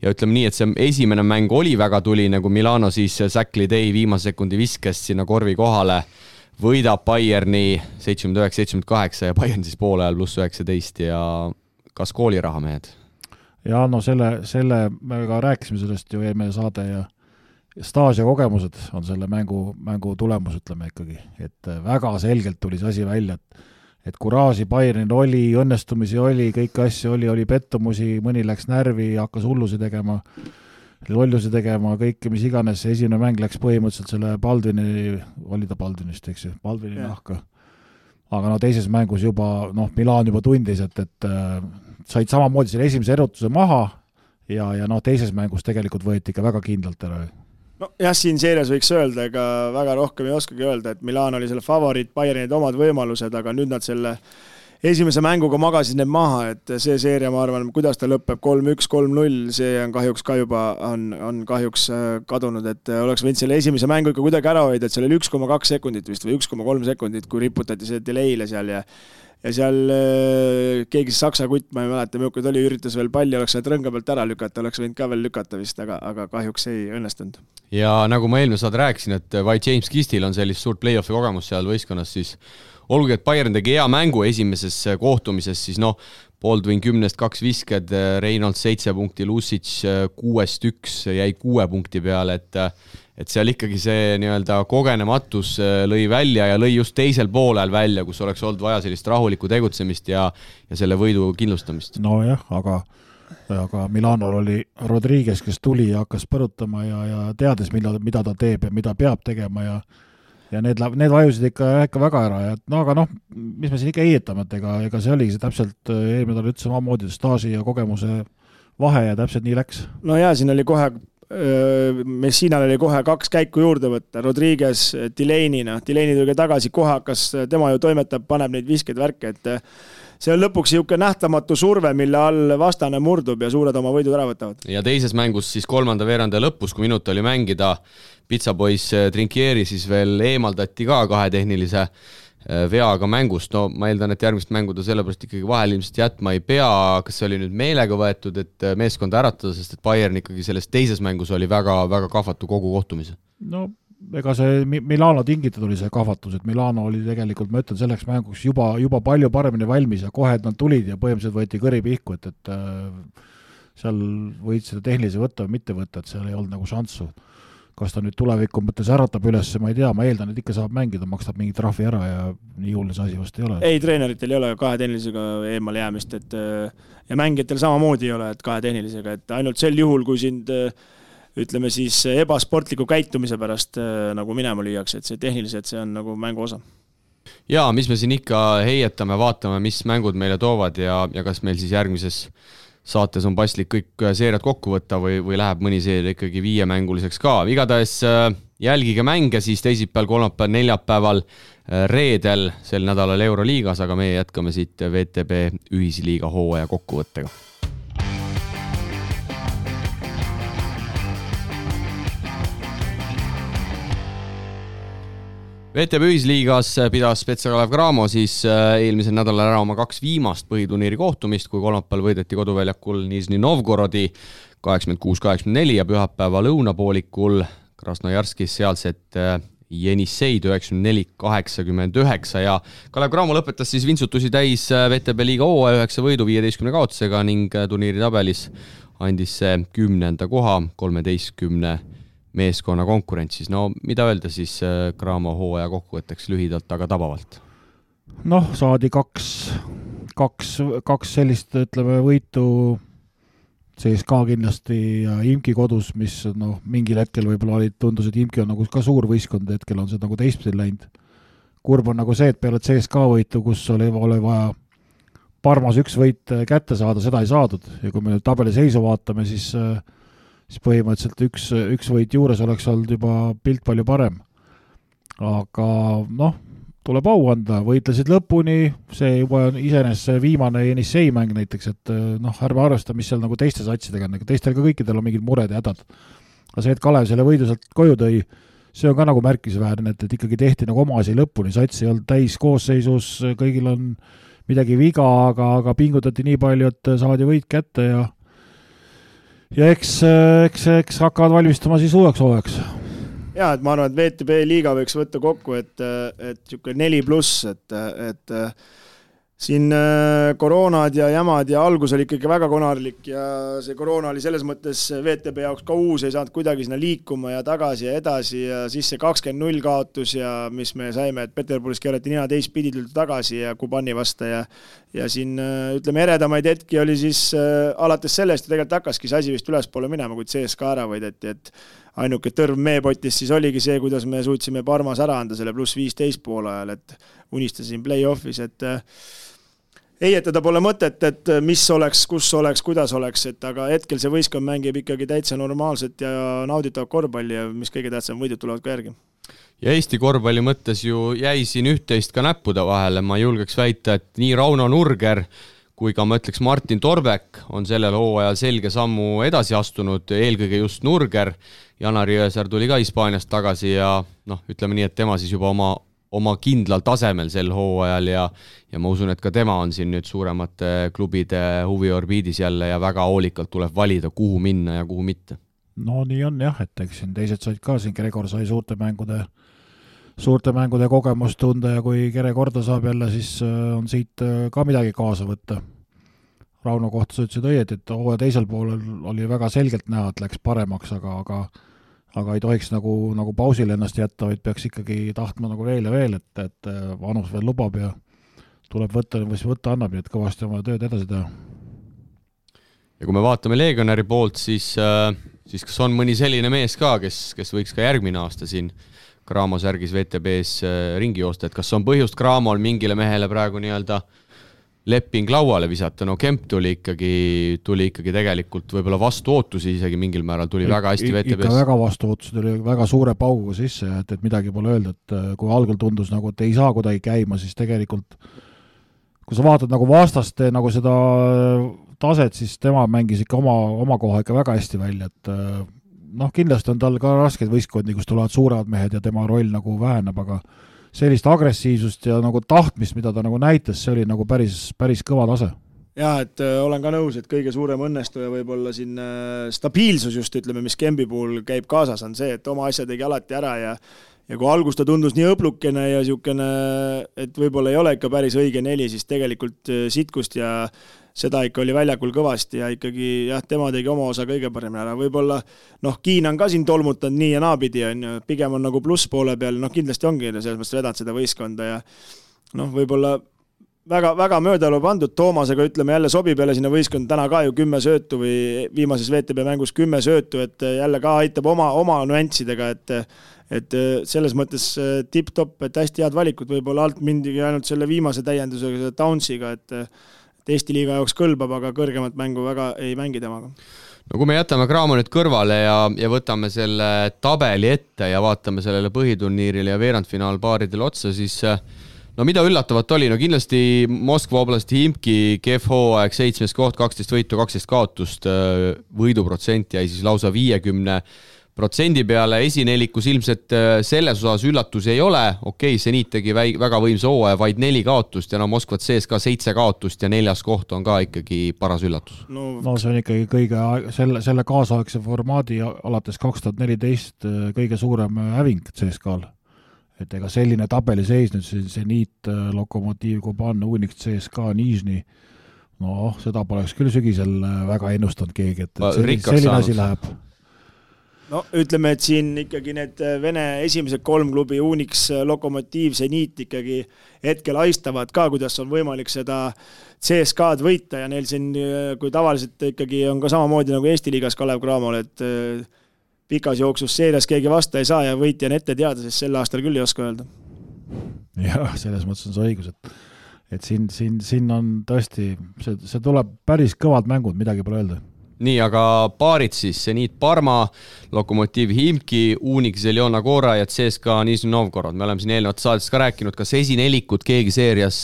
ja ütleme nii, et see esimene mäng oli väga tuline, kui Milano siis Zach Lidei viimase sekundi viskes sinna korvi kohale, võidab Bayerni 79-78 ja Bayern siis poole ajal +19 ja kas kooliraha mehed?
Ja selle me ka rääkisime sellest ju eelmine saade ja staaž ja kogemused on selle mängu tulemus, ütleme ikkagi, et väga selgelt tuli see asi välja, et kuraaži Bayernil oli, õnnestumisi oli, kõiki asju oli pettumusi, mõni läks närvi, hakkas hullusi tegema, lollusi tegema, kõike, mis iganes, esimene mäng läks põhimõtteliselt selle Baldwini, oli ta Baldwinist, eks ju, Baldwini nahka. Aga no teises mängus juba, Milan juba tundis, et said samamoodi selle esimese erutuse maha ja teises mängus tegelikult võeti ikka väga kindlalt ära.
No jah, siin seerias võiks öelda, ega väga rohkem ei oskagi öelda, et Milan oli selle favoriit, Bayernid omad võimalused, aga nüüd nad selle esimese mänguga magasid need maha, et see seeria, ma arvan, kuidas ta lõpeb 3-1, 3-0, see on kahjuks ka juba on kahjuks kadunud, et oleks võinud selle esimese mängu ikka kuidagi ära hoida, et seal oli 1,2 sekundit vist või 1,3 sekundit, kui riputati see delay'le seal ja seal keegi saksa kutt, ma ei mäleta, milline oli, üritas veel palli, oleks sealt rõnga pealt ära lükata, oleks võinud ka veel lükata vist, aga kahjuks ei õnnestunud.
Ja nagu ma eelmine saad rääkisin, et vaid James Kistil on sellist suurt play-offi kogemus seal võistkonnas, siis olgugi, et Bayern tegi hea mängu esimeses kohtumises, siis Baldwin 10-2 visked, Reynolds 7 punkti, Lucic 6-1 jäi 6 punkti peale, et seal ikkagi see nii-öelda kogenematus lõi välja ja lõi just teisel poolel välja, kus oleks olnud vaja sellist rahulikku tegutsemist ja selle võidu kindlustamist.
Nojah, aga Milanol oli Rodriguez, kes tuli ja hakkas põrutama ja teades, mida ta teeb ja mida peab tegema ja need vajusid ikka väga ära. Aga mis me siin ikka heietame, et ega see oligi see täpselt eelmine tal ütles omamoodi staaži ja kogemuse vahe ja täpselt nii läks.
No jaa, siin oli kohe Messinal oli kohe 2 käiku juurde võtta, Rodriguez, Delaney tuli tagasi, kohe hakkas, tema ju toimetab, paneb neid viskeid värke, et see on lõpuks niisugune nähtamatu surve, mille all vastane murdub ja suured oma võidud ära võtavad.
Ja teises mängus siis 3. veeranda lõpus, kui minut oli mängida, Pizzapoiss Trinkieri siis veel eemaldati ka 2 tehnilise veaga mängust, ma eeldan, et järgmist mängu ta sellepärast ikkagi vahel ilmselt jätma ei pea, kas see oli nüüd meelega võetud, et meeskonda äratada, sest et Bayern ikkagi selles teises mängus oli väga, väga kahvatu kogu kohtumise?
Ega see Milano tingitud oli see kahvatus, et Milano oli tegelikult, ma ütlen, selleks mänguks juba palju paremini valmis ja kohe nad tulid ja põhimõtteliselt võeti kõri pihku, et seal võid seda tehnilise võtta või mitte võtta, et seal ei olnud nagu šanssu. Kas ta nüüd tuleviku mõttes äratab üles, ma ei tea, ma eeldan, et ikka saab mängida, makstab mingi trahvi ära ja nii hullus asi vast ei ole.
Ei, treeneritel ei ole 2 tehnilisega eemale jäämist, ja mängijatel samamoodi ei ole, et 2 tehnilisega, et ainult sel juhul, kui sind ütleme siis ebasportliku käitumise pärast nagu minema lüüakse, et see tehniliselt see on nagu mängu osa.
Jaa, mis me siin ikka heietame, vaatame, mis mängud meile toovad ja kas meil siis järgmises saates on paslik kõik seeriad kokku võtta või läheb mõni seeria ikkagi 5-mänguliseks ka. Igatahes jälgige mänge siis teisipäeval, kolmapäeval, neljapäeval, reedel sel nädalal Euroliigas, aga meie jätkame siit VTB ühisliiga hooaja kokkuvõttega. VTB ühisliigas pidas Spezia Kalev Cramo siis eelmisel nädalal ära oma 2 viimast põhiturniiri kohtumist, kui kolmapäeval võideti koduväljakul Nižni Novgorodi 86-84 ja pühapäeva lõunapoolikul Krasnojarskis sealset Jenissei 94-89 ja Kalev Cramo lõpetas siis vintsutusi täis VTB liiga hooaja 9 võidu 15 kaotusega ning turniiri tabelis andis see 10. koha 13 meeskonna konkurentsis. Mida öelda siis Cramo hooaja kokkuvõtteks lühidalt, aga tabavalt?
Saadi kaks sellist, ütleme, võitu CSKA kindlasti ja Imki kodus, mis mingil hetkel võib-olla tundus, et Imki on nagu ka suur võistkond, hetkel on see nagu teistpidi läinud. Kurb on nagu see, et peale CSKA võitu, kus oli vaja Parmas 1 võit kätte saada, seda ei saadud ja kui me nüüd tabeli seisu vaatame, siis põhimõtteliselt üks võit juures oleks olnud juba pilt palju parem. Aga tuleb au anda, võitlesid lõpuni, see juba on iseenesest see viimane Jenissei mäng näiteks, et ärme arvesta, mis seal nagu teiste satsidega, teistel ka kõikidel on mingid mured ja hädad. Aga see, et Kalev selle võidu sealt koju tõi, see on ka nagu märkisväärne, et ikkagi tehti nagu oma asi lõpuni, sats ei olnud täis koosseisus, kõigil on midagi viga, aga pingutati nii palju, et saadi võit kätte ja eks hakkavad valmistama siis uueks hooajaks.
Jaa, et ma arvan, et VTB liiga võiks võtta kokku, et 4+, et siin koroonad ja jamad ja algus oli ikkagi väga konarlik ja see koroona oli selles mõttes VTB jaoks ka uus, ei saanud kuidagi sinna liikuma ja tagasi ja edasi ja siis see 20-0 kaotus ja mis me saime, et Peterburis keerati nina teistpidi tuldi tagasi ja Kubani vasta ja siin ütleme eredamaid hetki oli siis alates sellest ja tegelikult hakkaski see asi vist ülespoole minema, kui CSKA ära võideti, et ainuke tõrv meepotis siis oligi see, kuidas me suutsime Parmas ära anda selle +15 poole ajal, et unistasin play-offis, et eietada pole mõtet, et mis oleks, kus oleks, kuidas oleks, et aga hetkel see võistkond mängib ikkagi täitsa normaalset ja nauditavat korvpalli ja mis kõige tähtsam, võidud tulevad ka järgi.
Ja Eesti korvpalli mõttes ju jäi siin üht-teist ka näppude vahele, ma julgeks väita, et nii Rauno Nurger kui ka ma ütleks Martin Torbek on sellel hooajal selge sammu edasi astunud, eelkõige just Nurger. Janar Jõesaar tuli ka Hispaaniast tagasi ja ütleme nii, et tema siis juba oma kindlal tasemel sel hooajal ja ma usun, et ka tema on siin nüüd suuremate klubide huviorbiidis jälle ja väga hoolikalt tuleb valida, kuhu minna ja kuhu mitte.
No nii on jah, et eks siin teised said ka, siin Gregor sai suurte mängude kogemust tunda ja kui Kere korda saab jälle, siis on siit ka midagi kaasa võtta. Rauno kohta sa ütlesid õieti, et hooaja teisel poolel oli väga selgelt näha, et läks paremaks, aga ei tohiks nagu pausile ennast jätta, vaid peaks ikkagi tahtma nagu veel ja veel, et vanus veel lubab ja tuleb võtta, või võtta annab, nii et kõvasti oma tööd edasi teha.
Ja kui me vaatame Legionäri poolt, siis kas on mõni selline mees ka, kes võiks ka järgmine aasta siin Cramo särgis VTB-s ringi joosta, et kas on põhjust Cramol mingile mehele praegu nii-öelda leping lauale visata, Kemp tuli ikkagi tegelikult võib-olla vastu ootusi isegi mingil määral, tuli väga hästi VTB-s.
Ikka väga vastu ootusi, tuli väga suure pauguga sisse, et midagi pole öelda, et kui algul tundus nagu, et ei saa kuidagi käima, siis tegelikult kui sa vaatad nagu vastaste nagu seda taset, siis tema mängis ikka oma koha ikka väga hästi välja, et kindlasti on tal ka raskeid võistkondi, kus tulevad suured mehed ja tema roll nagu väheneb, aga sellist agressiivsust ja nagu tahtmist, mida ta nagu näitas, see oli nagu päris kõva tase.
Jah, et olen ka nõus, et kõige suurem õnnestuja võib-olla siin stabiilsus just, ütleme, mis Kembi puhul käib kaasas, on see, et oma asja tegi alati ära ja kui algus ta tundus nii õblukene ja niisugune, et võib-olla ei ole ikka päris õige neli, siis tegelikult sitkust ja seda ikka oli väljakul kõvasti ja ikkagi tema tegi oma osa kõige paremini ära. Võib-olla Kiin on ka siin tolmutanud nii ja naapidi, pigem on nagu pluss poole peal, kindlasti ongi selles mõttes vedanud seda võistkonda ja võib-olla väga möödalu pandud Toomasega, ütleme jälle sobib jälle sinna võistkond täna ka ju 10 söötu või viimases VTB mängus 10 söötu, et jälle ka aitab oma nüanssidega, et selles mõttes tipp-top, et hästi head valikud, võib-olla alt mindigi ainult selle viimase täiendusega, selle Townsiga, et Eesti liiga jaoks kõlbab, aga kõrgemat mängu väga ei mängi temaga.
No kui me jätame Cramo nüüd kõrvale ja võtame selle tabeli ette ja vaatame sellele põhiturniirile ja veerandfinaalpaaridele otsa, siis mida üllatavat oli? Kindlasti Moskva oblasti Himki kehv hooaeg, 7. koht, 12 võitu, 12 kaotust, võiduprotsent jäi siis lausa 50% peale, esinelikus ilmselt selles osas üllatusi ei ole, Seniit tegi väga võimsa hooaja, vaid 4 kaotust ja Moskvat sees ka 7 kaotust ja 4. koht on ka ikkagi paras üllatus.
No see on ikkagi kõige selle kaasaegse formaadi alates 2014 kõige suurem häving CSKA-l. Et ega selline tabeliseis nüüd Seniit, Lokomotiiv, Kuban, Unix, CSKA, Nižni, seda poleks küll sügisel väga ennustanud keegi, et selline asi läheb.
Ütleme, et siin ikkagi need Vene esimesed 3 klubi, Unix, Lokomotiiv, Seniit ikkagi hetkel aistavad ka, kuidas on võimalik seda CSKA-d võita ja neil siin, kui tavaliselt ikkagi on ka samamoodi nagu Eesti liigas Kalev Cramol, et pikas jooksus seerias keegi vasta ei saa ja võitja on ette teada, sest sel aastal küll ei oska öelda.
Jah, selles mõttes on see õigus, et siin on tõesti, see tuleb päris kõvad mängud, midagi pole öelda.
Nii, aga paarid siis, Seniit Parma, Lokomotiiv Himki, Unix Zeljona Gora ja CSKA Nižni Novgorod. Me oleme siin eelnevat saates ka rääkinud, kas esinelikut keegi seerias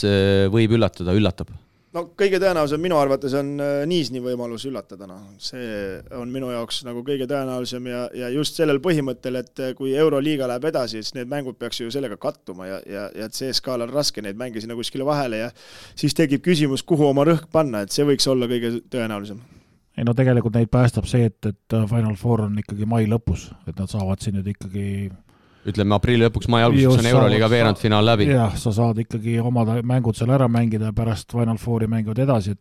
võib üllatab?
Kõige tõenäolisem minu arvates on Nižni võimalus üllatada. See on minu jaoks nagu kõige tõenäolisem ja just sellel põhimõttel, et kui Euroliiga läheb edasi, siis need mängud peaks ju sellega kattuma ja CSKA-l on raske neid mänge sinna kuskile vahele ja siis tekib küsimus, kuhu oma rõhk panna, et see võiks olla kõige tõenäolisem.
Ei tegelikult neid päästab see, et Final Four on ikkagi mai lõpus, et nad saavad siin nüüd ikkagi
ütleme aprilli lõpuks, mai alguses on Euroliiga veerandfinaal läbi.
Jah, sa saad ikkagi omad mängud seal ära mängida ja pärast Final Fouri mängivad edasi,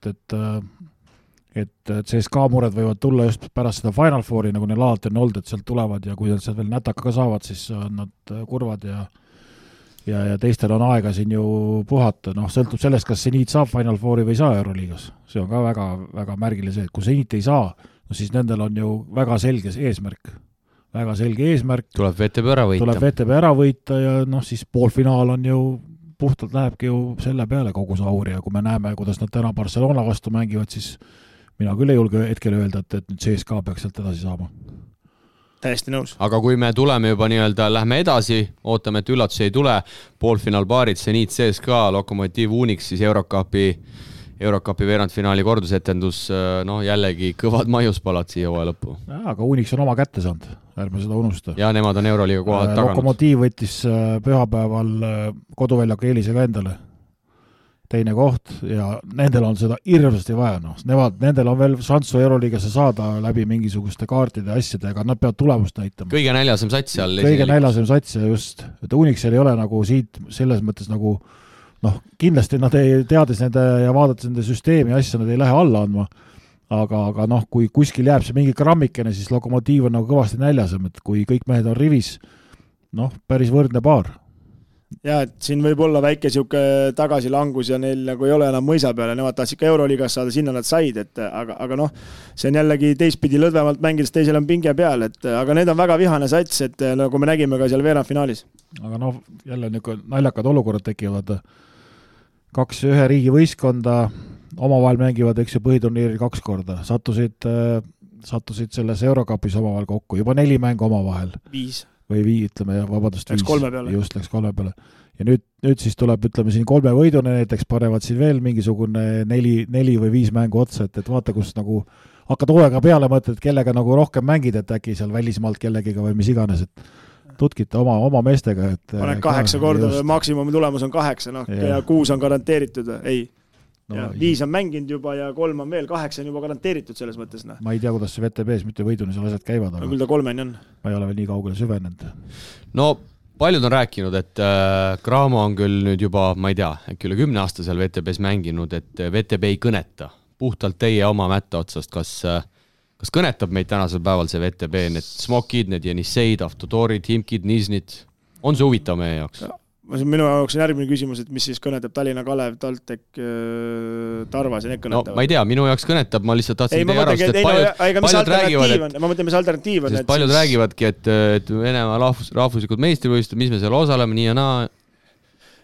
et CSKA mured võivad tulla just pärast seda Final Fouri, nagu neil alati on olnud, et sealt tulevad ja kui nad sealt veel nätaka ka saavad, siis on nad kurvad ja teistel on aega siin ju puhata, sõltub sellest, kas Zenit saab Final Fouri või ei saa Euroliigas. See on ka väga, väga märgiline see, et kui Zenit ei saa, siis nendel on ju väga selge eesmärk. Väga selge eesmärk.
Tuleb VTB
ära võita ja siis poolfinaal on ju puhtalt lähebki ju selle peale kogu sauri ja kui me näeme, kuidas nad täna Barcelona vastu mängivad, siis mina küll ei julge hetkel öelda, et nüüd CSKA peaks sealt edasi saama.
Täiesti nõus.
Aga kui me tuleme juba lähme edasi, ootame, et üllatusi ei tule, poolfinaalpaarid, Zenit, CSKA, Lokomotiiv, Unix, siis Eurokapi veerandfinaali kordusetendus, jällegi kõvad maiuspalad siia hooaja lõppu.
Aga Unix on oma kätte saanud, ärme seda unusta.
Ja nemad on Euroliiga kohad taganud.
Lokomotiiv võttis pühapäeval koduväljaku eelisega endale teine koht ja nendel on seda hirmsasti vaja. Nendel on veel šanssu Euroliigasse saada läbi mingisuguste kaartide asjadega, nad peavad tulemust näitama.
Kõige näljasem sats seal.
Kõige näljasem sats ja just, et Unixil ei ole nagu siit selles mõttes nagu kindlasti nad ei teades nende ja vaadates nende süsteemi asja, nad ei lähe alla andma, aga kui kuskil jääb see mingi grammikene, siis Lokomotiiv on nagu kõvasti näljasem, et kui kõik mehed on rivis, päris võrdne paar.
Ja, et siin võib olla väike siuke tagasilangus ja neil nagu ei ole enam mõisa peale, nemad tahtsid ka Euroliigas saada, sinna nad said, aga see on jällegi teistpidi lõdvemalt mängides, teisel on pinge peal, aga need on väga vihane sats, et nagu me nägime ka seal veerandfinaalis.
Aga jälle naljakad olukorrad tekivad. 2-1 riigi võistkonda omavahel mängivad, eks ju, põhiturniiril 2 korda. Sattusid selles Eurokapis omavahel kokku, juba 4 mängu omavahel.
5.
Või ütleme, vabandust, 5.
Läks 3 peale.
Just, läks 3 peale. Ja nüüd siis tuleb, ütleme, siin 3 võidune, näiteks panevad siin veel mingisugune 4 või 5 mängu otsa, et vaata, kus nagu hakkad hoolega peale mõtled, kellega nagu rohkem mängid, et äkki seal välismaalt kellegiga või mis iganes, et tutkite oma meestega.
Paned 8 korda, maksimumi tulemus on 8, ja 6 on garanteeritud, ei. 5 on mänginud juba ja 3 on veel, 8 on juba garanteeritud selles mõttes.
Ma ei tea, kuidas see VTB-s mitte võiduni seal asjad käivad, aga
küll ta 3 on.
Ma ei ole veel nii kaugele süvenenud.
Paljud on rääkinud, et Cramo on küll nüüd juba, ma ei tea, äkki üle 10 aasta seal VTB-s mänginud, et VTB ei kõneta. Puhtalt teie oma mätta otsast, kas kõnetab meid tänasel päeval see VTB, need Smokid, need Jeniseid, Avtodorid, Himkid, Niznid, on see huvitav meie jaoks?
Minu jaoks on järgmine küsimus, et mis siis kõnetab Tallinna Kalev, Taltek, Tarvas ja need kõnetavad?
Ma ei tea, minu jaoks kõnetab, ma lihtsalt tahtsin teie arvast, et paljud räägivad,
ma mõtlen, mis alternatiiv on.
Paljud räägivadki, et Venemaa rahvuslikud meistrivõistlused, mis me seal osaleme, nii ja naa.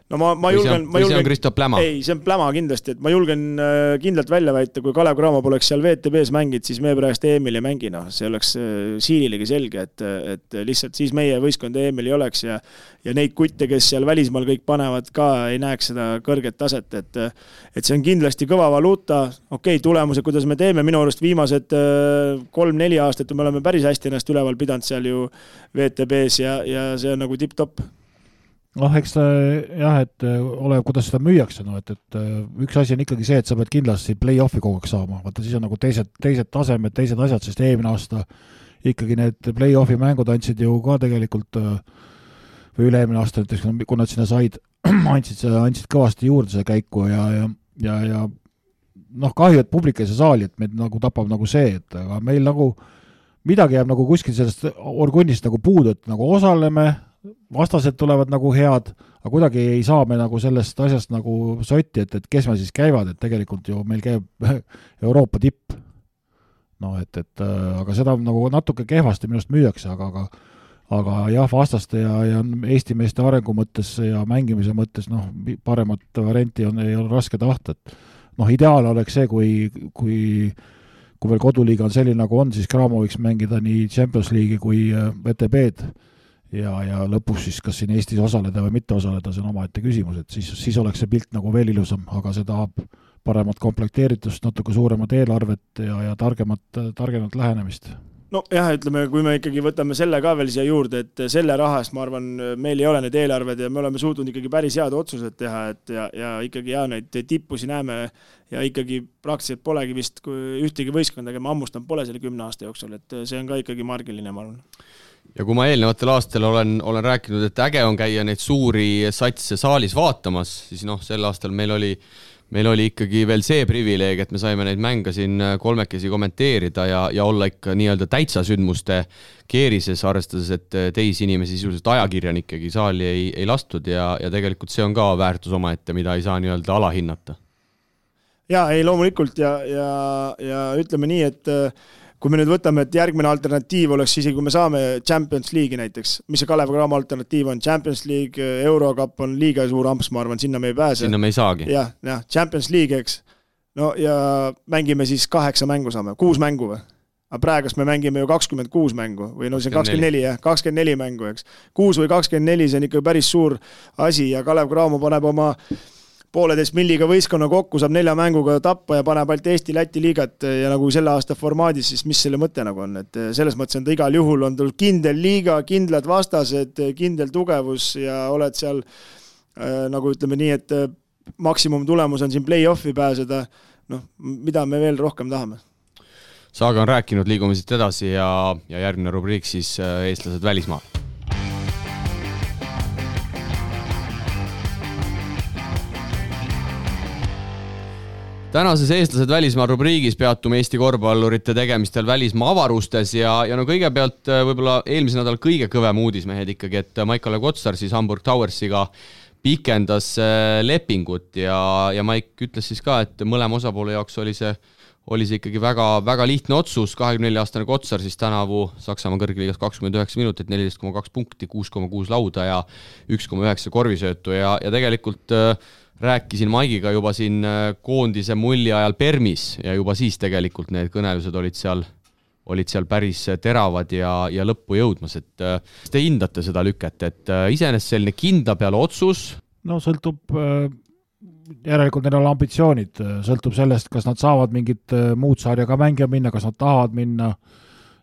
ma julgen,
see on Kristo pläma?
Ei, see on pläma kindlasti, et ma julgen kindlalt välja väita, kui Kalev Cramo poleks seal VTB-s mängid, siis me praegust EM-il ei mängi, see oleks siililegi selge, et lihtsalt siis meie võistkond EM-il ei oleks ja neid kutte, kes seal välismaal kõik panevad ka, ei näeks seda kõrget taset, et see on kindlasti kõva valuuta, tulemused, kuidas me teeme, minu arust viimased 3-4 aastat me oleme päris hästi ennast üleval pidanud seal ju VTB-s ja see on nagu tipp-topp.
Eks jah, et ole, kuidas seda müüakse, et üks asi on ikkagi see, et sa pead kindlasti play-offi kogu aeg saama, vaata siis on nagu teised tasemed, teised asjad, sest eelmine aasta ikkagi need play-offi mängud andsid ju ka tegelikult või üle-eelmine aasta näiteks, kui nad sinna said, andsid kõvasti juurde see käiku ja kahju, et publik ei saa saali, et meid nagu tapab nagu see, et aga meil nagu midagi jääb nagu kuskil sellest orgunnist nagu puudu, et nagu osaleme, vastased tulevad nagu head, aga kuidagi ei saa me nagu sellest asjast nagu sotti, et kes me siis käivad, et tegelikult ju meil käib Euroopa tipp. Aga seda nagu natuke kehvasti minust müüakse, aga jah, vastaste ja Eesti meeste arengu mõttes ja mängimise mõttes paremat varianti ei ole raske tahta, et ideaal oleks see, kui veel koduliiga on selline nagu on, siis Cramo võiks mängida nii Champions League'i kui VTB-d ja lõpuks siis kas siin Eestis osaleda või mitte osaleda, see on omaette küsimus, et siis oleks see pilt nagu veel ilusam, aga see tahab paremat komplekteeritust, natuke suuremat eelarvet ja targemat lähenemist.
Jah, ütleme, kui me ikkagi võtame selle ka veel siia juurde, et selle rahast, ma arvan, meil ei ole need eelarved ja me oleme suutnud ikkagi päris head otsused teha, ja ikkagi neid tippusi näeme ja ikkagi praktiliselt polegi vist ühtegi võistkonda, aga ma ammustan pole selle 10 aasta jooksul, et see on ka ikkagi margiline, ma arvan.
ja kui ma eelnevatel aastal olen rääkinud, et äge on käia neid suuri satse saalis vaatamas, siis sel aastal meil oli ikkagi veel see privileeg, et me saime neid mänge siin kolmekesi kommenteerida ja olla ikka nii-öelda täitsa sündmuste keerises, arvestades, et teisi inimesi sisuliselt ajakirjanikegi saali ei lastud ja tegelikult see on ka väärtus omaette, mida ei saa nii-öelda alahinnata.
Jaa, ei loomulikult ja ütleme nii, et kui me nüüd võtame, et järgmine alternatiiv oleks isegi, kui me saame Champions League'i näiteks, mis see Kalev Cramo alternatiiv on, Champions League, Eurocup on liiga suur amps, ma arvan, sinna me ei pääse.
Sinna me ei saagi.
Jah, Champions League, eks. No ja mängime siis 8 mängu saame, 6 mängu või? Aga praegust me mängime ju 26 mängu või see on 24, jah, 24 mängu, eks. 6 või 24, see on ikka päris suur asi ja Kalev Cramo paneb oma 1,5 milliga võistkonna kokku, saab 4 mänguga tappa ja paneb ainult Eesti-Läti liigat ja nagu selle aasta formaadis, siis mis selle mõte nagu on, et selles mõttes on ta igal juhul on tulnud kindel liiga, kindlad vastased, kindel tugevus ja oled seal nagu ütleme nii, et maksimum tulemus on siin play-offi pääseda, mida me veel rohkem tahame.
Saaga on rääkinud, liigume siit edasi ja järgmine rubriik siis eestlased välismaal. Tänases eestlased välismaal rubriigis peatume Eesti korvpallurite tegemistel välismaa avarustes ja kõigepealt võib-olla eelmise nädal kõige kõvem uudis mehed ikkagi, et Maik-Kalev Kotsar siis Hamburg Towersiga pikendas lepingut ja Maik ütles siis ka, et mõlema osapoole jaoks oli see ikkagi väga, väga lihtne otsus, 24-aastane Kotsar siis tänavu Saksamaa kõrgliigas 29 minutit, 14,2 punkti, 6,6 lauda ja 1,9 korvisöötu ja tegelikult rääkisin Maigiga juba siin koondise mulli ajal Permis ja juba siis tegelikult need kõnelused olid seal päris teravad ja lõppu jõudmas, et te hindate seda lüket, et iseenesest selline kindla peale otsus?
No sõltub, järelikult neil on ambitsioonid, sõltub sellest, kas nad saavad mingit muud sarjaga mängija minna, kas nad tahavad minna,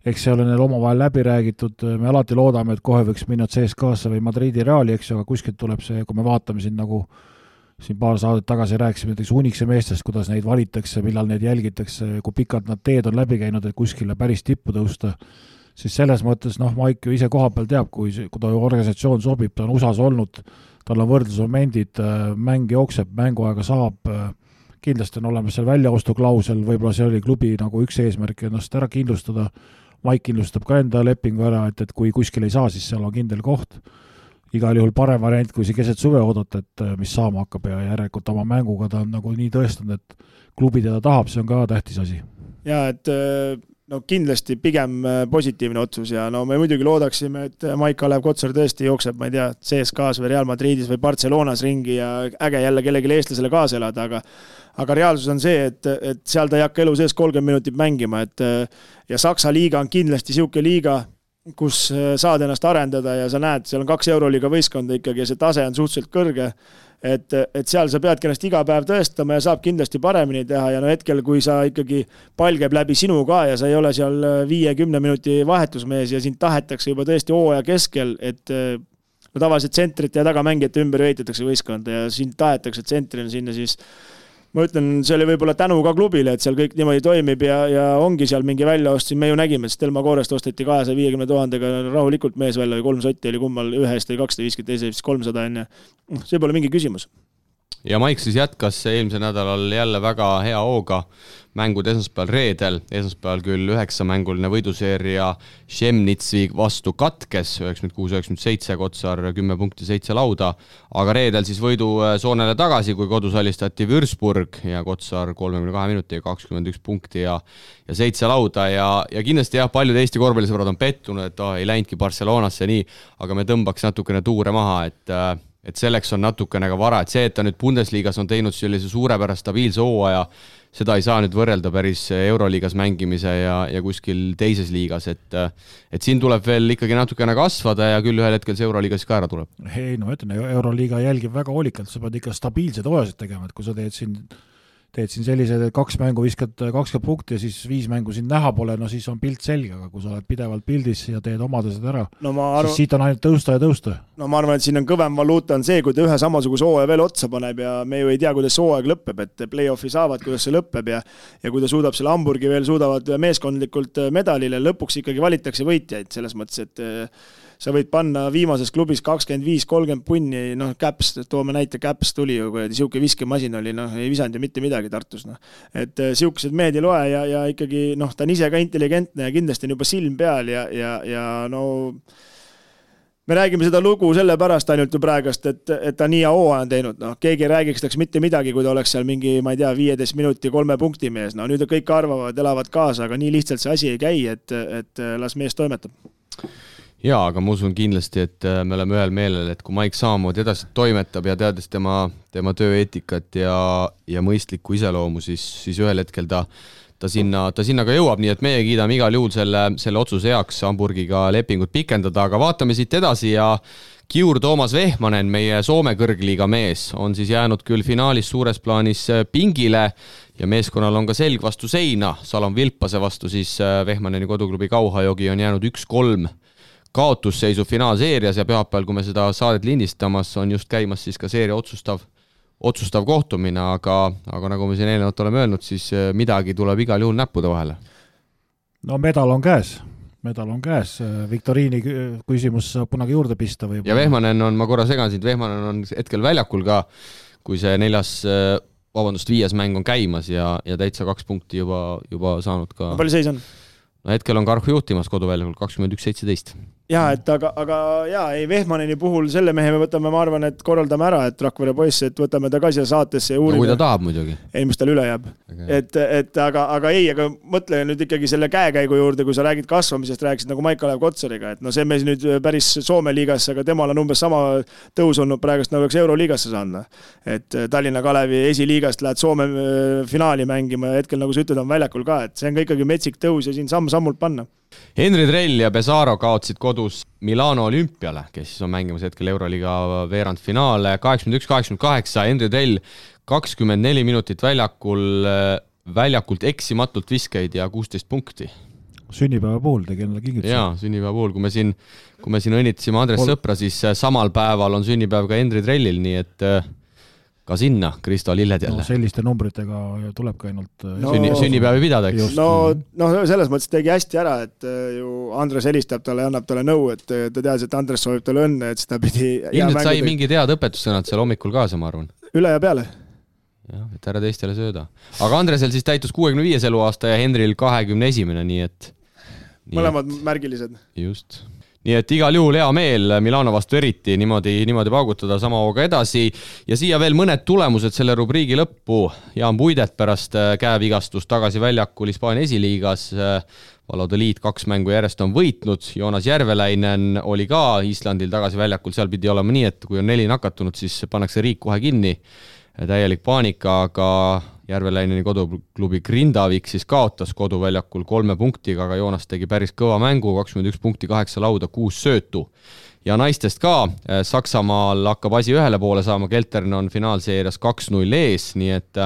eks see ole neil omavahel läbi räägitud, me alati loodame, et kohe võiks minna CSKA-sse või Madridi Reali, eks ju, aga kuskilt tuleb see, kui me vaatame siin nagu siin paar saadet tagasi rääkisime näiteks Unikse meestest, kuidas neid valitakse, millal neid jälgitakse, kui pikalt nad teed on läbi käinud, et kuskile päris tippu tõusta, siis selles mõttes, Maik ju ise koha peal teab, kui ta organisatsioon sobib, ta on USAs olnud, tal on võrdlusmomendid, mäng jookseb, mänguaega saab, kindlasti on olemas seal väljaostuklausel, võib-olla see oli klubi nagu üks eesmärk ennast ära kindlustada, Maik kindlustab ka enda lepingu ära, et kui kuskil ei saa, siis seal on kindel koht. Igal juhul parem variant, kui see keset suve oodata, et mis saama hakkab ja järelikult oma mänguga ta on nagu nii tõestanud, et klubi teda tahab, see on ka tähtis asi.
Ja, et kindlasti pigem positiivne otsus ja me muidugi loodaksime, et Maik-Kalev Kotsar tõesti jookseb, ma ei tea, CSKA-s või Real Madridis või Barcelonas ringi ja äge jälle kellegi eestlasele kaasa elada, aga reaalsus on see, et seal ta ei hakka elu sees 30 minutit mängima, ja Saksa liiga on kindlasti siuke liiga, kus saad ennast arendada ja sa näed, seal on 2 Euroliiga võistkonda ikkagi ja see tase on suhteliselt kõrge, et seal sa peadki ennast iga päev tõestama ja saab kindlasti paremini teha ja hetkel, kui sa ikkagi pall käib läbi sinu ka ja sa ei ole seal 5-10 minuti vahetusmees ja sind tahetakse juba tõesti hooaja keskel, et tavaliselt tsentrit ja tagamängijate ümber ehitatakse võistkonda ja sind tahetakse tsentrina sinna, siis ma ütlen, see oli võib-olla tänu ka klubile, et seal kõik niimoodi toimib ja ongi seal mingi väljaost, siin me ju nägime, et Stelma Koorest osteti 250 000 rahulikult mees välja või 3 sotti oli kummal, ühest oli 250, teise 300 enne. See pole mingi küsimus.
Ja Maik siis jätkas eelmise nädalal jälle väga hea hooga mängud esmaspäeval reedel, esmaspäeval küll 9-mänguline võiduseeria Šemnitsi vastu katkes, 96-97, Kotsar 10 punkti 7 lauda, aga reedel siis võidu soonele tagasi, kui kodus alistati Würzburg ja Kotsar 32 minuti ja 21 punkti ja 7 lauda ja kindlasti jah, paljud Eesti korvpallisõbrad on pettunud, et ei läinudki Barcelonasse nii, aga me tõmbaks natukene tuure maha, et selleks on natukene ka vara, et see, et ta nüüd Bundesliigas on teinud sellise suurepärast stabiilse hooaja, seda ei saa nüüd võrrelda päris Euroliigas mängimise ja kuskil teises liigas, et siin tuleb veel ikkagi natukene kasvada ja küll ühel hetkel see Euroliigas ka ära tuleb.
Ei, no ütlen, Euroliiga jälgib väga hoolikalt, sa pead ikka stabiilsed hooajasid tegema, et kui sa teed siin teed siin sellised, et 2 mängu viskad 20 punkti ja siis 5 mängu siin näha pole, no siis on pilt selge, aga kui sa oled pidevalt pildis ja teed omadesed ära, siis siit on ainult tõusta ja tõusta.
No ma arvan, et siin on kõvem valuuta on see, kui ta ühe samasuguse hooaja veel otsa paneb ja me ju ei tea, kuidas see hooaeg lõpeb, et play-offi saavad, kuidas see lõpeb ja kui ta suudab selle Hamburgi veel suudavad meeskondlikult medalile, lõpuks ikkagi valitakse võitjaid selles mõttes, et sa võid panna viimases klubis 25-30 punni, Caps, toome näite, Caps tuli ju, kui siuke viskemasin oli, ei visanud ju mitte midagi Tartus. Et siukesed mehed ei loe ja ikkagi, ta on ise ka intelligentne ja kindlasti on juba silm peal ja me räägime seda lugu selle pärast ainult ju praegast, et ta nii hooaja on teinud. Keegi ei räägiks taks mitte midagi, kui ta oleks seal mingi, ma ei tea, 15 minuti 3 punkti mees. Nüüd kõik arvavad, elavad kaasa, aga nii lihtsalt see asi ei käi, et las mees toimetab.
Jaa, aga ma usun kindlasti, et me oleme ühel meelel, et kui Mike samamoodi edasi toimetab ja teades tema tööeetikat ja mõistlikku iseloomu, siis ühel hetkel ta sinna ka jõuab, nii et meie kiidame igal juhul selle otsuse heaks Hamburgiga lepingut pikendada, aga vaatame siit edasi ja Kiur Toomas Vehmanen, meie Soome kõrgliiga mees, on siis jäänud küll finaalis suures plaanis pingile ja meeskonnal on ka selg vastu seina, Salon Vilpase vastu siis Vehmaneni koduklubi Kauhajogi on jäänud 1-3 kaotusseisu finaalseerias ja pühapäeval, kui me seda saadet lindistamas, on just käimas siis ka seeria otsustav kohtumine, aga nagu me siin eelnevalt oleme öelnud, siis midagi tuleb igal juhul näppude vahele.
No medal on käes, Viktoriini küsimus saab kunagi juurde pista. Või
ja Vehmanen on, ma korra segan siit, Vehmanen on hetkel väljakul ka, kui see 5. mäng on käimas ja täitsa 2 punkti juba saanud ka.
Palju seis on?
No hetkel on Karhu juhtimas koduväljakul 21-17.
Jaa, aga Vehmaneni puhul selle mehe me võtame, ma arvan, et korraldame ära, et Rakvere poiss, et võtame ta ka siia saatesse ja uurime.
No kui ta tahab muidugi.
Ei, mis tal üle jääb. Aga mõtle nüüd ikkagi selle käekäigu juurde, kui sa räägid kasvamisest, rääkisid nagu Maik-Kalev Kotsariga, et see mees nüüd päris Soome liigasse, aga temal on umbes sama tõus olnud praegust, nagu oleks Euroliigasse saanud. Et Tallinna Kalevi esiliigast lähed Soome finaali mängima ja hetkel, nagu sa ütled, on väljakul ka, et see on ka ikkagi metsik tõus ja siin sammult panna.
Henri Drell ja Pesaro kaotsid kodus Milano Olümpiale, kes siis on mängimas hetkel Euroliiga veerandfinaale 81-88, Henri Drell 24 minutit väljakult eksimatult viskeid ja 16 punkti.
Sünnipäeva puhul tegi endale kingituse.
Jaa, sünnipäeva puhul, kui me siin õnnitasime Andres Sõpra, siis samal päeval on sünnipäev ka Henri Drellil, nii et ka sinna Kristo Lilled jälle.
Selliste numbritega tuleb ka ainult
sünnipäevi pidada, eks?
No selles mõttes tegi hästi ära, et ju Andres helistab talle ja annab talle nõu, et ta teadis, et Andres soovib talle õnne, et seda pidi
ilmselt sai mingi tead õpetussõnad seal hommikul kaasa, ma arvan.
Üle ja peale.
Jah, et ära teistele sööda. Aga Andresel siis täitus 65 eluaasta ja Henril 21, nii et
mõlemad märgilised.
Just. Nii et igal juhul hea meel Milano vastu eriti niimoodi paugutada sama hooga edasi ja siia veel mõned tulemused selle rubriigi lõppu. Jaan Puidet pärast käevigastust tagasi väljakul Hispaania esiliigas. Valode Liit 2 mängu järjest on võitnud. Joonas Järveläinen oli ka Islandil tagasi väljakul. Seal pidi olema nii, et kui on 4 nakatunud, siis pannakse riik kohe kinni. Täielik paanika, aga Järveleineni koduklubi Grindavik siis kaotas koduväljakul 3 punktiga, aga Joonas tegi päris kõva mängu, 21 punkti, 8 lauda, 6 söötu. Ja naistest ka, Saksamaal hakkab asi ühele poole saama, Keltern on finaalseerias 2-0 ees, nii et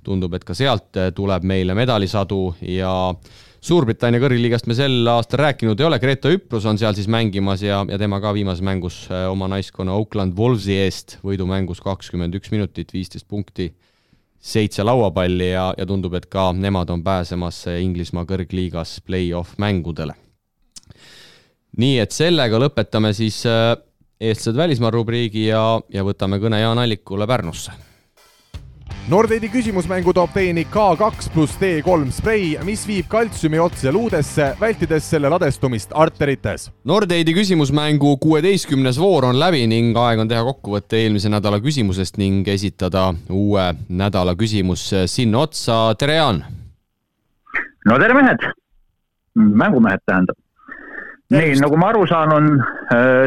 tundub, et ka sealt tuleb meile medalisadu ja Suurbritannia kõrgliigast me sel aastal rääkinud ei ole, Greta Üprus on seal siis mängimas ja tema ka viimases mängus oma naiskonna Oakland Wolvesi eest võidumängus 21 minutit, 15 punkti, 7 lauapalli ja tundub, et ka nemad on pääsemas Inglismaa kõrgliigas play-off mängudele. Nii et sellega lõpetame siis eestlased välismaa rubriigi ja võtame kõne Jaan Allikule Pärnusse.
Nordeidi küsimusmängu toob teieni K2 + D3 sprei, mis viib kaltsiumi otse luudesse, vältides selle ladestumist arterites.
Nordeidi küsimusmängu 16. voor on läbi ning aeg on teha kokkuvõtte eelmise nädala küsimusest ning esitada uue nädala küsimus sinna otsa. Tere, Jaan!
No tere, mehed! Mängumehed tähendab. Nii, nagu ma aru saan, on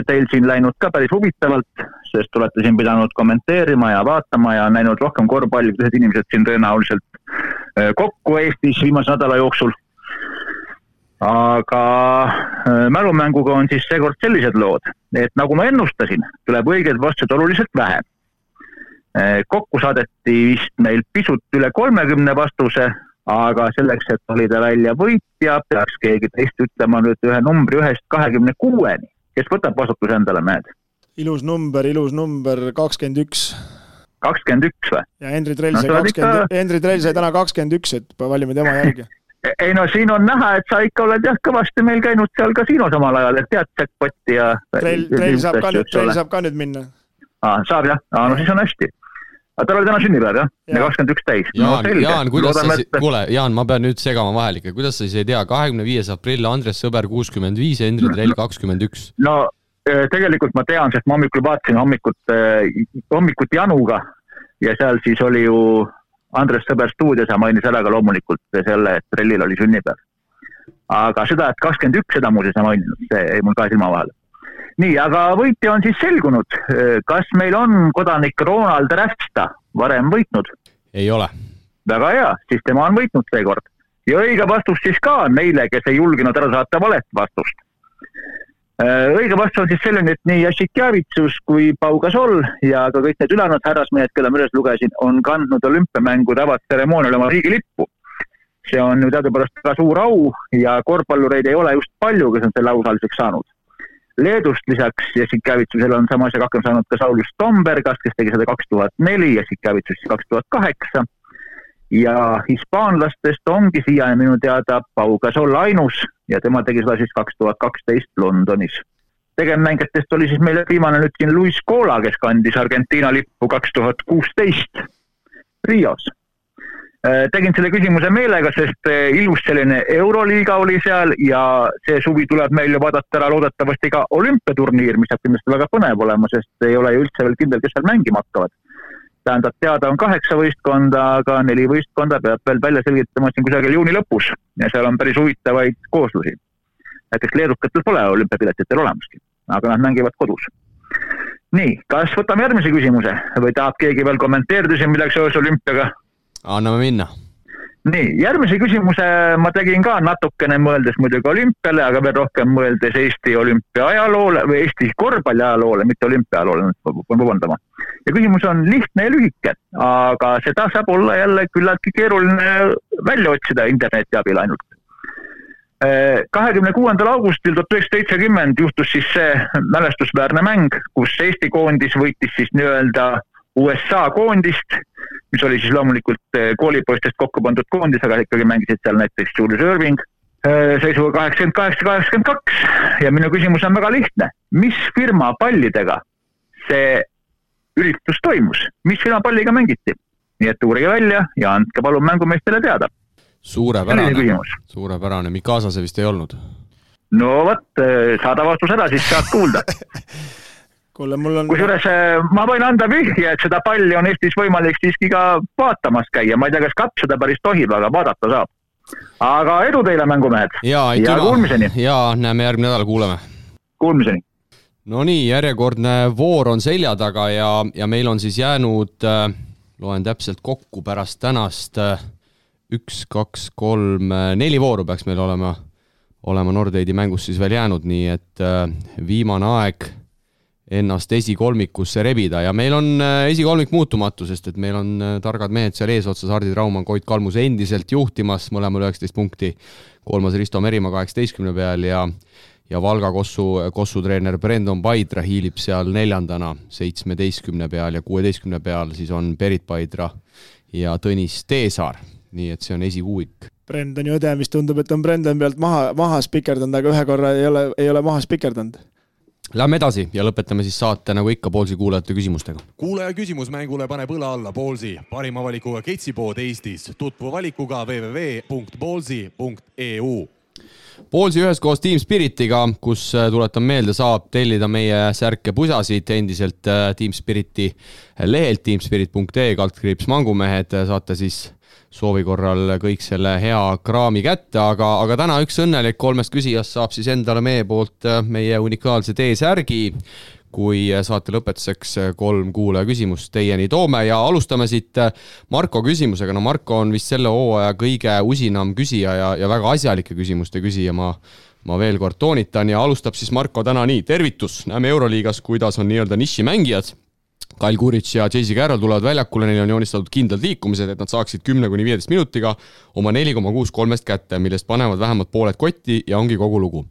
teil siin läinud ka päris huvitavalt, sest olete siin pidanud kommenteerima ja vaatama ja näinud rohkem korvpalli, kui teised inimesed siin tõenäoliselt kokku Eestis viimase nädala jooksul. Aga mälumänguga on siis seekord sellised lood, et nagu ma ennustasin, tuleb õigeid vastuseid oluliselt vähe. Kokku saadeti vist meil pisut üle 30 vastuse, aga selleks, et valida välja võitja, peaks keegi teist ütlema nüüd ühe numbri 1-26-ni. Kes võtab vastutuse endale, mehed?
Ilus number, 21.
21 või?
Ja Henri Trell sai täna 21, et valime tema järgi.
Ei no siin on näha, et sa ikka oled kõvasti meil käinud seal kasiinos omal ajal, et tead jackpotti ja...
Trell saab ka nüüd minna.
Saab jah, no siis on hästi. Aga tal oli täna sünnipäev, jah? Ja 21 täis.
Jaan, Jaan, ma pean nüüd segama vahel ikka. Kuidas sa siis ei tea? 25. aprill, Andres Sõber 65, Henri Trell 21.
No tegelikult ma tean, sest ma hommikul vaatasin hommikut Januga ja seal siis oli ju Andres Sõber stuudios ja mainis ära ka loomulikult selle, et Trellil oli sünnipäev. Aga seda, et 21 seda muuseas ei maininud, see ei mul ka silma vahel. Nii, aga võitja on siis selgunud. Kas meil on kodanik Ronald Räfsta varem võitnud?
Ei ole.
Väga hea, siis tema on võitnud seekord. Ja õige vastus siis ka neile, kes ei julginud ära saata valet vastust. Õige vastus on siis selline, et nii Jasikjavitsus kui Pau Gasol ja ka kõik need ülejäänud härrasmehed, keda ma üles lugesin, on kandnud olümpiamängude avatseremoonial oma riigilippu. See on ju teadupärast ka suur au ja korvpallureid ei ole just palju, kes on selle ausaliseks saanud. Leedust lisaks Jasikjavitsusele on sama asja hakkama saanud ka Saulius Tombergas, kes tegi seda 2004, Jasikjavitsus 2008. Ja hispaanlastest ongi siia minu teada Pau Gasol ainus ja tema tegi seda siis 2012 Londonis. Tegemmängijatest oli siis meile viimane nüüd siin Luis Cola, kes kandis Argentiina lippu 2016 Rios. Tegin selle küsimuse meelega, sest ilus selline Euroliiga oli seal ja see suvi tuleb meil ju vaadata ära loodetavasti ka olümpiaturniir, mis saab kindlasti väga põnev olema, sest ei ole ju üldse veel kindel, kes seal mängima hakkavad. Tähendab, teada on 8 võistkonda, aga 4 võistkonda peab veel välja selgitama siin kusagil juuni lõpus ja seal on päris huvitavaid kooslusi. Näiteks leedukatel pole olümpiapiletitel olemaski, aga nad mängivad kodus. Nii, kas võtame järgmise küsimuse või tahab keegi veel kommenteerida siin midagi seoses olümpiaga?
Anname minna.
Nii, järgmise küsimuse ma tegin ka natukene mõeldes muidugi olümpiale, aga veel rohkem mõeldes Eesti olümpia ajaloole või Eesti korvpalli ajaloole, mitte olümpia ajaloole, vabandama. Ja küsimus on lihtne ja lühike, aga seda saab olla jälle küllaltki keeruline välja otsida interneti abil ainult. 26. augustil 1970 juhtus siis see mälestusväärne mäng, kus Eesti koondis võitis siis nii-öelda USA koondist, mis oli siis loomulikult koolipoistest kokku pandud koondis, aga ikkagi mängisid seal näiteks Julius Irving seisuga 88-82 ja minu küsimus on väga lihtne. Mis firma pallidega see üritus toimus? Mis firma palliga mängiti? Nii et uurige välja ja andke palun mängumeestele teada.
Suurepärane. Mikasa see vist ei olnud?
No võt, saada vastus ära, siis saad kuulda. Kusjuures ma võin anda vihje, et seda palli on Eestis võimalik siiski ka vaatamas käia. Ma ei tea, kas kapp seda päris tohib, aga vaadata saab. Aga edu teile, mängumehed.
Ja kuulmiseni. Ja näeme järgmine nädal, kuuleme.
Kuulmiseni.
No nii, järjekordne voor on selja taga ja meil on siis jäänud, loen täpselt kokku pärast tänast 1, 2, 3, 4 vooru peaks meil olema Nordeidi mängus siis veel jäänud, nii et viimane aeg ennast esikolmikusse rebida ja meil on esikolmik muutumatu, sest et meil on targad mehed seal eesotsas, Hardi Traumann, Koit Kalmus endiselt juhtimas, mõlemal 19 punkti, kolmas Risto Merimaa 18 peal ja Valga Kossu treener Brendon Paidra hiilib seal neljandana 17 peal ja 16 peal siis on Berit Paidra ja Tõnis Teesaar, nii et see on esikuuik.
Brendoni õde, mis tundub, et on Brendon pealt maha spikerdanud, aga ühe korra ei ole maha spikerdanud.
Lähme edasi ja lõpetame siis saate nagu ikka Poolsi kuulajate küsimustega.
Kuulaja küsimusmängule paneb õla alla Poolsi, parima valikuga ketsipood Eestis. Tutvu valikuga www.poolsi.eu.
Poolsi üheskoos Team Spiritiga, kus tuletan meelde, saab tellida meie särke pusasid endiselt Team Spiriti lehelt teamspirit.ee /mängumehed, saate siis soovi korral kõik selle hea kraami kätte, aga täna üks õnnelik 3 küsijast saab siis endale meie poolt meie unikaalse T-särgi, kui saate lõpetuseks 3 kuulaja küsimust teieni toome ja alustame siit Marko küsimusega. No Marko on vist selle hooaja kõige usinam küsija ja väga asjalike küsimuste küsija, ma veel kord toonitan ja alustab siis Marko täna nii. Tervitus, näeme Euroliigas, kuidas on nii-öelda nišimängijad. Kyle Kuric ja JC Carroll tulevad väljakule, neil on joonistatud kindlad liikumised, et nad saaksid 10-15 minutiga oma 4,6 kolmest kätte, millest panevad vähemalt pooled kotti ja ongi kogu lugu.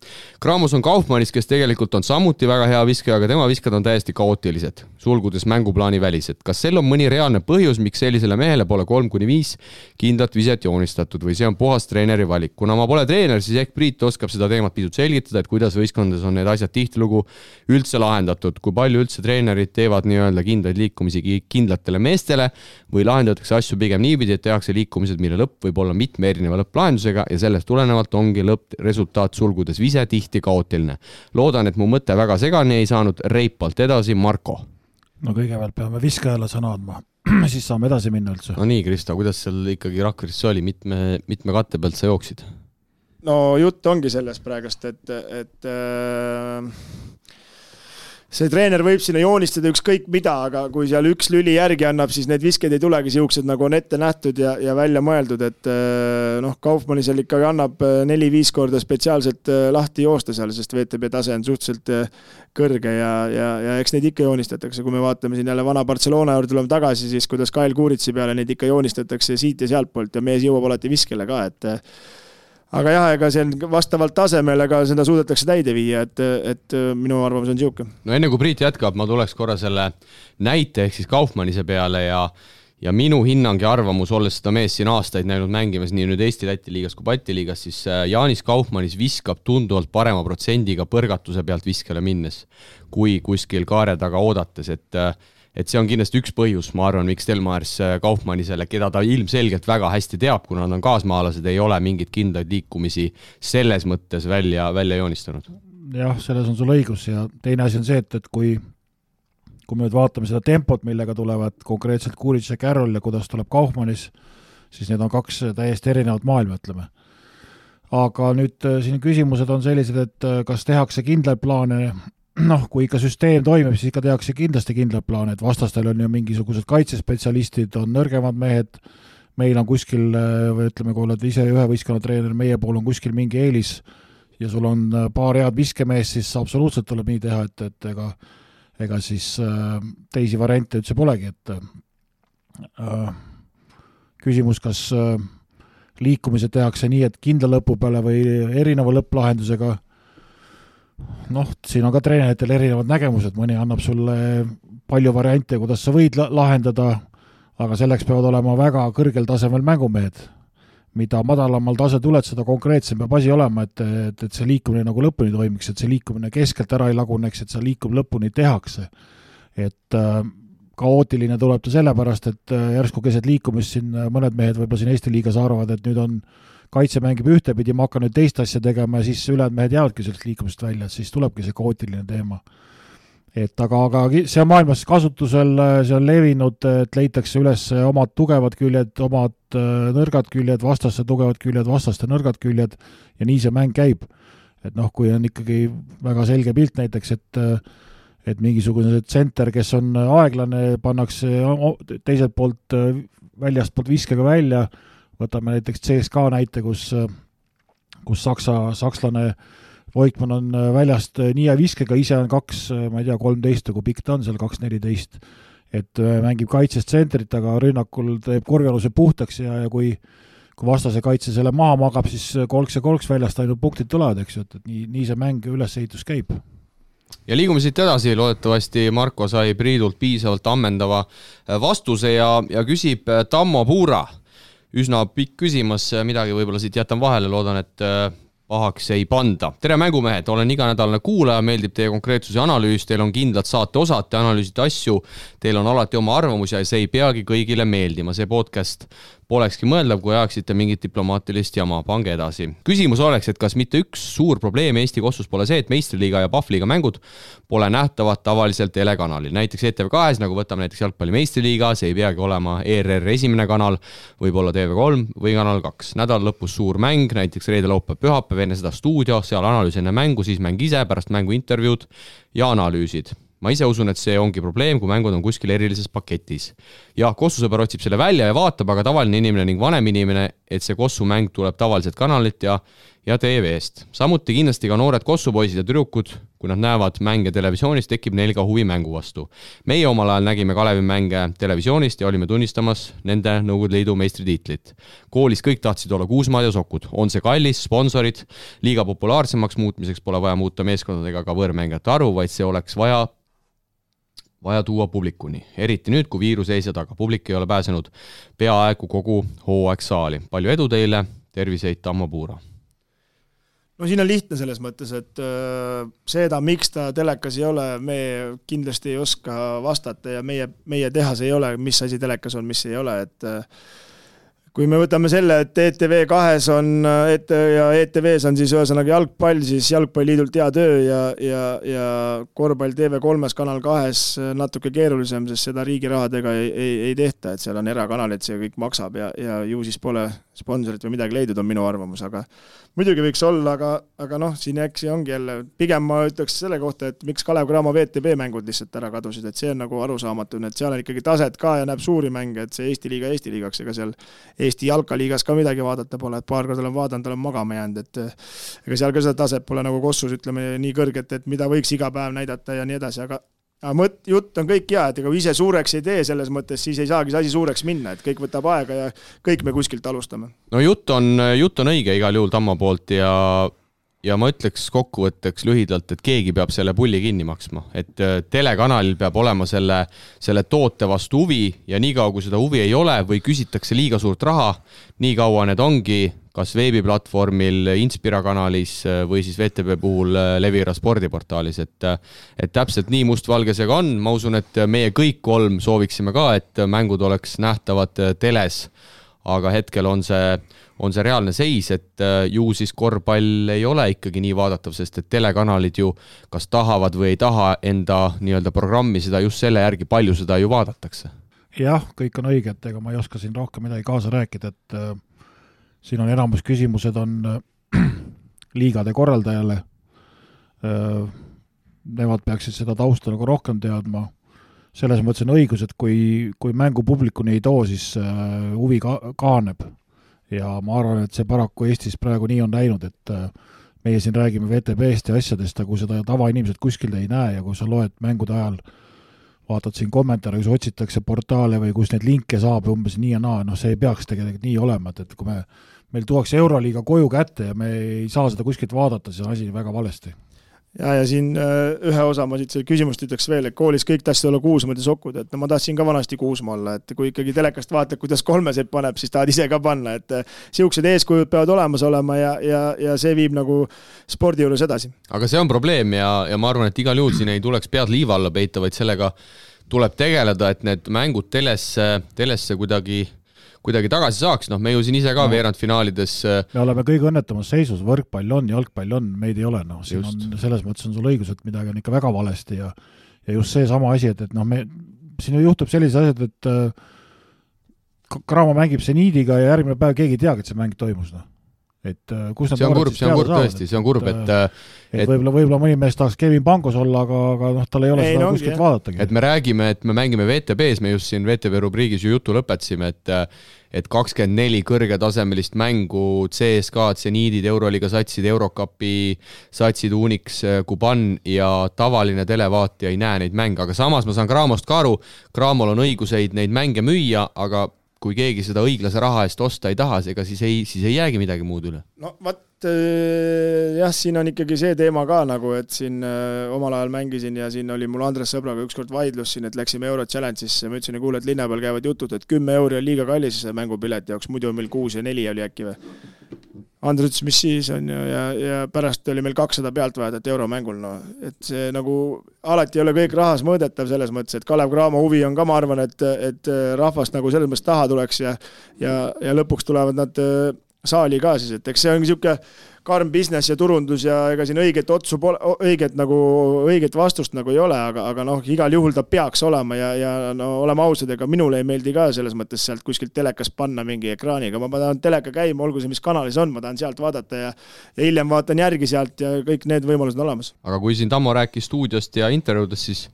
Kramos on Kaufmannis, kes tegelikult on samuti väga hea viskaja, aga tema viskad on täiesti kaootilised, sulgudes mänguplaani välised. Kas sel on mõni reaalne põhjus, miks sellisele mehele pole 3-5 kindlat viset joonistatud või see on puhas treeneri valik? Kuna ma pole treener, siis ehk Priit oskab seda teemat pisut selgitada, et kuidas võistkondades on need asjad tihtilugu üldse lahendatud, kui palju üldse treenerid teevad nii-öelda kindlaid liikumisi kindlatele meestele või lahendatakse asju pigem niipidi, et tehakse liikumised, mille lõpp võib olla mitme erineva lõpplahendusega ja sellest tulenevalt ongi lõppresultaat sulgudes vise tihti kaootiline. Loodan, et mu mõte väga segani ei saanud, reipalt edasi, Marko.
No kõigepealt peame viskajale sõna andma, siis saame edasi minna üldse.
No nii, Krista, kuidas seal ikkagi Rakveres oli, mitme katte pealt sa jooksid?
No jutt ongi sellest praegust, et see treener võib sinna joonistada ükskõik mida, aga kui seal üks lüli järgi annab, siis need visked ei tulegi siuksed, nagu on ette nähtud ja välja mõeldud, et Kaufmanni seal ikkagi annab 4-5 korda spetsiaalselt lahti joosta seal, sest VTB tase on suhteliselt kõrge ja eks neid ikka joonistatakse. Kui me vaatame siin jälle vana Barcelona juurde tuleme tagasi, siis kuidas Kyle Kuritsi peale neid ikka joonistatakse siit ja sealt poolt ja mees jõuab alati viskele ka, et aga jah, ega see on vastavalt tasemele, aga seda suudetakse täide viia, et minu arvamus on siuke.
No enne kui Priit jätkab, ma tuleks korra selle näite ehk siis Kaufmannise peale ja minu hinnang ja arvamus, olles seda mees siin aastaid näinud mängimas nii nüüd Eesti-Läti liigas kui Balti liigas, siis Jaanis Kaufmannis viskab tunduvalt parema protsendiga põrgatuse pealt viskele minnes, kui kuskil kaare taga oodates, et see on kindlasti üks põhjus, ma arvan, miks Telmaers Kaufmannisele, keda ta ilmselgelt väga hästi teab, kuna nad on kaasmaalased, ei ole mingit kindlaid liikumisi selles mõttes välja joonistanud.
Jah, selles on sul õigus ja teine asi on see, et kui me nüüd vaatame seda tempot, millega tulevad konkreetselt Kuric ja Carroll ja kuidas tuleb Kaufmannis, siis need on kaks täiesti erinevat maailma, ütleme. Aga nüüd siin küsimused on sellised, et kas tehakse kindlaid plaane. Kui ikka süsteem toimib, siis ikka tehakse kindlasti kindlad plaan, et vastastel on ju mingisugused kaitsespetsialistid, on nõrgemad mehed, meil on kuskil, või ütleme, kui oled ise ühe võistkonna treener, meie pool on kuskil mingi eelis ja sul on paar head viskemees, siis absoluutselt tuleb nii teha, et ega siis teisi variante üldse polegi, et küsimus, kas liikumised tehakse nii, et kindla lõpu peale või erineva lõpplahendusega. Siin on ka treeneritel erinevad nägemused, mõni annab sulle palju variante, kuidas sa võid lahendada, aga selleks peavad olema väga kõrgel tasemel mängumehed. Mida madalamal tase tuled, seda konkreetsem peab asi olema, et see liikumine nagu lõpuni toimiks, et see liikumine keskelt ära ei laguneks, et see liikum lõpuni tehakse. Et kaootiline tuleb ta sellepärast, et järsku keset liikumist siin mõned mehed võib-olla siin Eesti liigas arvavad, et nüüd on kaitse mängib ühtepidi, ma hakkan nüüd teist asja tegema ja siis ülejäänud mehed jäävadki sellest liikumist välja, et siis tulebki see kaootiline teema. Et aga see on maailmas kasutusel, see on levinud, et leitakse üles omad tugevad küljed, omad nõrgad küljed, vastaste tugevad küljed, vastaste nõrgad küljed ja nii see mäng käib. Et kui on ikkagi väga selge pilt näiteks, et mingisugune tsenter, kes on aeglane, pannakse teiselt poolt väljast poolt viskega välja. Võtame näiteks CSKA näite, kus sakslane Voigtmann on väljast nii ja viskega, ise on 13, kui pikk ta on seal 2.14, et mängib kaitses tsentrit, aga rünnakul teeb korvialuse puhtaks ja kui vastase kaitse selle maha magab, siis kolks väljast ainult punktid tulevad, eks ju, et nii see mäng ülesehitus käib.
Ja liigume siit edasi, loodetavasti Marko sai Priidult piisavalt ammendava vastuse ja küsib Tammo Puura. Üsna pikk küsimus, midagi võib-olla siit jätan vahele, loodan, et pahaks ei panda. Tere mängumehed, olen iganädalane kuulaja, meeldib teie konkreetsus ja analüüs, teil on kindlad saate osad, te analüüsite asju, teil on alati oma arvamus ja see ei peagi kõigile meeldima. See podcast polekski mõeldav, kui ajaksite mingit diplomaatilist jama, pange edasi. Küsimus oleks, et kas mitte üks suur probleem Eesti kossus pole see, et meistriliiga ja Pahvliiga mängud pole nähtavad tavaliselt telekanalil. Näiteks ETV2, nagu võtame näiteks jalgpalli meistriliiga, see ei peagi olema ERR esimene kanal, võib olla TV3 või kanal 2. Nädal lõpus suur mäng, näiteks reede, laupäev, pühapäev, enne seda stuudio, seal analüüs enne mängu, siis mäng ise, pärast mängu intervjuud ja analüüsid. Ma ise usun, et see ongi probleem, kui mängud on kuskil erilises paketis. Ja Kossusõber otsib selle välja ja vaatab, aga tavaline inimene ning vanem inimene, et see Kossu mäng tuleb tavaliselt kanalit ja ja TV-st. Samuti kindlasti ka noored kossupoisid ja tüdrukud, kui nad näevad mänge televisioonis, tekib neil ka huvi mängu vastu. Meie omal ajal nägime Kalevi mänge televisioonist ja olime tunnistamas nende Nõukogude Liidu meistritiitlit. Koolis kõik tahtsid olla Kuusmaad ja Sokud. On see kallis, sponsorid, liiga populaarsemaks muutmiseks pole vaja muuta meeskondadega ka võõrmängijate arvu, vaid see oleks vaja tuua publikuni. Eriti nüüd, kui viirus ees ja taga. Publik ei ole pääsenud peaaegu kogu hooaeg saali. Palju edu teile, terviseid Tammo Puura!
No siin on lihtne selles mõttes, et seda, miks ta telekas ei ole, me kindlasti ei oska vastata ja meie tehas ei ole, mis asi telekas on, mis ei ole, et kui me võtame selle, et ETV2 on ja ETVs on siis ühesõnaga jalgpall, siis jalgpalliliidult hea töö ja korvpall TV3 kanal 2 natuke keerulisem, sest seda riigi rahadega ei tehta, et seal on erakanalid, see kõik maksab ja ju siis pole sponsorit või midagi leidnud, on minu arvamus, aga muidugi võiks olla, aga noh, siin äksi ongi jälle, pigem ma ütleks selle kohta, et miks Kalev Cramo VTB mängud lihtsalt ära kadusid, et see on nagu arusaamatu, et seal on ikkagi taset ka ja näeb suuri mänge, et see Eesti liigaks, ega seal Eesti jalkaliigas ka midagi vaadata pole, et paar korda olen vaadanud, olen magama jäänud, et ega seal ka seda taset pole nagu Kossus, ütleme nii kõrget, et mida võiks iga päev näidata ja nii edasi, aga jutt on kõik hea, et ega ise suureks ei tee selles mõttes, siis ei saagi see asi suureks minna, et kõik võtab aega ja kõik me kuskilt alustame.
No jutt on õige igal juhul Tammo poolt ja ma ütleks kokkuvõtteks lühidalt, et keegi peab selle pulli kinni maksma, et telekanalil peab olema selle toote vastu huvi ja nii kaua, kui seda huvi ei ole või küsitakse liiga suurt raha, nii kaua need ongi kas veebiplatvormil, Inspira kanalis või siis VTB puhul Levira spordiportaalis, et täpselt nii mustvalge see ka on. Ma usun, et meie kõik kolm sooviksime ka, et mängud oleks nähtavad teles, aga hetkel on see reaalne seis, et ju siis korvpall ei ole ikkagi nii vaadatav, sest et telekanalid ju kas tahavad või ei taha enda nii-öelda programmi seda just selle järgi, palju seda ju vaadatakse.
Jah, kõik on õige, et ega ma ei oska siin rohkem midagi kaasa rääkida, et siin on enamus küsimused on liigade korraldajale. Nemad peaksid seda tausta nagu rohkem teadma. Selles mõttes on õigus, et kui mängu publikuni ei too, siis huvi kaaneb. Ja ma arvan, et see paraku Eestis praegu nii on läinud, et meie siin räägime VTB-st ja asjadest, aga kui seda tavainimesed kuskil ei näe ja kui sa loed mängude ajal, vaatad siin kommentaare, kus otsitakse portaale või kus neid linke saab umbes nii ja naa, see ei peaks tegelikult nii olema, et kui meil tuuakse Euroliiga koju kätte ja me ei saa seda kuskilt vaadata, siis on asi väga valesti.
Ja siin ühe osa ma siit küsimust ütleks veel, et koolis kõik tahtsid olla Kuusmaad ja Sokud, et ma tahtsin ka vanasti Kuusmaa olla, et kui ikkagi telekast vaatad, kuidas kolmeseid paneb, siis tahad ise ka panna, et siuksed eeskujud peavad olemas olema ja see viib nagu spordi juures edasi.
Aga see on probleem ja ma arvan, et igal juhul siin ei tuleks pead liiva alla peita, vaid sellega tuleb tegeleda, et need mängud telesse kuidagi tagasi saaks, me ju siin ise ka veerandfinaalides.
Me oleme kõige õnnetamas seisus, võrkpall on, jalgpall on, meid ei ole, siin on, selles mõttes on sul õigus, et midagi on ikka väga valesti ja just see sama asi, et siin juhtub sellised asjad, et Cramo mängib Seniidiga ja järgmine päev keegi ei teagi, et see mäng toimus, et kus
see on kurb tõesti, see on kurb,
et võib-olla mõni mees tahaks Kevin Pangos olla, aga tal ei ole seda kuskilt vaadatagi.
Et me räägime, et me mängime VTB-s, me just siin VTB rubriigis ju jutu lõpetasime, et 24 kõrgetasemelist mängu, CSK, Seniidid, Euroliiga satsid, Eurocupi satsid, Unix, Kuban ja tavaline televaatija ei näe neid mänge, aga samas ma saan Cramost ka aru, Cramol on õiguseid neid mänge müüa, aga kui keegi seda õiglase raha eest osta ei taha, ega siis ei jäägi midagi muud üle.
No jah, siin on ikkagi see teema ka nagu, et siin omal ajal mängisin ja siin oli mul Andres sõbraga ükskord vaidlus siin, et läksime Euro Challenge'isse ja ma ütlesin, kuule, et linna peal käivad jutud, et 10 euri on liiga kallis mängupileti jaoks, muidu on meil 6 ja 4 oli äkki või. Andres ütles, mis siis on ja pärast oli meil 200 pealtvajat euromängul, et see nagu alati ei ole kõik rahas mõõdetav selles mõttes, et Kalev Cramo huvi on ka, ma arvan, et rahvast nagu selles mõttes taha tuleks ja lõpuks tulevad nad saali ka siis, et eks see on niisugune karm business ja turundus ja ega siin õiget vastust nagu ei ole, aga igal juhul ta peaks olema ja olema ausad, ega minule ei meeldi ka selles mõttes sealt kuskilt telekas panna mingi ekraaniga, ma tahan teleka käima, olgu see mis kanalis on, ma tahan sealt vaadata ja hiljem vaatan järgi sealt ja kõik need võimalused on olemas.
Aga kui siin Tammo rääkis stuudiost ja intervjuudest,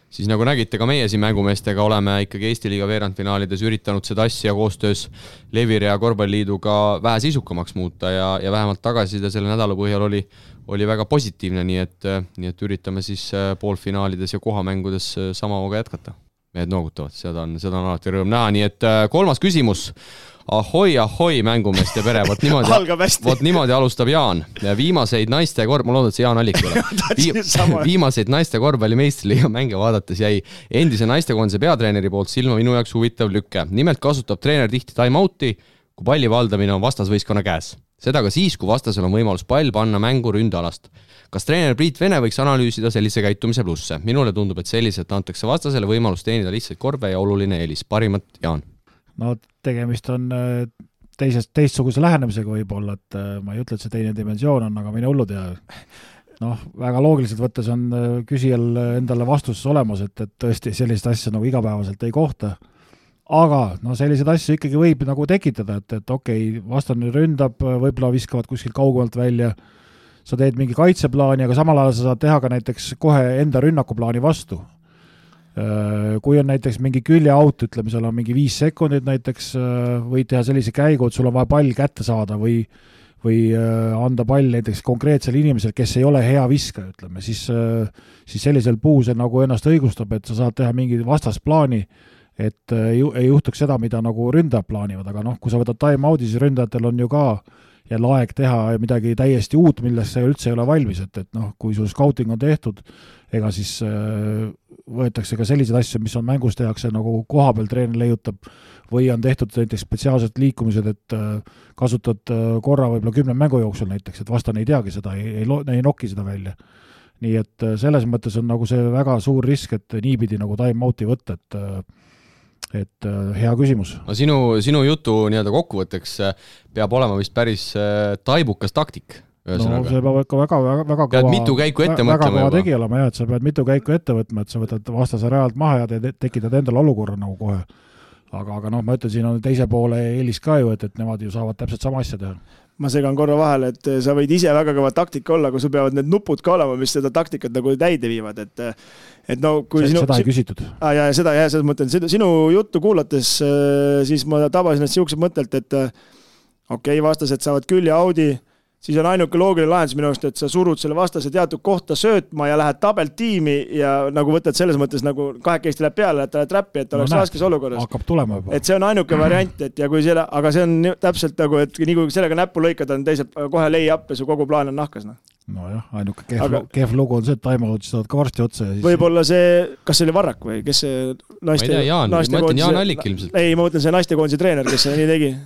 siis nagu nägite ka meie siin mängumeestega oleme ikkagi Eesti liiga veerandfinaalides üritanud seda asja koostöös Levire ja Korvpalliliiduga vähe sisukamaks muuta ja vähemalt tagasiside selle nädala põhjal oli väga positiivne, nii et üritame siis poolfinaalides ja kohamängudes sama hooga jätkata. Mehed noogutavad, seda on alati rõõm näha, nii et 3. küsimus. Ahoi, mängumeeste pere, vot niimoodi alustab Jaan. Viimaseid naiste ma loodan, et see Jaan Allik ole. Viimaseid naiste korvpallimeistriliiga mänge vaadates jäi endise naistekoondise peatreeneri poolt silma minu jaoks huvitav lükke. Nimelt kasutab treener tihti time-out'i, kui palli valdamine on vastasvõistkonna käes. Seda ka siis, kui vastasel on võimalus pall panna mängu ründealast. Kas treener Priit Vene võiks analüüsida sellise käitumise plusse? Minule tundub, et selliselt antakse vastasele võimalus teenida lihtsalt korve ja oluline eelis. Parimat, Jaan.
No tegemist on teistsuguse lähenemisega võib-olla, et ma ei ütle, et see teine dimensioon on, aga mine hullud ja väga loogiliselt võttes on küsijal endale vastuses olemas, et tõesti sellist asja nagu igapäevaselt ei kohta. Aga sellised asju ikkagi võib nagu tekitada, et okei, vastane ründab, võib-olla viskavad kuskil kaugemalt välja, sa teed mingi kaitseplaani, aga samal ajal sa saad teha ka näiteks kohe enda rünnakuplaani vastu. Kui on näiteks mingi küljeaut, ütleme, seal on mingi 5 sekundit näiteks, võid teha sellise käigu, et sul on vaja pall kätte saada või anda pall näiteks konkreetsele inimesele, kes ei ole hea viskaja, ütleme, siis sellisel puhul see nagu ennast õigustab, et sa saad teha mingi vastasplaani, et ei juhtuks seda, mida nagu ründajad plaanivad, aga kui sa võtad time-out'i, siis ründajatel on ju ka jälle aeg teha midagi täiesti uut, millest see üldse ei ole valmis, et kui sul scouting on tehtud, ega siis võetakse ka selliseid asju, mis on mängus tehakse nagu koha peal treener leiutab või on tehtud näiteks spetsiaalsed liikumised, et kasutad korra võib-olla 10 mängu jooksul näiteks, et vastane ei teagi seda, ei noki seda välja. Nii et selles mõttes on nagu see väga suur risk, et niipidi nagu time-out'i võtta, et hea küsimus.
No sinu jutu nii-öelda kokkuvõtteks peab olema vist päris taibukas taktik.
No see peab ikka väga
pead mitu käiku ette mõtlema
juba. Tegi olema, et sa pead mitu käiku ette võtma, et sa võtad vastase realt maha ja tekitad endale olukorra nagu kohe. Aga ma ütlen, siin on teise poole eelis ka ju, et nemad ju saavad täpselt sama asja teha.
Ma segan korra vahele, et sa võid ise väga kõva taktika olla, kui sul peavad need nupud ka olema, mis seda taktikat nagu täide viivad, kui
seda ei küsitud.
Ja seda mõtlen, sinu juttu kuulates, siis ma tabasin siuksed mõttelt, et okei, vastased saavad külje Audi, siis on ainuke loogiline lahendus minu arust, et sa surud selle vastase teatud kohta söötma ja lähed tabeltiimi ja nagu võtad selles mõttes nagu kahekesti läheb peale, et ta läheb trappi, et oleks raskes olukorras.
Hakkab tulema juba.
Et see on ainuke variant, et ja kui aga see on täpselt nagu, et nii kui sellega näppu lõikad, on teised kohe lei up ja su kogu plaan on nahkas.
Nojah, ainuke kehv lugu on see, et time-out saavad ka varsti otsa.
Võib-olla see, kas see oli Varrak või kes see naiste...
Ma ei tea, ma ütlen Jaan Allik ilmselt.
Ei, ma mõtlen see naistekoondise treener, kes see nii tegi.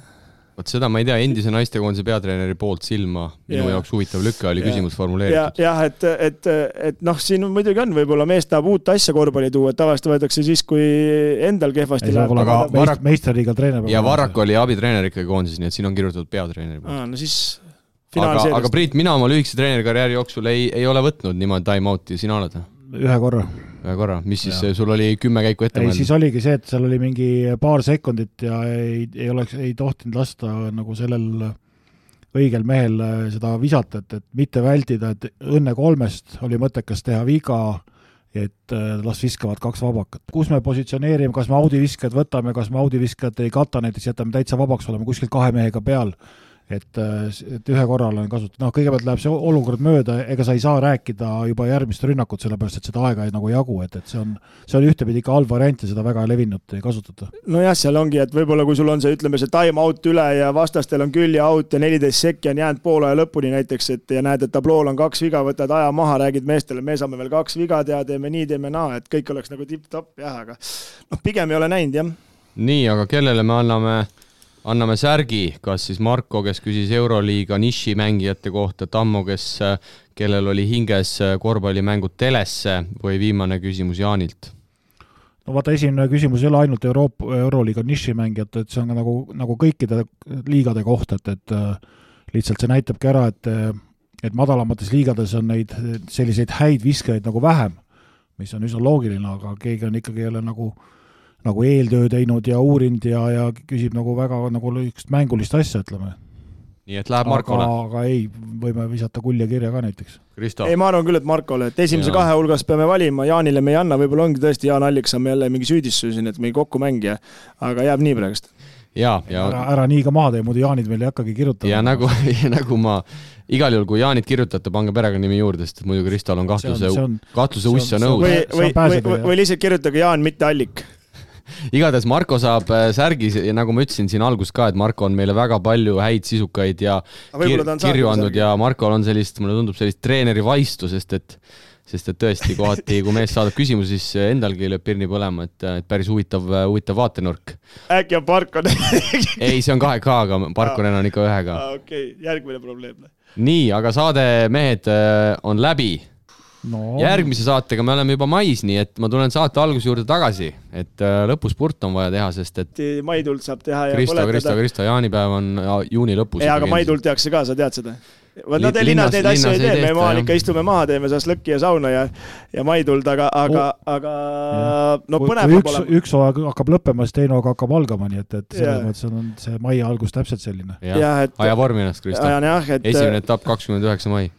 Võt seda ma ei tea, endise naistekoondise peatreeneri poolt silma minu jaoks huvitav lükke oli küsimus formuleeritud.
Jah, et siin muidugi on, võib-olla mees tahab uut asja korvpalli tuua, et tavaliselt võetakse siis, kui endal kehvasti
läheb. Meistriliiga treener.
Ja Varrak oli abitreener ikkagi koondises, nii et siin on kirjutatud peatreeneri poolt.
No siis
aga Priit, mina oma lühikese treenerikarjääri jooksul ei ole võtnud niimoodi time-out'i, sina oled?
Ühe korra.
Mis siis sul oli 10 käiku ette mõelda?
Siis oligi see, et seal oli mingi paar sekundit ja ei tohtinud lasta nagu sellel õigel mehel seda visata, et mitte vältida, et õnne 3 oli mõttekas teha viga, et las viskavad 2 vabakat. Kus me positsioneerime, kas me audiviskajad võtame, kas me audiviskajad ei kata, näiteks jätame täitsa vabaks, oleme kuskil 2 mehega peal. Et ühe korral on kasutatud. Kõigepealt läheb see olukord mööda, ega sa ei saa rääkida juba järgmist rünnakut, sellepärast, et seda aega ei nagu jagu, et see on ühtepidi ikka halb variant ja seda väga levinud ei kasutata.
No jah, seal ongi, et võib-olla kui sul on see, ütleme, see time-out üle ja vastastel on külje out ja 14 sekki on jäänud poole aja lõpuni näiteks, et ja näed, et tablool on 2 viga, võtad aja maha, räägid meestele, me saame veel 2 viga teha, teeme nii, teeme naa, et kõik oleks nagu tipp-topp, jah, aga pigem ei ole näinud, jah.
Nii, aga kellele me anname särgi, kas siis Marko, kes küsis Euroliiga niši mängijate kohta, Tammo, kellel oli hinges korvpallimängud telesse või viimane küsimus Jaanilt?
No vaata, esimene küsimus ei ole ainult Euroliiga niši mängijate, et see on nagu kõikide liigade kohta, et lihtsalt see näitabki ära, et madalamates liigades on neid selliseid häid viskajaid nagu vähem, mis on üsna loogiline, aga keegi on ikkagi jälle nagu eeltöö teinud ja uurinud ja küsib nagu väga nagu üks mängulist asja, ütleme.
nii et läheb Markole.
Aga ei, võime visata kulje kirja ka näiteks.
Kristo.
Ei, ma arvan küll, et Markole, et esimese kahe hulgas peame valima, Jaanile me ei anna, võib-olla ongi tõesti Jaan Allik saame jälle mingi süüdistus siin, et meil kokku mängija, aga jääb nii praegust.
Ja.
Ära nii ka maha tee, muidu Jaanid meil ei hakkagi kirjutada.
Ja nagu ma igal juhul, kui Jaanit kirjutate, pange perekonnimi juurde, sest muidu Kristol on kahtluse ussa nõus.
Või lihtsalt kirjutage Jaan, mitte Allik.
Igatahes Marko saab särgis ja nagu ma ütlesin siin algus ka, et Marko on meile väga palju häid sisukaid ja kirju andnud ja Markol on mulle tundub sellist treeneri vaistu, sest et tõesti kohati, kui mees saadab küsimusi, siis endalgi lööb pirni põlema, et päris huvitav vaatenurk.
Äkki on Parkon?
Ei, see on 2K-ga, Parkonen on ikka 1K.
Okei, järgmine probleem.
Nii, aga saade mehed on läbi. No. Järgmise saatega me oleme juba mais, nii et ma tulen saate alguse juurde tagasi, et lõpuspurt on vaja teha, sest et
Maidult saab teha ja
Kristo, jaanipäev on juuni lõpus.
Aga Maidult tehakse ka, sa tead seda? Nad linnas neid asju ei tee, me maal ikka istume maha, teeme saas lõkki ja sauna ja Maidult, aga no põnev peab olema.
Üks hakkab lõppema, siis teine hakkab algama, nii et selles mõttes on see mai algus täpselt selline.
Aja vormi ennast, Kristo. Esimene etapp 29. mai.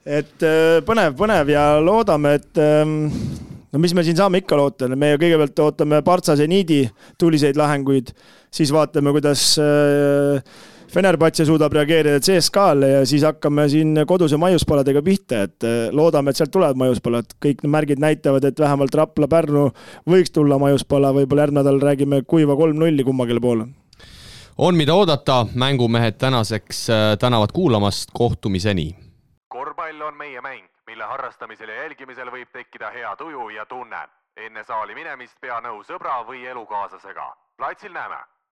Et põnev ja loodame, et no mis me siin saame ikka loota, me kõigepealt ootame Partsa Zeniidi tuliseid lahenguid, siis vaatame, kuidas Fenerbahce suudab reageerida CSKA-le ja siis hakkame siin koduse maiuspaladega pihta, et loodame, et sealt tulevad maiuspalad. Kõik märgid näitavad, et vähemalt Rapla Pärnu võiks tulla maiuspala, võib-olla järgmine nädal räägime kuiva 3-0 kummagele poole.
On mida oodata, mängumehed tänaseks tänavad kuulamast, kohtumiseni.
Korvpall on meie mäng, mille harrastamisel ja jälgimisel võib tekkida hea tuju ja tunne. Enne saali minemist pea nõu sõbra või elukaaslasega. Platsil näeme!